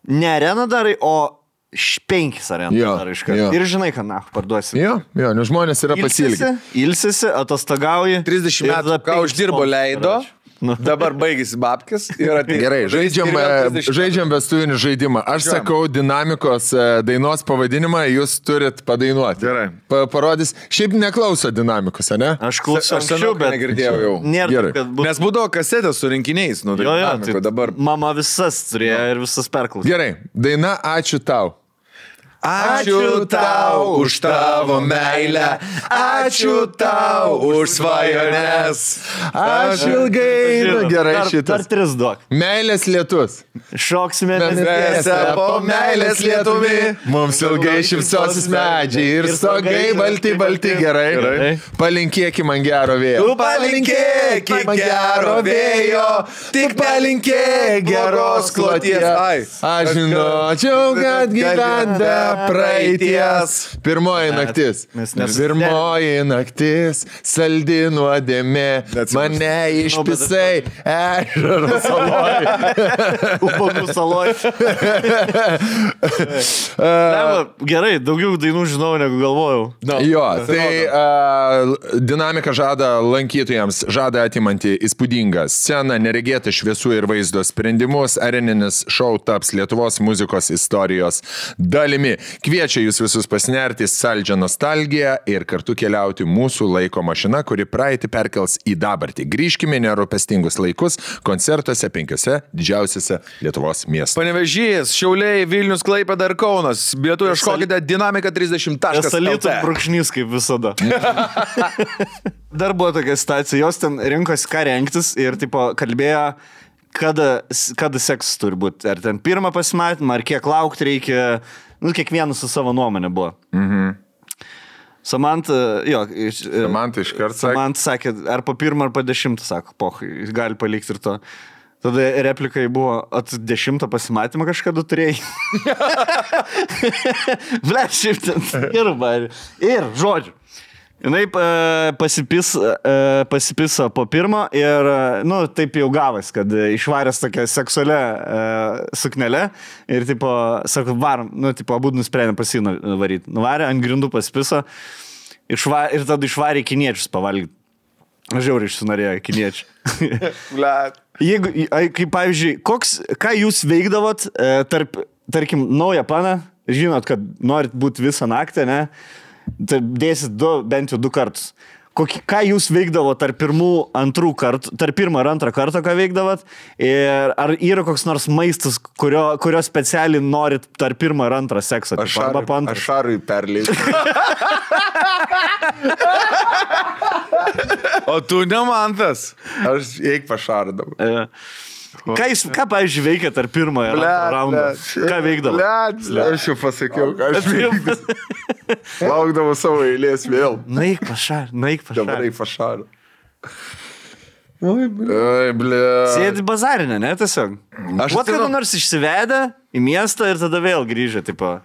ne areną darai, o 5 arenų darai iš karto. Ir žinai, ką parduosi. Nes žmonės yra pasilgę. Ilsisi, atostagauji. 30 metų, ką uždirbo leido. Dabar baigėsi babkis. Gerai, žaidžiam vestuvinį žaidimą. Aš sakau dinamikos dainos pavadinimą, jūs turit padainuoti. Gerai. Parodys. Šiaip neklauso dinamikos, ne? Aš klausiau anksčiau, bet negirdėjau jau. Nėra, nes būdavo kasetės su rinkiniais. Tai dabar mama visas turėjo ir visas perklausė. Gerai, daina Ačiū tau. Ačiū tau už tavo meilę, ačiū tau už svajones. Aš ilgai. Gerai šitas. Dar 3 duok. Meilės lietus. Šoksime mėnesę po meilės lietumi. Mums ilgai šypsosis medžiai ir stogai balti. Gerai. Palinkėki man gero vėjo. Tu palinkėki gero vėjo, tik palinkėk geros kloties. Aš žinočiau, kad gyvenda praeities. Pirmoji naktis. Pirmoji naktis, saldi nuodėmė, mane išpisai ežero saloj. Ubagų saloj. Gerai, daugiau dainų žinau, negu galvojau. Jo, tai dinamika žada lankytojams, žada atimanti įspūdingą sceną, neregėtą šviesų ir vaizdo sprendimus, areninis šou taps Lietuvos muzikos istorijos dalimi. Kviečia jūs visus pasinerti saldžią nostalgiją ir kartu keliauti mūsų laiko mašina, kuri praeitį perkels į dabartį. Grįžkime nerūpestingus laikus koncertuose 5 didžiausiuose Lietuvos miestuose. Panevėžys, Šiauliai, Vilnius, Klaipėda ir Kaunas. Bilietų ieškokite dinamika 30.lt. Salytų brūkšnys kaip visada. Dar buvo tokia situacija, jos ten rinkosi ką rengtis ir tipo kalbėjo, kada seksas turi būti. Ar ten pirmą pasimatymą, ar kiek laukti reikia. Kiekvienas su savo nuomonė buvo. Samanta iškart sakė. Samanta sakė, ar po 1 ar po 10, sako, gali palikti ir to. Tada replikai buvo, 10 pasimatymą kažkada turėjai. Ble, šiaip ten ir žodžiu. Jinai pasipiso po pirmo ir, taip jau gavas, kad išvaręs tokią seksualią suknelę ir, sako, varom, abu nusprendė pasino varyti. Nuvarė, ant grindų pasipiso ir tada išvarė kiniečius pavalgyti. Žiauriai išsinorėjo kiniečių. Jeigu, kaip pavyzdžiui, ką jūs veikdavot tarkim, naują planą, žinot, kad norit būti visą naktį, ne? Dėsit bent jau 2 kartus. Ką jūs veikdavo tarp pirmo ir antrą kartą, ką veikdavot? Ir ar yra koks nors maistas, kurio specialiai norit tarp pirmo ir antrą seksą? Aš šarui perleidžiu. O tu ne man tas. Aš eik pašardavau. Ką pavyzdžiui, veikia tarp pirmo ir antro raundo? Ką veikdavo? Aš jau pasakiau, ką aš veikdavau. Laukdavau savo eilės vėl. Naik pašar. Dabar eik pašar. Sėdi bazarinę, ne, tiesiog? Aš kada nors išsivedę į miestą ir tada vėl grįžę, tipo.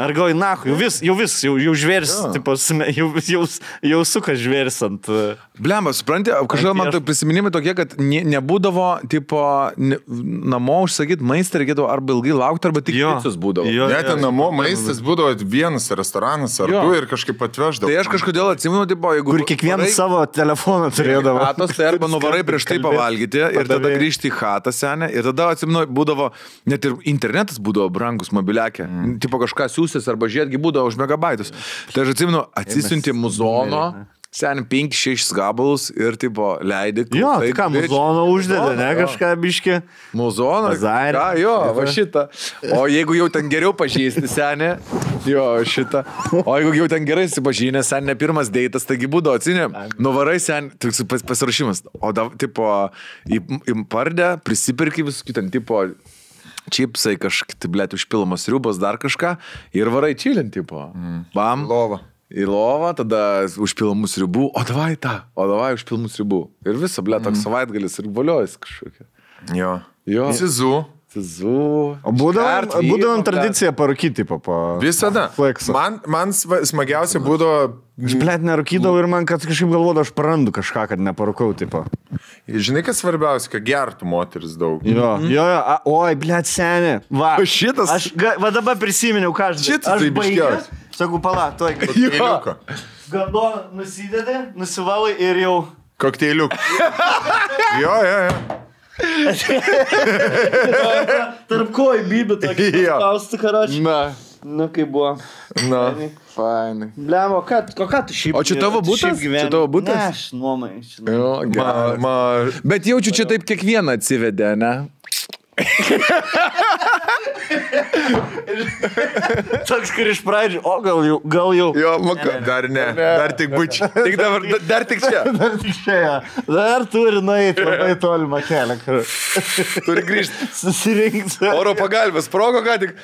Ar galvoji, jau žvėris, jau suka žvėris ant... Blemba, supranti, kažkaip man tai prisiminimai tokie, kad nebūdavo, namo užsakyti maistą, reikėdavo arba ilgai laukti, arba tik picus būdavo. Net namo maistas būdavo vienas restoranas, ar tu ir kažkaip atveždavo. Tai aš kažkodėl atsimenu, jeigu... Kur kiekvienas savo telefoną turėdavo. Chatos, tai arba nuvarai prieš tai pavalgyti ir tada grįžti į chatą senę. Ir tada atsimenu, būdavo, net ir internetas būdavo brangus mobiliakė. Tipo kažką siūsis arba žiedgi būdavo už megabaitus. Tai aš atsimenu, atsisiunti muzono, sen 5-6 gabalus ir tipo leidai. Jo, tai ką, muzono uždėdė, ne, kažką biškį. Muzono, va šitą. O jeigu jau ten geriau pažįsti senė, šitą. O jeigu jau ten gerai sipažinė, sen ne pirmas deitas, taigi būdavo, atsinė, nuvarai sen, pasirašymas. O tipo, į pardę prisipirki visų kitam, tipo, čipsai, kažkaip, blėt, užpilamos sriubos, dar kažką ir varai čilint, tipo. Bam. Į lovą, tada užpilomų sriubų, o davai užpilomų sriubų. Ir visą, blėt, toks savaitgalis ir voliojus kažkokia. Jo. Cizu. O būdavom tradiciją parūkyti, tipo. Visada. Man smagiausia būdavo... Aš, blėt, nerūkydavau ir man, kad kažkaip galvodavau, aš prarandu kažką, kad neparūkau, tipo. Žinai, kas svarbiausia, kad gertų moteris daug. Jo. Oi, blėt, senė. Va. Šitas. Va dabar prisiminiau, ką aš... Šitas tai biškiausias. Sakau, pala, tuoj. Kokteiliuką. Galdoną nusidedė, nusivalai ir jau... Kokteiliuką. Jo. Tarp kojų bybė tokį spausti, karočią. Na, kaip buvo. Fainai. Blemo, ką tu šiaip... O čia tavo butas? Čia tavo butas? Ne, aš nuomai. Bet jaučiu, čia taip kiekvieną atsivedė, ne? Toks, kur iš pradžių, o gal jau. Jo, dar ne, dar tik bučiu. Dar tik čia. Dar tik čia, ja. Dar turi nueiti labai tolimą kelią. Turi grįžti. Susirinkti. Oro pagalbės, sprogo ką tik.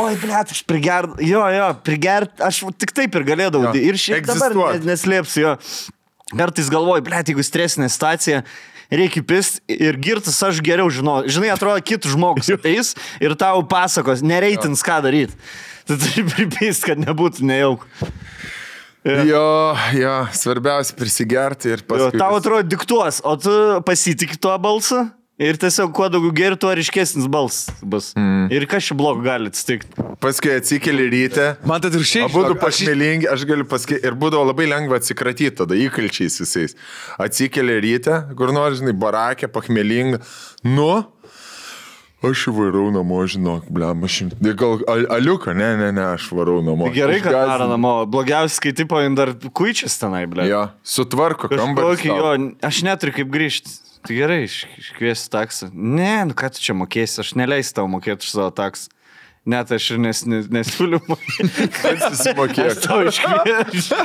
Oi, blėt, aš prigert, aš tik taip ir galėdavau. Ir šiaip dabar neslėpsiu, jo. Kartais galvoju, blėt, jeigu stresinė situacija, reikia pist ir girtas aš geriau žinau. Žinai, atrodo, kitų žmogus ateis ir tau pasakos, nereitins ką daryti. Tu turi pripist, kad nebūtų nejauk. Jo, svarbiausia prisigerti ir paskui. Tau atrodo diktuos, o tu pasitikį tuo balsą ir tiesiog kuo daugiau geri, tuo ryškesnis balsas bus. Ir kas čia blogo gali atsitikti. Paskui atsikeli ryte. Man tai ir šiaip. Abudu pašmelingi, aš galiu pasakyti. Ir būdavo labai lengva atsikratyti tada įkalčiais visais. Atsikeli ryte, kur nors, žinai, barakė, pachmelinga. Aš varau namo, žinok, blem, gal aliuką, ne, aš varau namo. Gerai, kad daro namo. Blogiausiai, kai tipo dar kuičias tenai, blem. Jo, sutvarko kambarį. Aš neturiu kaip grįžti. Tai gerai, iškviesi taksą. Ne, ką tu čia mokėsi, aš neleisiu tau mokėti už savo taksą. Net aš ir nesiūliu mokėti. Kad susimokėk. Aš tau iškviesiu.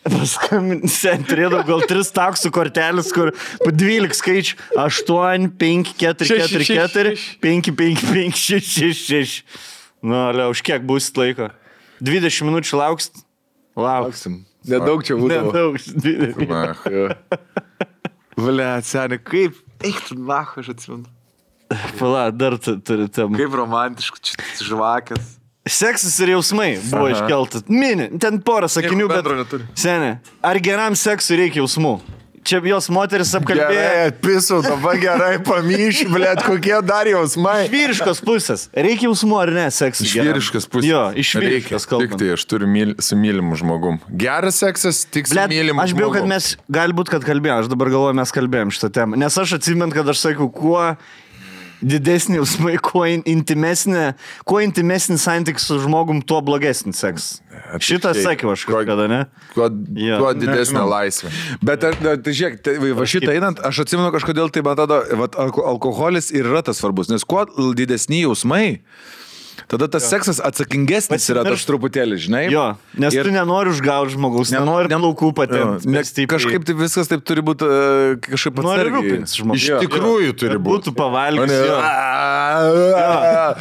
Paskambinti, turėdavau gal 3 taksų kortelis, kur po 12 skaičių. 8, 5, 4, 4, 4, 5, 5, 5, 6, 6, 6. Už kiek būsit laiko? 20 minučių lauksit? Lauksim. Nedaug čia būdavo. Nedaug. Ble, seniai, kaip? Eik tu, nahu, aš atsimenu. Pala, dar turi temą. Kaip romantiškų, čia žvakės. Seksas ir jausmai buvo iškeltas. Mini, ten porą sakinių, bet... Seniai, ar geram seksui reikia jausmų? Čia jos moteris apkalbėjo. Gerai, atpisau, dabar gerai pamyšiu, blėt, kokie dar jausmai. Iš vyriškos pusės. Reikia jausmų ar ne seksui? Iš vyriškos pusės. Jo, iš vyriškos kalbant. Tik tai aš turiu su mylimu žmogum. Geras seksas, tik su mylimu žmogum. Aš bijau, kad mes, galbūt, kad kalbėjom, aš dabar galvoju, mes kalbėjom šitą temą. Nes aš atsimenu, kad aš sakau, kuo didesnį jausmai, kuo intimesnį santykį su žmogum, tuo blogesnį seksas. Šitą sakiau aš kažkada, ne? Tuo didesnė laisvė. Bet, tai žiūrėk, va šitą einant, aš atsimenu kažkodėl, tai man atrodo, alkoholis ir yra tas svarbus, nes kuo didesni jausmai, tada tas seksas atsakingesnis yra tas truputėlį, žinai? Jo, nes tu nenori užgauti žmogaus, nenori plaukų patempti. Kažkaip tai viskas taip turi būti kažkaip atsargiai. Iš tikrųjų turi būti. Būtų pavalgęs.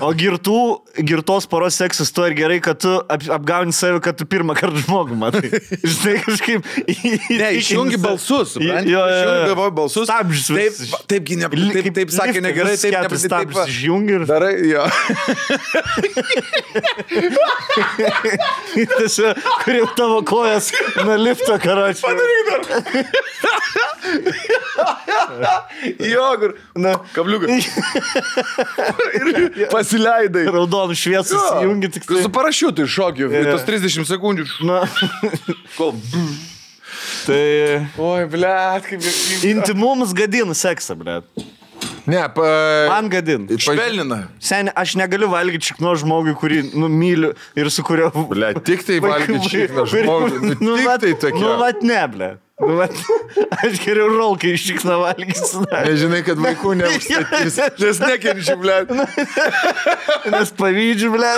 O girtos poros seksas to ir gerai, kad tu apgauni save, kad tu pirmą kartą žmogų matai. Žinai, kažkaip... Ne, išjungi balsus, supranti? Išjungi balsus. Stabdžius. Taip sakė negerai, taip stabdžius išjungi ir... Darai, jo. Tiesiog, kur jau tavo kojas nuo lifto, karočiui. Padaryk dar. Jo, kur. Na, kabliukai. Ir pasileidai. Raudonų šviesų įjungi tik tai. Su parašiutu iššokiu. Tos 30 sekundžių. Na. Kol. Tai... Oi, blet, kaip... Intimumas gadina seksą, blet. Ne, man gadin. Švelnina. Seniai, aš negaliu valgyti šikno žmogui, kurį myliu ir su kurio... Ble, tik tai valgyti šikno žmogui. Tik tai tokia. Nu, vat ne, ble. Nu, vat, aš geriau rolkai iš šikno valgysiu. Nežinai, kad vaikų neužstatys. Nes nekenčiu, ble. Nes pavydžiu, ble.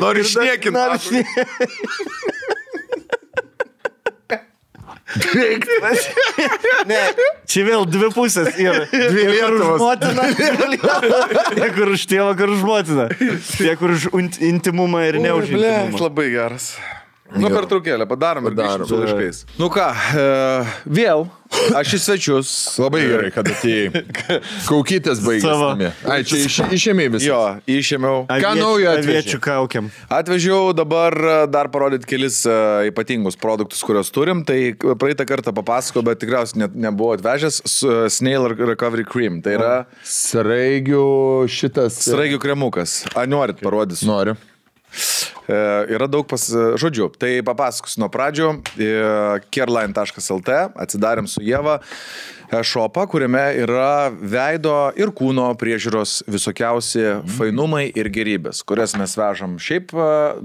Noriu išniekinti. Ne, čia vėl dvi pusės yra. Dvi Lietuvos. Motina, tiek kur už tėvą, kur už motiną. Tiek kur už intimumą ir ne už intimumą. Labai geras. Nu, per traukėlę, padarom ir grįžtam su laiškais. Nu ką, vėl, aš į svečius. Labai gerai, kad atėjai. Kaukytės baigėsi. Ai, čia išėmė visą. Jo, išėmiau. Ką naujo aviečių kaukiam? Atvežiau dabar dar parodyti kelis ypatingus produktus, kuriuos turim. Tai praeitą kartą papasakau, bet tikriausiai nebuvo atvežęs Snail Recovery Cream. Tai yra... Sraigių šitas... Sraigių kremukas. A, norit parodysiu? Noriu. Yra daug žodžių. Tai papasakosiu nuo pradžių. Careline.lt atsidarėm su Ieva šopą, kuriame yra veido ir kūno priežiūros visokiausi fainumai ir gerybės, kurias mes vežam šiaip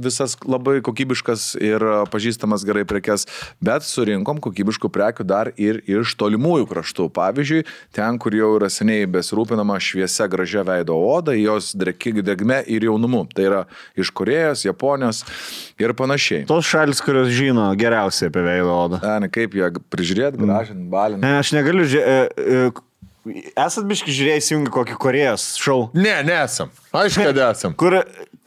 visas labai kokybiškas ir pažįstamas gerai prekes, bet surinkom kokybiškų prekių dar ir iš tolimųjų kraštų. Pavyzdžiui, ten, kur jau yra seniai besirūpinama šviesia gražia veido oda, jos drėgme ir jaunumu. Tai yra iš Korėjos, Japonijos ir panašiai. Tos šalis, kurios žino geriausiai apie veido odą. Ne, kaip ją prižiūrėti, gražinti, balinti. Ne, aš negaliu Esat biški žiūrėjai įsijungi kokį Korėjos šou? Ne, nesam. Aišku, kad esam. Kur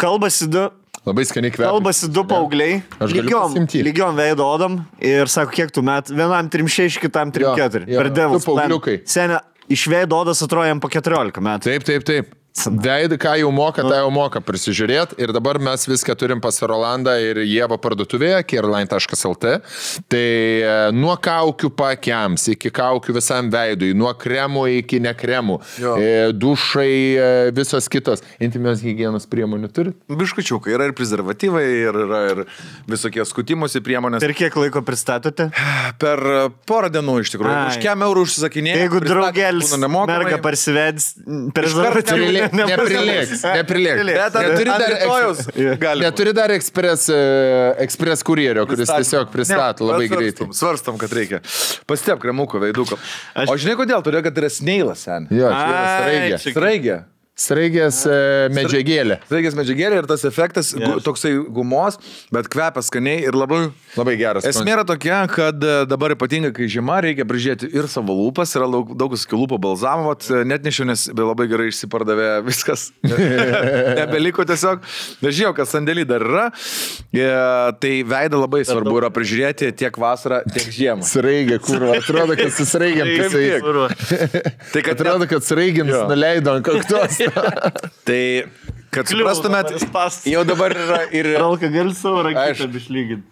kalbasi du... Labai skaniai kvepia. Kalbasi du paaugliai, lygiom veido odom ir sako, kiek tu metų, vienam 3-6, kitam 3-4. Per Devil's Plan. Senia, iš veido odas atrodo jam po 14 metų. Taip. Veidą, ką jau moka, tą jau moka prisižiūrėti. Ir dabar mes viską turim pas Rolandą ir Ievą parduotuvėje, careline.lt. Tai nuo kaukių pakiams, iki kaukių visam veidui, nuo kremų iki nekremų, dušai, visos kitos. Intimios higienos priemonių turit? Biškučiukai, yra ir prezervatyvai, yra ir visokie skutimosi priemonės. Per kiek laiko pristatote? Per porą dienų iš tikrųjų. Už kiek eurų užsisakinėjau. Jeigu draugelis merga parsivedis, prezervatyvai. Neprilėks. Neturi dar ekspres kurjerio, kuris tiesiog pristato labai greitai. Svarstam, kad reikia. Pastep kremuko veiduko. O žinai kodėl? Todėl, kad yra sneilas, sen. Jo, čia yra sraigė. Sraigė. Sraigės medžiagėlė. Sraigės medžiagėlė ir tas efektas toksai gumos, bet kvepia skaniai ir labai geras. Esmė yra tokia, kad dabar ypatingai, kai žiema, reikia prižiūrėti ir savo lūpas, yra daug skilūpo balzamo, net nešiau, nes labai gerai išsipardavė viskas. Nebeliko tiesiog. Nežinau, kas sandėlį dar yra. Tai veidą labai svarbu yra prižiūrėti tiek vasarą, tiek žiemą. Sraigė, kurva, atrodo, kad su sraigiam tai atrodo, kad sraigiams nuleido ant kaktos. Tai, kad suprastumėt, jau dabar yra ir... Ralka, gali savo raketą išlyginti.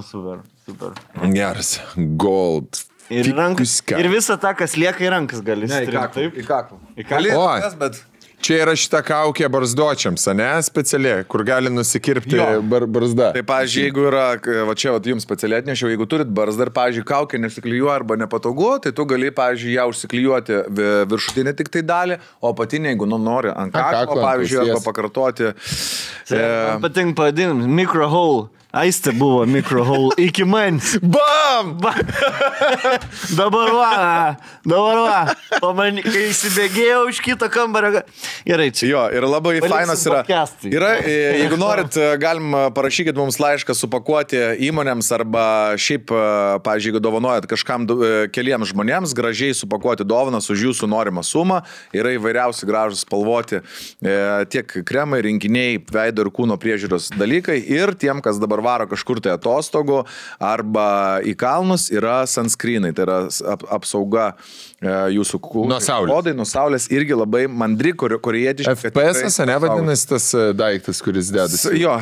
Super. Geras. Gold. Ir visą tą, kas lieka į rankas gali. Ne, į kaklą. Bet... Čia yra šita kaukė barzdočiams, ne? Specialiai, kur gali nusikirpti barzda. Tai, pavyzdžiui, jeigu yra, va čia jums specialiai atnešiau, jeigu turit barzdą ir, pavyzdžiui, kaukė nesiklijuoja arba nepatogu, tai tu gali, pavyzdžiui, ją užsiklijuoti viršutinę tik tai dalį, o apatinę, jeigu nori ant kaklo, pavyzdžiui, arba pakartoti. Man patinka pavadinimas, microhole. Aistė buvo microhole iki manis. Bam! Dabar va. Kai įsibėgėjau iš kito kambario. Gerai, čia. Jo, ir labai fainas yra. Jeigu norit, galim parašykit mums laišką supakuoti įmonėms arba šiaip, pavyzdžiui, jeigu dovanojat kažkam keliems žmonėms, gražiai supakuoti dovanas už jūsų norimą sumą. Yra įvairiausi gražus spalvoti tiek kremai, rinkiniai, veido ir kūno priežiūros dalykai. Ir tiem, kas dabar varo kažkur tai atostogų arba į kalnus, yra sunscreenai, tai yra apsauga jūsų kūno. Odai nuo saulės irgi labai mandri, korėjietiški. FPS, ne vadinasi tas daiktas, kuris dedasi? Jo,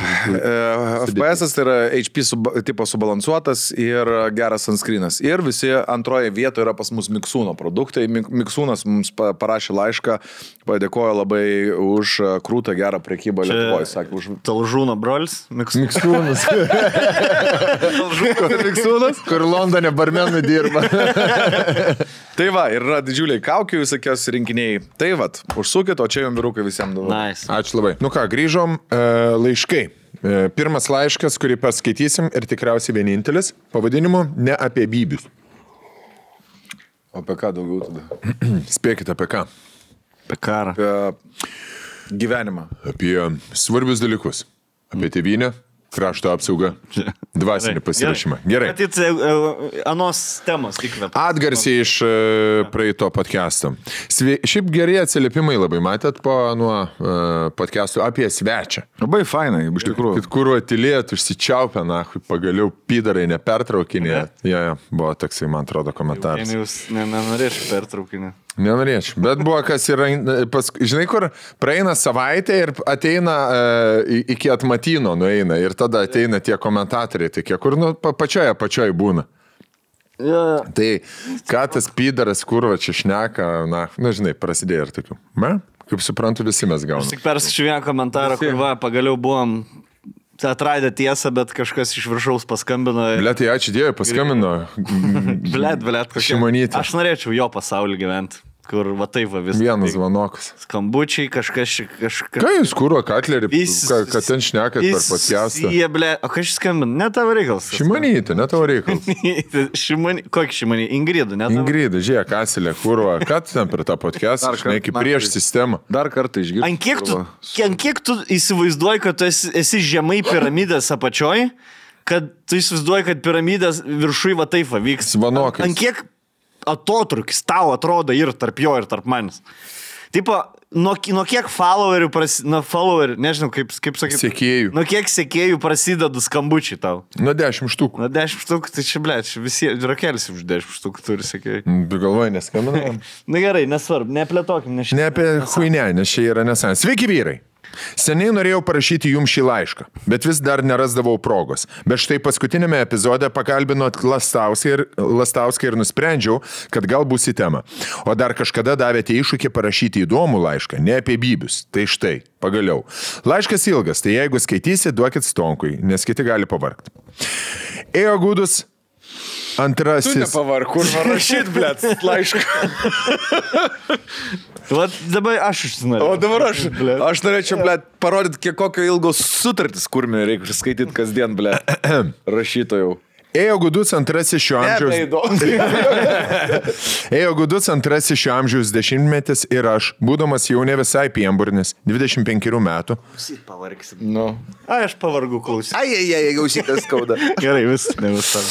FPS tai yra HP tipo subalansuotas ir geras sunscreenas. Ir visi antroje vietoje yra pas mus Miksūno produktai. Miksūnas mums parašė laišką, padėkojo labai už krūtą gerą prekybą Lietuvoje. Sakė, už... Talžūno brolis? Miksūnas. Miksūnas, kur Londone barmenai dirba. Tai va, ir yra didžiuliai kaukių visokios rinkiniai. Tai va, užsukit, o čia jums vyrukai visiems daug. Nice. Ačiū labai. Nu ką, grįžom laiškai. Pirmas laiškas, kurį paskaitysim ir tikriausiai vienintelis, pavadinimu Ne apie bybius. O apie ką daugiau tada? Spėkit apie ką? Apie karą. Apie gyvenimą. Apie svarbius dalykus. Apie tėvynę, krašto apsaugą, dvasinį pasirašymą. Gerai. Matyt, anos temos įkvėp. Atgarsiai iš praeito podcast'o. Šiaip geri atsiliepimai labai matėt po nuo podcast'o apie svečią. Labai fainai, iš tikrųjų. Kad kur atylėt, užsičiaupę, pagaliau pydarai nepertraukinė. Jo, buvo toksai, man atrodo, komentaras. Jūs nenorėčiau pertraukinį. Nenorėčiau, bet buvo kas yra, žinai, kur praeina savaitė ir ateina iki atmatino nueina ir tada ateina tie komentatoriai, tai kiek kur pačioj būna. Ja. Tai ką tas pydaras, kur va čia šneka, žinai, prasidėjo ir tokių. Kaip suprantu, visi mes gaunam. Aš tik perskaičiu vieną komentarą, kur pagaliau buvom atradę tiesą, bet kažkas iš viršaus paskambino. Blet, tai ačiū Dievui, paskambino. Blet, Šimonytė. Aš norėčiau jo pasaulį gyventi. Kur va taip va viskas. Vienas zvanokas. Skambučiai, kažkas. Ką jūs kūro, Katlerį, kad ten šnekat per podcastą? Jie, ble, o kas skambina? Ne tavo reikalas. Šimonytė, ne tavo reikalas. Kokį Šimonį? Ingridą, ne tavo? Ingridą, žiūrėk, Kasilė, kūro, ką tu ten per tą podcastą, žinai, kaip prieš sistemą. Dar kartą išgirsti. Ant kiek tu įsivaizduoji, kad tu esi žemai piramidės apačioj, kad tu įsivaizduoji, kad piramidės viršui va taip va vyks. Zvanokais. Ant kiek atotrukis tau atrodo ir tarp jo, ir tarp manęs. Tipo, nuo kiek followerių nežinau, kaip sakyti. Sekėjų. Nuo kiek sekėjų prasideda skambučiai tau? Nuo 10 štukų. Nuo 10 štukų, tai čia, ble, visi rakelis už 10 štukų turi sekėjai. Galvoju, neskambinam. Na gerai, nesvarbu, neplėtokim. Ne apie huinę, nes čia yra nesąs. Sveiki vyrai. Seniai norėjau parašyti jums šį laišką, bet vis dar nerasdavau progos. Bet štai paskutinėme epizode pakalbinot Lastauską ir nusprendžiau, kad gal bus į temą. O dar kažkada davėte iššūkį parašyti įdomų laišką, ne apie bybius. Tai štai, pagaliau. Laiškas ilgas, tai jeigu skaitysi, duokit stonkui, nes kiti gali pavargti. Ėjo gudus antrasis. Tu nepavarg, kur rašyt, blėt, laišką. Vat dabar aš užsinorėjau. O dabar aš norėčiau, blėt, parodyti, kokio ilgos sutartis kurmė reikia skaityti kasdien, blėt, rašytojau. Ėjo gudus antrasis šio amžiaus dešimtmetis ir aš, būdamas jau ne visai pienburnis, 25 metų. Pavargsim. Nu. Aš pavargu klausyt. Gausytas skauda. Gerai, ne visam.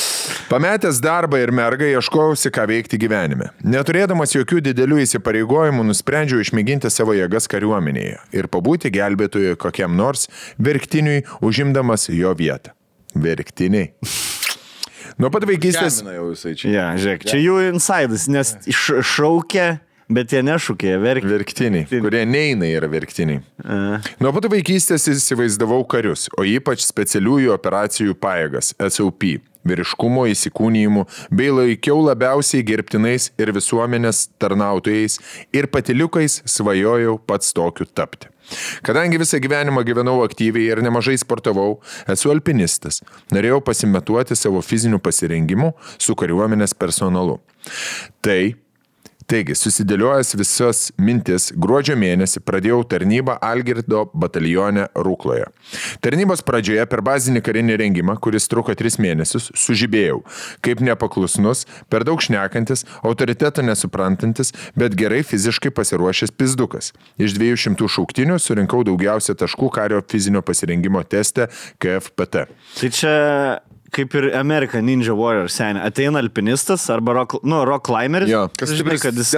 Pametęs darbą ir mergą ieškojausi, ką veikti gyvenime. Neturėdamas jokių didelių įsipareigojimų, nusprendžiau išmėginti savo jėgas kariuomenėje ir pabūti gelbėtojui kokiam nors verktiniui, užimdamas jo vietą. Verktiniai. Nuo pat vaikystės... Ja, žiūrėk, čia jų insidas, nes šaukia, bet jie nešūkė, verktiniai, kurie neina yra verktiniai. Nuo pat vaikystės įsivaizdavau karius, o ypač specialiųjų operacijų pajėgas, SOP, vyriškumo įsikūnijimų, bei laikiau labiausiai gerbtinais ir visuomenės tarnautojais ir patiliukais svajojau pats tokiu tapti. Kadangi visą gyvenimą gyvenau aktyviai ir nemažai sportavau, esu alpinistas. Norėjau pasimetuoti savo fizinių pasirengimų su kariuomenės personalu. Taigi, susidėliojęs visas mintis, gruodžio mėnesį pradėjau tarnybą Algirdo batalione Rukloje. Tarnybos pradžioje per bazinį karinį rengimą, kuris truko 3 mėnesius, sužibėjau, kaip nepaklusnus, per daug šnekantis, autoriteto nesuprantantis, bet gerai fiziškai pasiruošęs pizdukas. Iš 200 šauktinių surinkau daugiausia taškų kario fizinio pasirengimo teste KFPT. Tai čia... Kaip ir American Ninja Warrior seniai. Ateina alpinistas arba rock climbers. Jo. Kas žinai, kad jis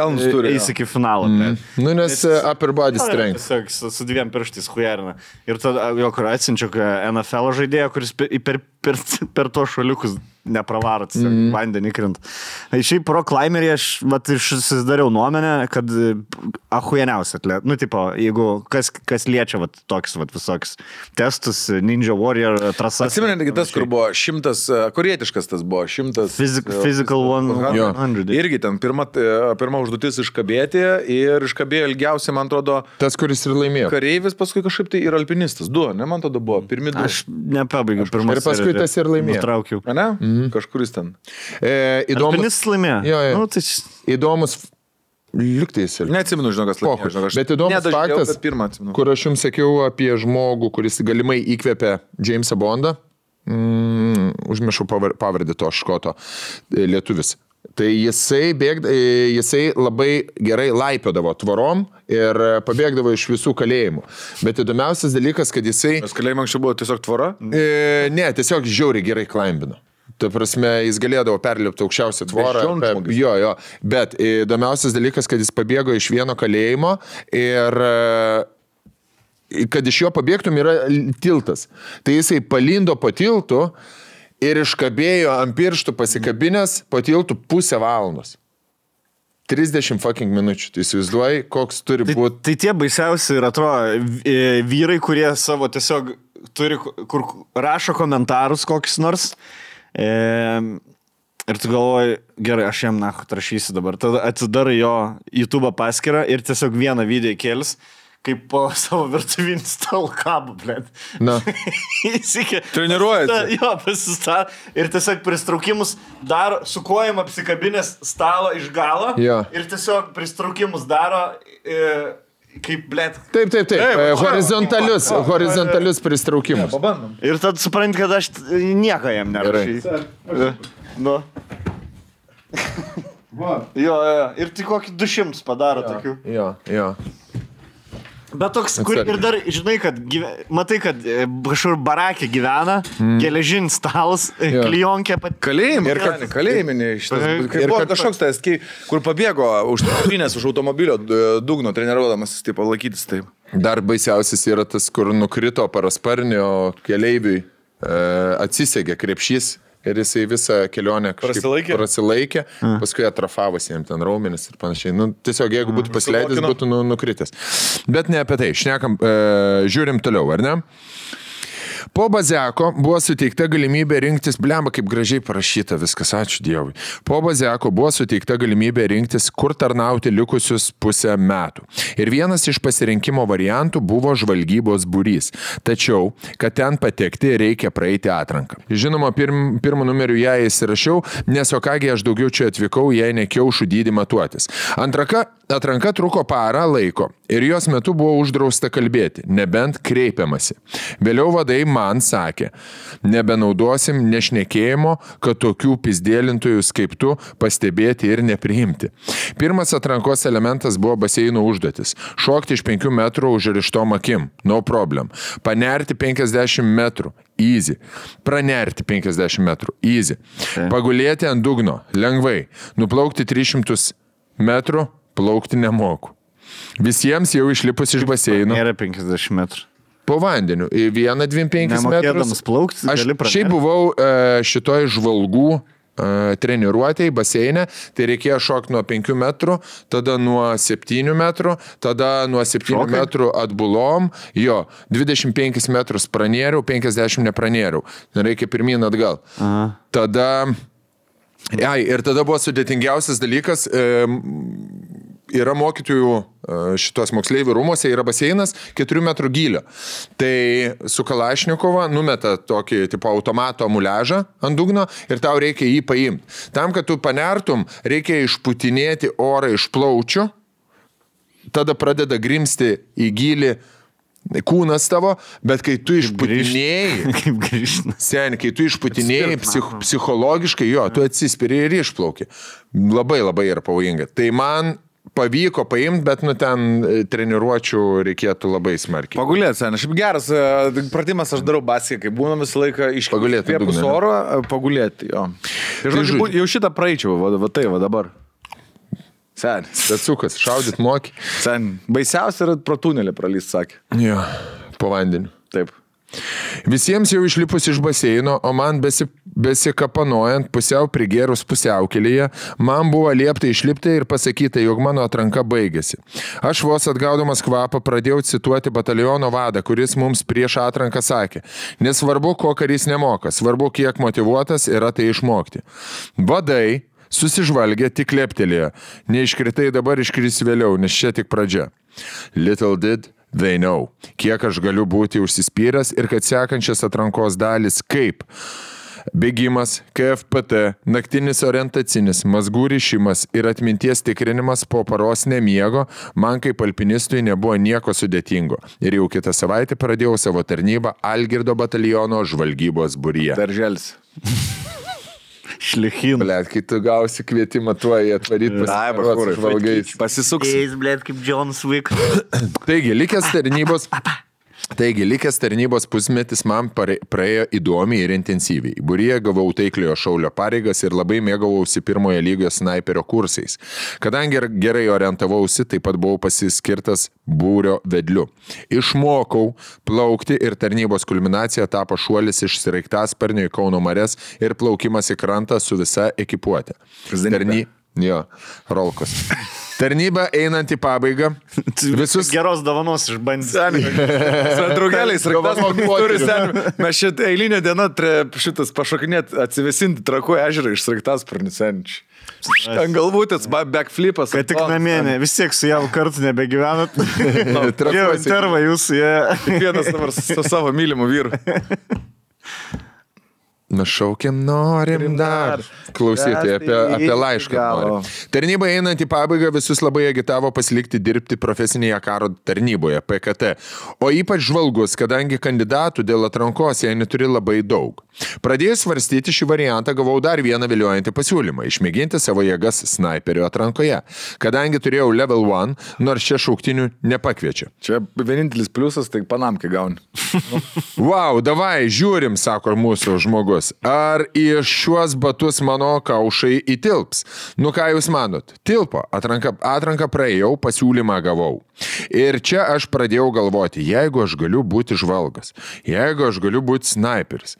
eis iki finalo. Nu, nes upper body strength. Tiesiog su 2 pirštais hujerina. Ir tada jo, kur atsinčiau NFL žaidėją, kuris per to šaliukus nepravaro, vandenį krint. Šiaip pro climberį aš susidariau nuomenę, kad ahujeniausia atlet. Nu, tipo, jeigu kas liečia tokius visokius testus, Ninja Warrior trasas. Atsimenate, tas, kur buvo 100, korietiškas tas buvo, 100. Physical 100. Irgi ten pirma užduotis iškabėti ir iškabėjo ilgiausiai, man atrodo, tas, kuris ir laimėjo. Kareivis, paskui kažkaip tai ir alpinistas. 2, ne, man tada buvo, pirmi 2. Aš nepabaigiau pirmas. Ir paskui tas ir laimėjo. Nutraukiau. Ne? Kažkuris ten. Alpinistas laimėjo. Jo. Nu, tai... Įdomus liuktais. Neatsimenu, žinokas laimėjo. Bet įdomus faktas, kur aš jums sakiau apie žmogų, kuris galimai įkvėpė Jamesą Bondą. Užmiršau pavardę to škoto lietuvis. Tai jisai labai gerai laipiodavo tvorom ir pabėgdavo iš visų kalėjimų. Bet įdomiausias dalykas, kad jisai... Nes kalėjimai anksčiau buvo tiesiog tvora? Ne, tiesiog žiauriai gerai klaimbino. Ta prasme, jis galėdavo perlipti aukščiausią tvorą. Jo. Bet įdomiausias dalykas, kad jis pabėgo iš vieno kalėjimo ir... kad iš jo pabėgtum yra tiltas. Tai jisai palindo po tiltu ir iškabėjo ant pirštų pasikabinės po tiltų 0,5 valandos. 30 fucking minučių. Tai įsivaizduoji, koks turi būti. Tai tie baisiausi ir atrodo vyrai, kurie savo tiesiog turi, kur rašo komentarus kokius nors. Ir tu galvoji, gerai, aš jam rašysiu dabar. Tada atsidarai jo YouTube paskyrą ir tiesiog vieną video įkėlis, kaip po savo virtuvinį stalą kabą, blėt. Na. Treniruojasi. Jo, pasistatė. Ir tiesiog pristraukimus daro, su kojom apsikabinės stalo iš galo. Jo. Ir tiesiog pristraukimus daro... Kaip, blėt. Taip. Horizontalius pristraukimus. Pabandom. Ir tad supranti, kad aš nieko jam nerašysiu. Nu. Jo. Ir tik kokį 200 padaro tokių. Jo. Bet toks, kur ir dar, žinai, kad matai, kad kažkur barakė gyvena, geležinis stalas, klijonkė pat... Kalėjiminė šitas. Buvo kažkoks tas, kur pabėgo užtrinės už automobilio dugno, treniruodamas, taip, laikytis taip. Dar baisiausias yra tas, kur nukrito parasparnio keleiviui, atsisegė krepšys. Ir jisai visą kelionę prasilaikė, paskui atrafavosi jam ten raumenis ir panašiai. Nu, tiesiog, jeigu būtų pasileidęs, būtų nukritęs. Bet ne apie tai. Šnekam, žiūrim toliau, ar ne? Po Baziako buvo suteikta galimybė rinktis, blemba, kaip gražiai parašyta viskas, ačiū Dievui. Po Baziako buvo suteikta galimybė rinktis, kur tarnauti likusius 0,5 metų. Ir vienas iš pasirinkimo variantų buvo žvalgybos būrys. Tačiau, kad ten patekti, reikia praeiti atranką. Žinoma, pirmą numerių ją įsirašiau, nes o kągi aš daugiau čia atvykau, jei ne kiaušų dydį matuotis. Atranka truko parą laiko ir jos metu buvo uždrausta kalbėti, nebent kreipiamasi. Vėliau vadai man sakė, nebenaudosim nešnekėjimo, kad tokių pizdėlintojus kaip tu pastebėti ir nepriimti. Pirmas atrankos elementas buvo baseino užduotis. Šokti iš 5 metrų užrištom akim, no problem. Panerti 50 metrų. Easy. Pranerti 50 metrų. Easy. Pagulėti ant dugno. Lengvai. Nuplaukti 300 metrų. Plaukti nemoku. Visiems jau išlipus iš baseino. Nėra 50 metrų. Po vandeniu. 1-2-5 metrus. Nemokėdamas plaukti, Aš gali pranerti. šiaip buvau šitoj žvalgų treniruotėjai baseine, tai reikėjo šokti nuo 5 metrų, tada nuo 7 metrų, tada nuo 7 metrų atbulom, 25 metrus pranėriau, 50 nepranėriau. Reikia pirmyn atgal. Aha. Tada, ir tada buvo sudėtingiausias dalykas, yra mokytojų šitos moksleivių rūmose, yra baseinas 4 metrų gylio. Tai su Kalašnikova numeta tokį tipo automato muliažą ant dugno ir tau reikia jį paimti. Tam, kad tu panertum, reikia išputinėti orą iš plaučių, tada pradeda grimsti į gylį kūnas tavo, bet kai tu išputinėjai, Kaip grįžti. Sen, kai tu išputinėjai psichologiškai, tu atsispiri ir išplauki. Labai yra pavojinga. Tai man pavyko paimti, bet ten treniruočių reikėtų labai smarkiai. Pagulėti, sen. Šiaip geras pratimas aš darau baskį, kai būna visą laiką iškvėpus oro, pagulėti, jo. Ir žodžiu, jau šitą praeičiau, va tai, va dabar. Sen. Tetsukas, šaudyt moki. Sen. Baisiausia yra pro tunelį pralyst, sakė. Jo, po vandeniu. Taip. Visiems jau išlipus iš baseino, o man besikapanojant, pusiau prigėrus pusiaukelėje, man buvo liepta išlipti ir pasakyti, jog mano atranka baigėsi. Aš vos atgaudamas kvapą pradėjau cituoti bataliono vadą, kuris mums prieš atranką sakė, nesvarbu, ko karys nemoka, svarbu, kiek motyvuotas yra tai išmokti. Vadai susižvalgė, tik leptelėjo. Neiškritai dabar, iškris vėliau, nes čia tik pradžia. Little did they know, kiek aš galiu būti užsispyręs ir kad sekančias atrankos dalis kaip bėgimas, KFPT, naktinis orientacinis, mazgų rišimas ir atminties tikrinimas po paros nemiego, man kaip alpinistui nebuvo nieko sudėtingo. Ir jau kitą savaitę pradėjau savo tarnybą Algirdo bataliono žvalgybos būryje. Darželis. Šlichin. Blet, kai tu gausi kvietimą tuo į atvaryti žvalgais. Pasisuks. Blet, kaip Jonas Wick. Taigi, likęs tarnybos pusmetis man praėjo įdomiai ir intensyviai. Būryje gavau taikliojo šaulio pareigas ir labai mėgavausi pirmojo lygio snaiperio kursais. Kadangi gerai orientavausi, taip pat buvau pasiskirtas būrio vedliu. Išmokau plaukti ir tarnybos kulminacija tapo šuolis iš sraigtasparnio į Kauno marias ir plaukimas į krantą su visa ekipuotė. Rolkos. Tarnyba einant į pabaigą. Visus geros dovanos išbandys. Draugeliais, mes šitą eilinę dieną šitas pašokinėt atsivesinti Trakų ežerą iš sraigtasparnių senčių. Ten galvutės, backflipas. Kad tik namie, vis tiek su javu kartu nebegyvenat. Jau interva jūsų, jie. Vienas dabar su savo mylimu vyru. Nušaukiam, norim dar. Klausyti apie laišką. Tarnyba einant į pabaigą visus labai agitavo pasilikti dirbti profesinėje karo tarnyboje, PKT. O ypač žvalgus, kadangi kandidatų dėl atrankos jie neturi labai daug. Pradėjus svarstyti šį variantą, gavau dar vieną viliojantį pasiūlymą – išmėginti savo jėgas snaiperio atrankoje. Kadangi turėjau level 1, nors čia šauktinių nepakviečia. Čia vienintelis pliusas, tai panamkį gauni. Wow, davai, žiūrim, sako mūsų žmogus. Ar į šiuos batus mano kaušai įtilps? Nu ką jūs manot? Tilpo, atranką praėjau, pasiūlymą gavau. Ir čia aš pradėjau galvoti, jeigu aš galiu būti žvalgas, jeigu aš galiu būti snaiperis,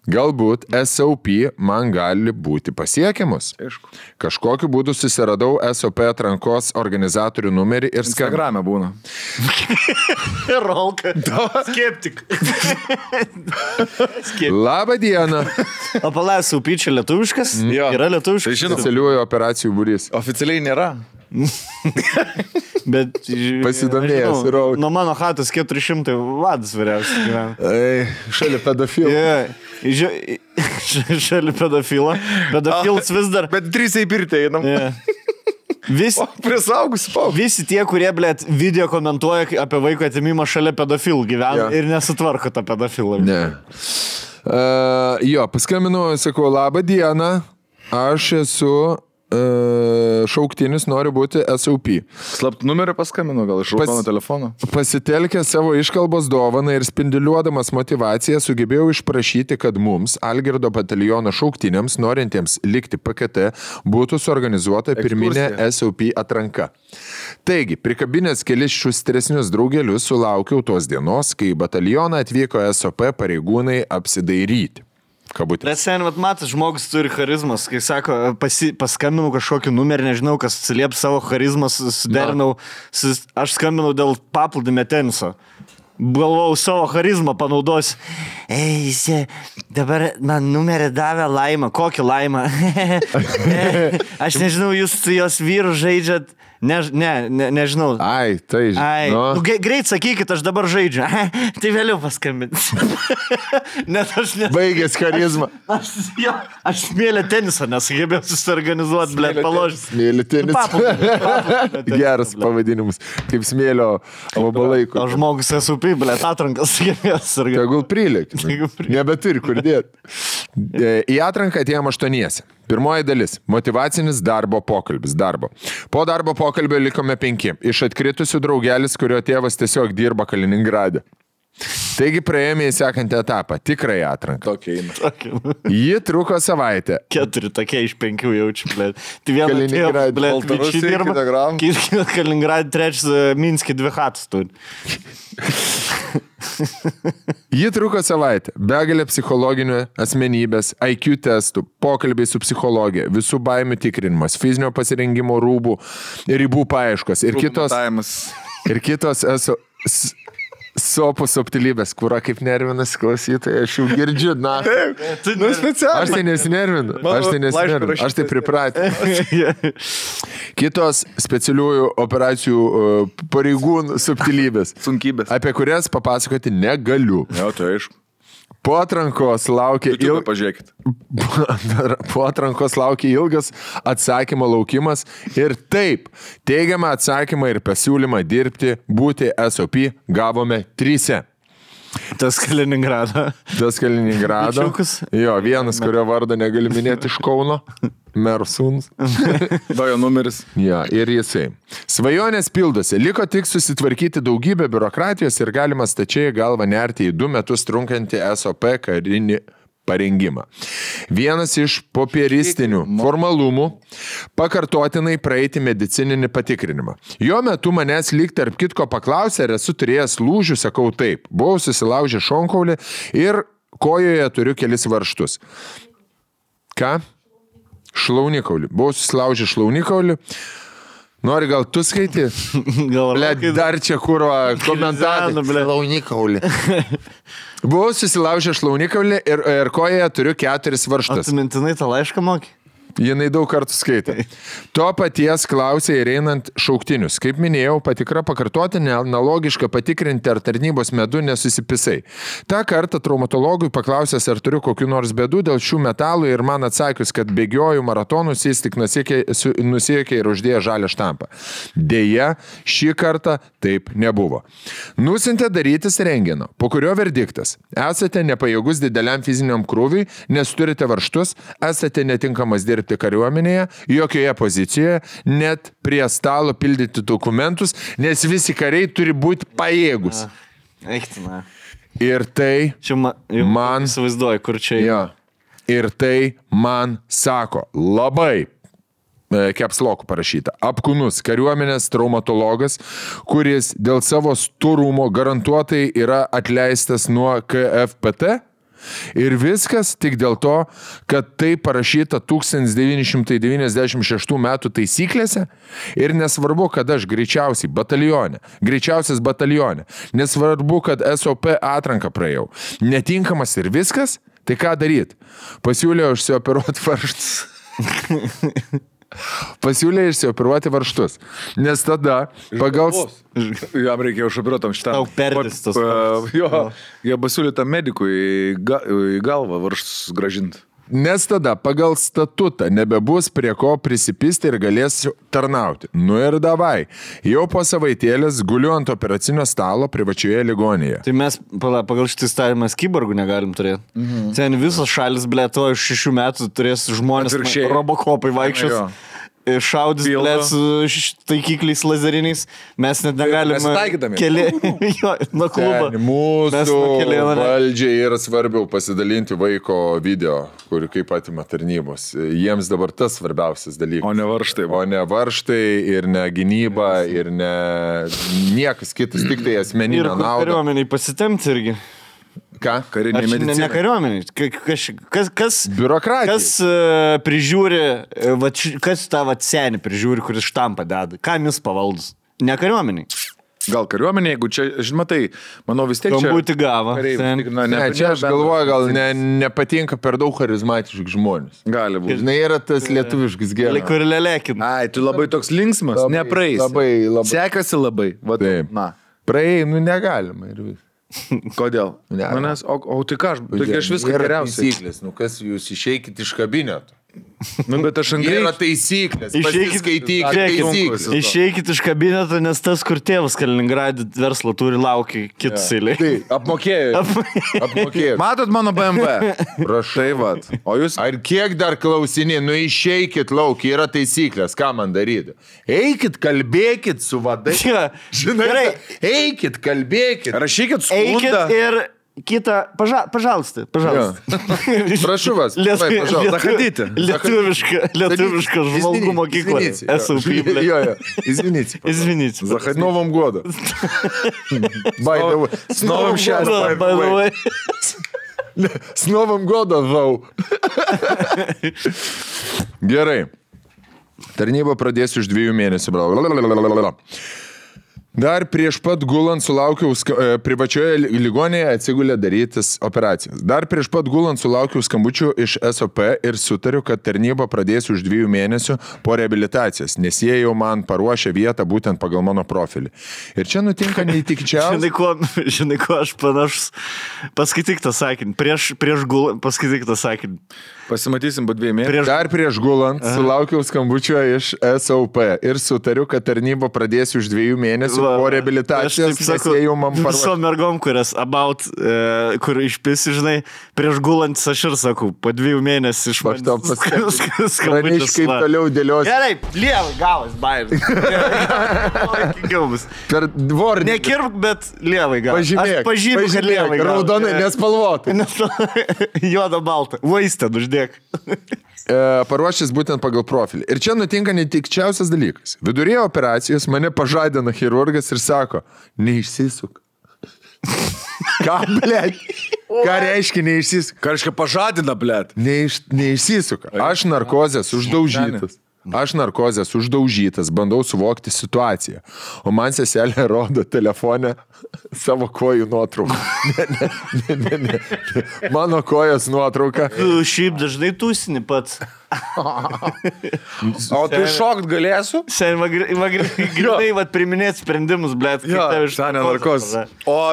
galbūt SOP man gali būti pasiekiamus. Kažkokiu būdu susiradau SOP atrankos organizatorių numerį ir Instagrame būna. Rolka. Skeptik. Labą dieną. O palai, SOP čia lietuviškas? Yra lietuviškas? Specialiųjų operacijų būrys. Oficialiai nėra. Bet pasidomėjęs, Rolka. Nuo mano chatos 400 vadas vyriausias gyvena. Šalia pedofilo. Šalia pedofilo. Pedofilas vis dar. Bet 3 į pirtį einam. Prisaugusi paauglį. Visi tie, kurie, blėt, video komentuoja apie vaiko atimimą šalia pedofilų gyvena ir nesutvarko tą pedofilą. Ne. Paskambinu, sakau, labą dieną, aš esu šauktinis, noriu būti SOP. Slaptų numerį paskambinu, gal iš raudono telefono. Pasitelkę savo iškalbos dovaną ir spinduliuodamas motivaciją sugebėjau išprašyti, kad mums, Algirdo bataliono šauktiniams, norintiems likti PKT, būtų suorganizuota pirminė SOP atranka. Taigi, prikabinęs kelis šustresnius draugelius, sulaukiau tos dienos, kai į batalioną atvyko SOP pareigūnai apsidairyti. Bet sen, matas, žmogus turi charizmas, kai sako, paskambinau kažkokį numerį, nežinau, kas atsilieps savo charizmas, suderinau, aš skambinau dėl paplūdimio teniso. Galvau, savo charizmą panaudosiu. Dabar man numerį davė Laima. Kokį Laimą? Aš nežinau, jūs su jos vyru žaidžiat. Nežinau. Ai, tai žinau. Greit sakykit, aš dabar žaidžiu. Tai vėliau paskambinsiu. Baigęs charizmą. Aš smėlę tenisą nesugebėjau susiorganizuoti, blėt, paložęs. Smėlę tenisą. Geras pavadinimas. Kaip smėlio vabalaiko. O žmogus SUP, blėt, atrankas sugebėjau susiorganizuoti. Tegul prilėkti. Nebeturi kur dėti. Į atranką atėjom 8. Pirmoji dalis – motivacinis darbo pokalbis. Po darbo pokalbio likome 5. Iš atkritusių draugelis, kurio tėvas tiesiog dirba Kaliningrade. Taigi praėjome į sekantį etapą – tikrąją atranką. Ji truko savaitę. 4 tokie iš 5 jaučiu, blėt. Tai vieną tėvą, blėt, bičiai dirba. Kaliningrade, 3 Minske 2 chatus turi. Ji truko savaitę. Begalė psichologinių asmenybės, IQ testų, pokalbiai su psichologija, visų baimių tikrinimas, fizinio pasirengimo ribų paieškos ir kitos sopų subtilybės, kurą kaip nervinas klausytojai, aš jau girdžiu, na. Aš tai nesinervinu, aš tai pripratinu. Kitos specialiųjų operacijų pareigūnų subtilybės, sunkybės, apie kurias papasakoti negaliu. Jo, tai aišku. Po atrankos laukia ilgas atsakymo laukimas ir taip, teigiamą atsakymą ir pasiūlymą dirbti, būti SOP gavome 3. Tas Kaliningrado. Jo, vienas, kurio vardą negali minėti iš Kauno. Mero sūnus. Dajo numeris. Ja, ir jisai. Svajonės pildosi. Liko tik susitvarkyti daugybę biurokratijos ir galima stačiai galvą nerti į 2 metus trunkantį SOP karinį parengimą. Vienas iš popieristinių formalumų pakartotinai praeiti medicininį patikrinimą. Jo metu manęs lyg tarp kitko paklausė, ar esu turėjęs lūžių, sakau taip. Buvau susilaužę šonkaulį ir kojoje turiu kelis varžtus. Ką? Šlaunikaulį. Buvau susilaužę šlaunikaulį. Nori gal tu skaiti? Dar čia kuro komentarai. Šlaunikaulį. Buvau susilaužę šlaunikaulį ir kojoje turiu 4 varžtus. O tu mintinai tą laišką moki? Jinai daug kartų skaitė. To paties klausė ir einant šauktinius. Kaip minėjau, patikra pakartotinė, analogiška patikrinti, ar tarnybos medu nesusipisai. Ta kartą traumatologui paklausęs, ar turiu kokių nors bėdų dėl šių metalų ir man atsakius, kad bėgioju maratonus, jis tik nusiekė ir uždėjo žalią štampą. Deja, šį kartą taip nebuvo. Nusintė darytis rentgeno, po kurio verdiktas. Esate nepajėgus dideliam fiziniam krūviui, nes turite varžtus, esate netinkamas dirbti kariuomenėje, jokioje pozicijoje, net prie stalo pildyti dokumentus, nes visi kariai turi būti pajėgus. Eiktina. Ir tai man... Įsivaizduoju, kur čia... Ja, ir tai man sako labai... Kepslokų parašyta. Apkūnus kariuomenės traumatologas, kuris dėl savo storumo garantuotai yra atleistas nuo KFPT. Ir viskas tik dėl to, kad tai parašyta 1996 metų taisyklėse ir nesvarbu, kad aš greičiausias batalione, nesvarbu, kad SOP atranką praėjau. Netinkamas ir viskas, tai ką daryt? Pasiūlė išsioperuoti varžtus. Pasiūlė išsioperuoti varžtus. Nes tada pagal... Jam reikėjo išoperuotam šitą. Tau perdistas. Jo, jie pasiūlė tam medikui į galvą varžtus gražinti. Nes tada pagal statutą nebebus prie ko prisipisti ir galėsiu tarnauti. Nu ir davai. Jau po savaitėlės guliu ant operacinio stalo privačioje ligonėje. Tai mes pagal šitą įstatymą kiborgų negalim turėti. Ten visos šalis, blėt, to iš 6 metų turės žmonės robokopai vaikščios. Šaudys, blėt, su taikikliais lazeriniais, mes net negalime nuo klubo. Mūsų valdžiai yra svarbiau pasidalinti vaiko video, kurį kaip atima tarnybos. Jiems dabar tas svarbiausias dalykas. O ne varštai ir ne gynyba ir ne niekas kitas, tik tai asmeninė nauda. Ir kariuomeniai pasitemti irgi. Ką? Karinė medicina. Ne kariuomeniai. Kas biurokratija. Kas prižiūri, kas tą senį prižiūri, kuris štampą deda? Kam jis pavaldus? Ne kariuomeniai. Gal kariuomenė, jeigu čia, žinoma, tai, manau, vis tiek čia... Būti gavo. Čia aš galvoju, gal nepatinka per daug charizmatiški žmonės. Gali būti. Žinai, yra tas lietuviškas geras. Kur lelekin. Ai, tu labai toks linksmas, nepraeis. Labai. Sekasi labai. Taip. Praėjai, negalima ir vis. Kodėl? Manęs, o tai ką, aš viską geriausiai. Taisyklės, kas jūs išeikit iš kabineto. Bet aš angrai... Yra taisyklės, pasiskaitykit taisyklės. Išeikit iš kabineto, nes tas, kur tėvas Kaliningradė verslo turi, laukia kitus eilė. Tai, apmokėjo. Matot mano BMW? Prašai, vat. O jūs... Ar kiek dar klausinė, išeikit lauk, yra taisyklės, ką man daryti? Eikit, kalbėkit su vadai. Žinai, eikit, kalbėkit. Rašykit skundą. Eikit ir... Kita, pažalsti. Prašau vas. Zachodyti. Lietuviška žvalgų mokykla. Esu priblė. Jo. Izvinite. С Новым годом. С новым счастьем. By the way. С Новым годом, Vau. Gerai. Tarnybą pradėsiu už 2 mėnesių. Dar prieš pat gulant sulaukiau privačioje ligonėje atsigulė darytis operacijas. Dar prieš pat gulant sulaukiau skambučių iš SOP ir sutariu, kad tarnybą pradėsiu už 2 mėnesių po reabilitacijos, nes jie jau man paruošė vietą būtent pagal mano profilį. Ir čia nutinka neįtikčiausia. Žinai, ko aš panašus. Paskaityk tą sakinį. Prieš gulant, paskaityk tą sakinį. Pasimatysim po 2 mėnesių. Dar prieš gulant sulaukiau skambučio iš SOP ir sutariu, kad tarnybą pradėsiu už 2 mėnesių po reabilitacijos, nes jie jau man paruošė. Visom mergom, kurias kur išpisi, žinai, prieš gulant aš ir sakau, po 2 mėnesių iš man skambučius. Kaip toliau dėliosiu. Gerai, lievai gavas, bairis. Per dvornį. Nekirp, bet lievai gavas. Pažymėk, kad lievai gavas. Raudonai, nespalvotai. Juoda balta. Vaistę, uždėk. Paruošęs būtent pagal profilį. Ir čia nutinka netikčiausias dalykas. Vidurėje operacijos mane pažadina chirurgas ir sako, neišsisuk. Ką, blėt? Ką reiškia neišsisuk? Ką reiškia pažadina, blėt? Neišsisuka. Aš narkozės uždaužytas, bandau suvokti situaciją. O man seselė rodo telefone savo kojų nuotrauką. Ne. Mano kojos nuotrauka. Tu šiaip dažnai tūsini pats. O tu šokt galėsiu? Sen, grinai, priminėt sprendimus, blėt. Senė narkozė. O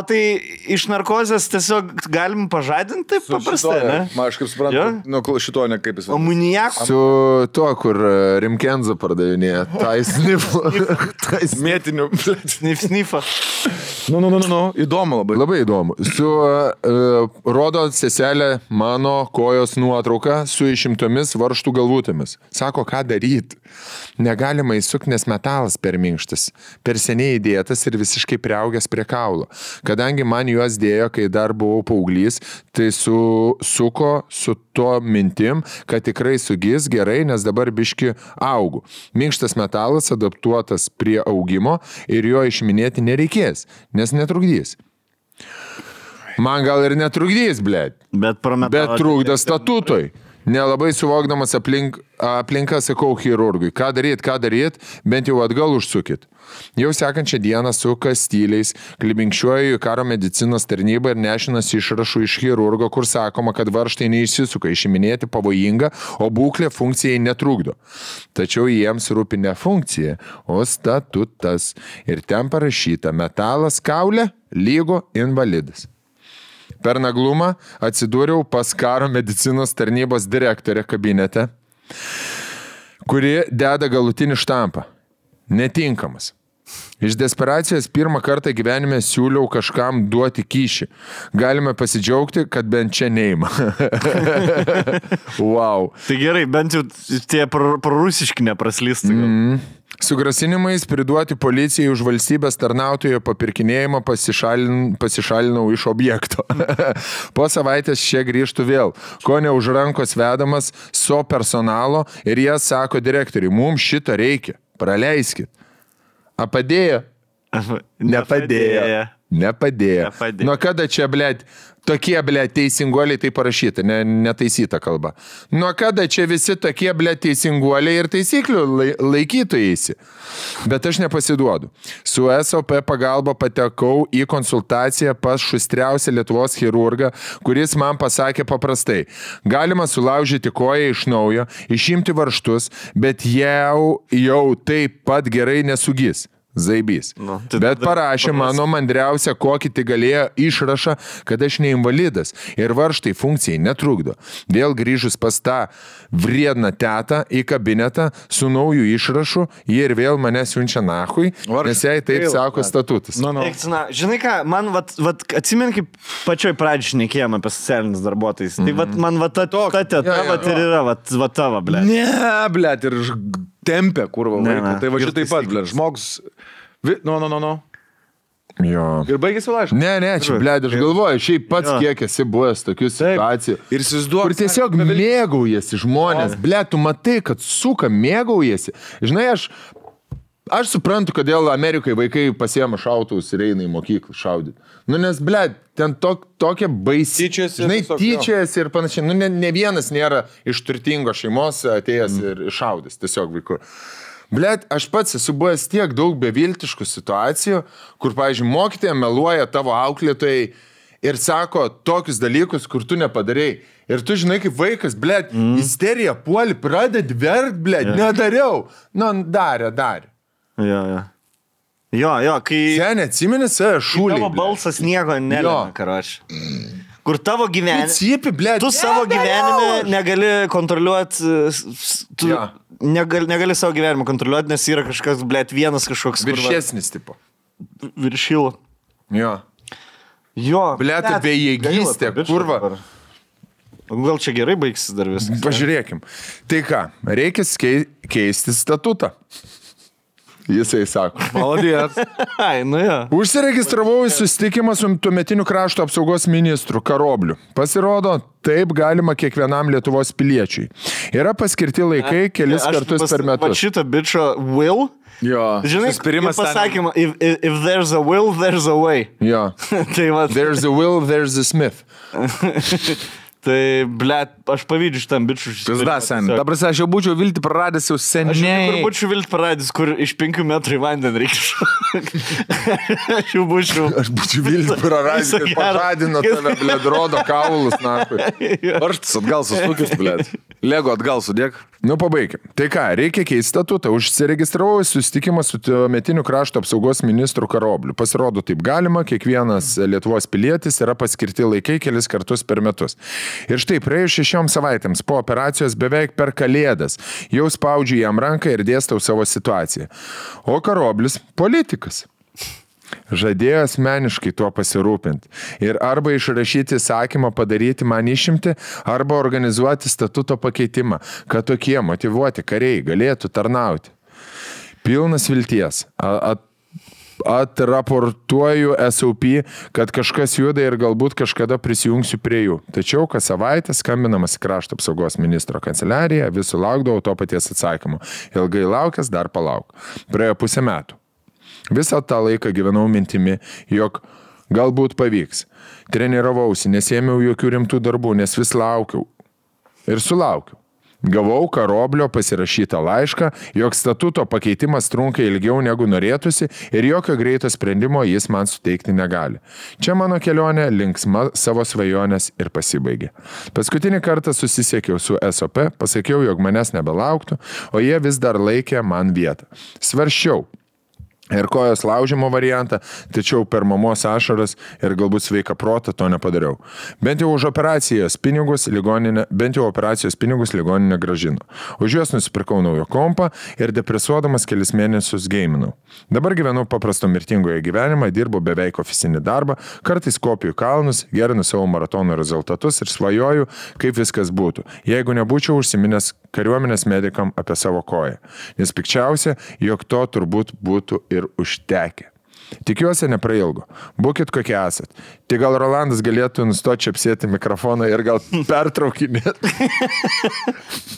tai iš narkozės tiesiog galim pažadinti taip paprastai, ne? Man aš kaip suprantu, šito ne kaip jis. O muniako? Su tuo, kur Rimkenzo pardavinėja. Tai snifo. Mėtiniu. Snifą. Nu. Įdomu labai. Labai įdomu. Rodo seselė mano kojos nuotrauką su išimtomis varžtų galvutėmis. Sako, ką daryti. Negalima įsukti, nes metalas per minkštas. Per seniai įdėtas ir visiškai priaugęs prie kaulo. Kadangi man juos dėjo, kai dar buvau paauglys, tai suko su to mintim, kad tikrai sugis gerai, nes dabar biški augu. Minkštas metalas adaptuotas prie augimo ir jo išiminėti nereikės, nes netrukdys. Man gal ir netrukdys, blėt. Bet trukdo statutoj. Nelabai suvokdamas aplinką sakau chirurgui, ką daryt, bent jau atgal užsukit. Jau sekančią dieną suka styliais, klibinkščiuoju į karo medicinos tarnybą ir nešinas išrašų iš chirurgo, kur sakoma, kad varžtai neišsisuka, išiminėti pavojinga, o būklė funkcijai netrukdo. Tačiau jiems rūpi ne funkcija, o statutas. Ir ten parašyta, metalas kaulė lygu invalidas. Per naglumą atsidūriau pas karo medicinos tarnybos direktorę kabinete, kuri deda galutinį štampą. Netinkamas. Iš desperacijos pirmą kartą gyvenime siūliau kažkam duoti kyšį. Galime pasidžiaugti, kad bent čia neima. Wow. Tai gerai, bent jau tie prorusiški nepraslystų. Su grasinimais priduoti policijai už valstybės tarnautojo papirkinėjimą pasišalinau iš objekto. Po savaitės čia grįžtų vėl, ko ne už rankos vedamas so personalo ir jie sako direktoriui, mums šito reikia, praleiskit. A padėjo? Nepadėjo. Nuo kada čia, blėt, tokie, blėt, teisinguoliai tai parašyta, netaisyta kalba. Nuo kada čia visi tokie, blėt, teisinguoliai ir taisyklių laikytojasi. Bet aš nepasiduodu. Su SOP pagalba patekau į konsultaciją pas šustriausią Lietuvos chirurgą, kuris man pasakė paprastai. Galima sulaužyti koją iš naujo, išimti varžtus, bet jau taip pat gerai nesugis. Zaibys. Bet parašė mano mandriausia, kokį tai galėjo išrašą, kad aš neinvalidas ir varžtai funkcijai netrukdo. Vėl grįžus pas tą vriedną tetą į kabinetą su naujų išrašu, jie ir vėl mane siunčia nahui, nes jai taip sako statutas. Žinai ką, man atsimeni, kaip pačioj pradžioj šnekėjom apie socialinius darbuotojus. Tai man ta teta ir yra tavo, blėt. Ne, blėt, ir tempia, kurva vaiką. Tai va šitai pat, blėt, žmogus... No. Jo. Ir baigėsi laiškas. Ne, čia, blėt, aš galvoju, šiaip pats kiek esi buvęs tokių situacijų. Ir įsivaizduok. Kur tiesiog mėgaujasi žmonės. Blėt, tu matai, kad suka mėgaujasi. Žinai, aš suprantu, kodėl Amerikai vaikai pasiema šautuvus ir eina į mokyklą šaudyti. Nes, blėt, ten tokia baisi. Tyčiasi ir panašiai. Ne vienas nėra iš turtingos šeimos atėjęs ir šaudęs tiesiog vaikų. Blet, aš pats esu buvęs tiek daug beviltiškų situacijų, kur, pavyzdžiui, mokytoja meluoja tavo auklėtojai ir sako tokius dalykus, kur tu nepadarei. Ir tu žinai, kaip vaikas, blet, isterija puoli, pradedi verkt, blet, nedariau. Darė. Jo, kai... Sen atsimeni save šūliai. Tavo balsas nieko nelėmė, karoči. Kur tavo gyvenime... Cipi, blet. Tu savo gyvenime negali kontroliuoti... Negali savo gyvenimą kontroliuoti, nes yra kažkas, blėt, vienas kažkoks... Viršesnis tipo. Viršilo. Jo. Blėt, bejėgystė, kurva. Gal čia gerai baigsis dar viskas? Pažiūrėkim. Tai ką, reikia keisti statutą. Jisai sako. Maladės. Užsiregistravau į susitikimą su tuometiniu krašto apsaugos ministru Karobliu. Pasirodo, taip galima kiekvienam Lietuvos piliečiui. Yra paskirti laikai kelis kartus per metus. Va šitą bičio will. Jo. Žinai, pasakymą, if there's a will, there's a way. Jo. There's a will, there's a Smith. Tai, blėt, aš pavydžiu šitam bičiu. Ta prasme, aš jau būčiau viltį praradęs jau seniai. Aš būčiau viltį praradęs, kur iš 5 metrų į vandenį reikia. Aš būčiau viltį praradęs, kad pažadino tave, blėt, rodo kaulus, nakui. Varštas atgal susukis, blėt. Lego atgal sudėk. Pabaikim. Tai ką, reikia keisti statutą. Užsiregistravau į susitikimą su tuometiniu krašto apsaugos ministru Karobliu. Pasirodo, taip galima, kiekvienas Lietuvos pilietis yra paskirti laikai kelis kartus per metus. Ir štai, praėjus 6 savaitėms po operacijos beveik per Kalėdas, jau spaudžiu jam ranką ir dėstau savo situaciją. O Karoblis – politikas. Žadėjo asmeniškai tuo pasirūpinti ir arba išrašyti įsakymą padaryti man išimti, arba organizuoti statuto pakeitimą, kad tokie motyvuoti kariai galėtų tarnauti. Pilnas vilties. Atraportuoju SOP, kad kažkas juda ir galbūt kažkada prisijungsiu prie jų. Tačiau kas savaitę skambinamas į krašto apsaugos ministro kanceliariją, vis sulaukdavau to paties atsakymo. Ilgai laukęs, dar palauk. Praėjo 5 metų. Visą tą laiką gyvenau mintimi, jog galbūt pavyks. Treniravausi, nesėmiau jokių rimtų darbų, nes vis laukiau. Ir sulaukiau. Gavau Karoblio pasirašytą laišką, jog statuto pakeitimas trunka ilgiau negu norėtųsi ir jokio greito sprendimo jis man suteikti negali. Čia mano kelionė linksma savo svajonės ir pasibaigė. Paskutinį kartą susisiekiau su SOP, pasakiau, jog manęs nebelauktų, o jie vis dar laikė man vietą. Svarsčiau, ir kojos laužimo variantą, tačiau per mamos ašaras ir galbūt sveiką protą to nepadariau. Bent jau operacijos pinigus ligoninė gražino. Už juos nusipirkau naujo kompą ir depresuodamas kelis mėnesius geiminau. Dabar gyvenu paprasto mirtingoje gyvenimą, dirbu beveik ofisinį darbą, kartais kopiu kalnus, gerinu savo maratono rezultatus ir svajoju, kaip viskas būtų, jeigu nebūčiau užsiminęs kariuomenės medikam apie savo koją. Nes pikčiausia, jog to turbūt būtų ir užtekę. Tikiuosi neprailgo. Būkit kokie esat. Tik gal Rolandas galėtų nustoti čepsėti mikrofoną ir gal pertraukinėti.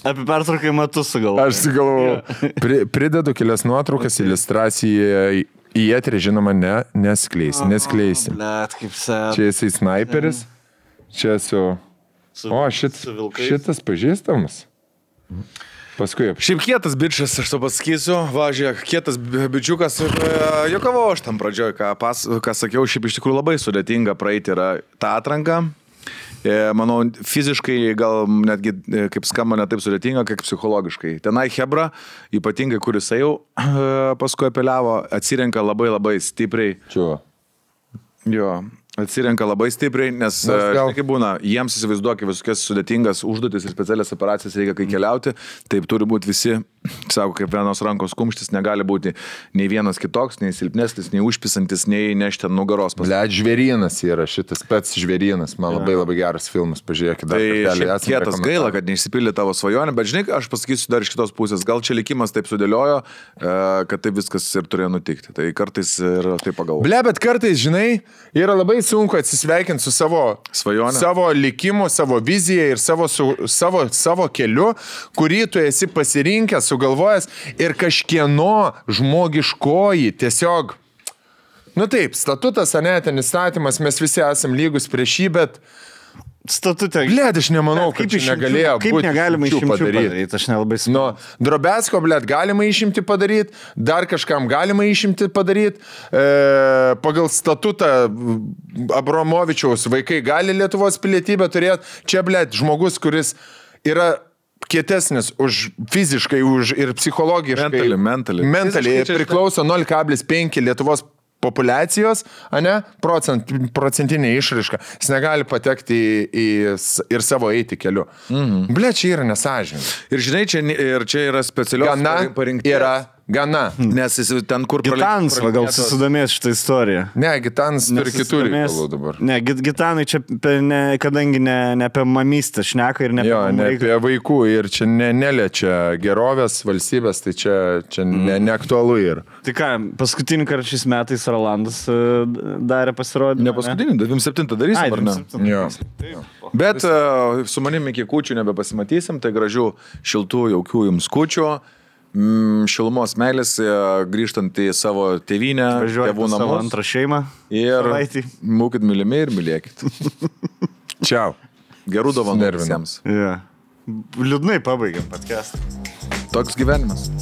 Apie pertraukimą tu sugalvojai. Aš sugalvojau. Pridedu kelias nuotraukas, iliustraciją į eterį, žinoma, neskleisi. Blet, kaip sėt. Čia jisai sniperis. Čia šitas pažįstamas. Paskui. Šiaip kietas bičias, aš to pasakysiu, važiuok, kietas bičiukas, jokavau aš tam pradžioj, ką sakiau, šiaip iš tikrųjų labai sudėtinga praeiti yra tą atranką. Manau, fiziškai gal netgi, kaip skamba, ne taip sudėtinga, kaip psichologiškai. Tenai Hebra, ypatingai, kuris jau paskui apeliavo, atsirenka labai stipriai. Čia. Jo. Atsirenka labai stipriai, nes kaip būna, jiems įsivaizduokia visokias sudėtingas užduotis ir specialias operacijas reikia kai keliauti, taip turi būti visi, sako, kaip vienos rankos kumštis, negali būti nei vienas kitoks, nei silpnesnis, nei užpisantis, nei nešti ant nugaros. Blet, žvėrynas yra šitas pats žvėrynas, man labai geras filmas, pažiūrėkit. Tai kietas gaila, kad neišsipildė tavo svajonę, bet žinai, aš pasakysiu dar iš kitos pusės, gal čia likimas taip sudėliojo, kad taip viskas ir turėjo nutikti, tai kartais ir taip pagalvoju. Ble, bet kartais, žinai, yra labai sunku atsisveikinti su savo svajonė, savo likimu, savo vizija ir savo keliu, kurį tu esi pasirinkęs, sugalvojęs ir kažkieno žmogiškoji tiesiog, taip, statutas, ten įstatymas, mes visi esam lygus prieš jį, bet statute. Blet, aš nemanau, kad čia negalėjo būti. Kaip negalima išimčių padaryti, aš nelabai suprantu. Drobesko, blet, galima išimti padaryti, dar kažkam galima išimti padaryti. Pagal statutą Abramovičiaus vaikai gali Lietuvos pilietybę turėti. Čia, blet, žmogus, kuris yra kietesnis fiziškai ir psichologiškai. Mentaliai priklauso 0,5 Lietuvos populiacijos, procentinė išraiška. Jis negali patekti ir savo eiti keliu. Ble, čia yra nesąžininga. Ir žinai, čia yra specialios parinkties. Yra gana. Nes jis ten, kur Gitanas, gal susidomės šitą istoriją. Ne, Gitanas turi kitų reikalų dabar. Ne, Gitanai čia, kadangi ne apie mamystę šneka ir ne apie vaikų ir čia neliečia gerovės valstybės, tai čia neaktualu yra. Tai ką, paskutinį kartą šiais metais Rolandas darė pasirodymą? Ne paskutinį, 27 darysim, ar ne? Jo. Bet su manimi iki kūčių nebepasimatysim, tai gražių, šiltų, jaukių jums kūčių. Šilumos meilės, grįžtant į savo tėvynę, tėvų namus. Savo antrą šeimą. Ir būkit mylimi ir mylėkit. Čiau. Gerų dovanų visiems. Liūdnai pabaigiam podcastą. Toks gyvenimas.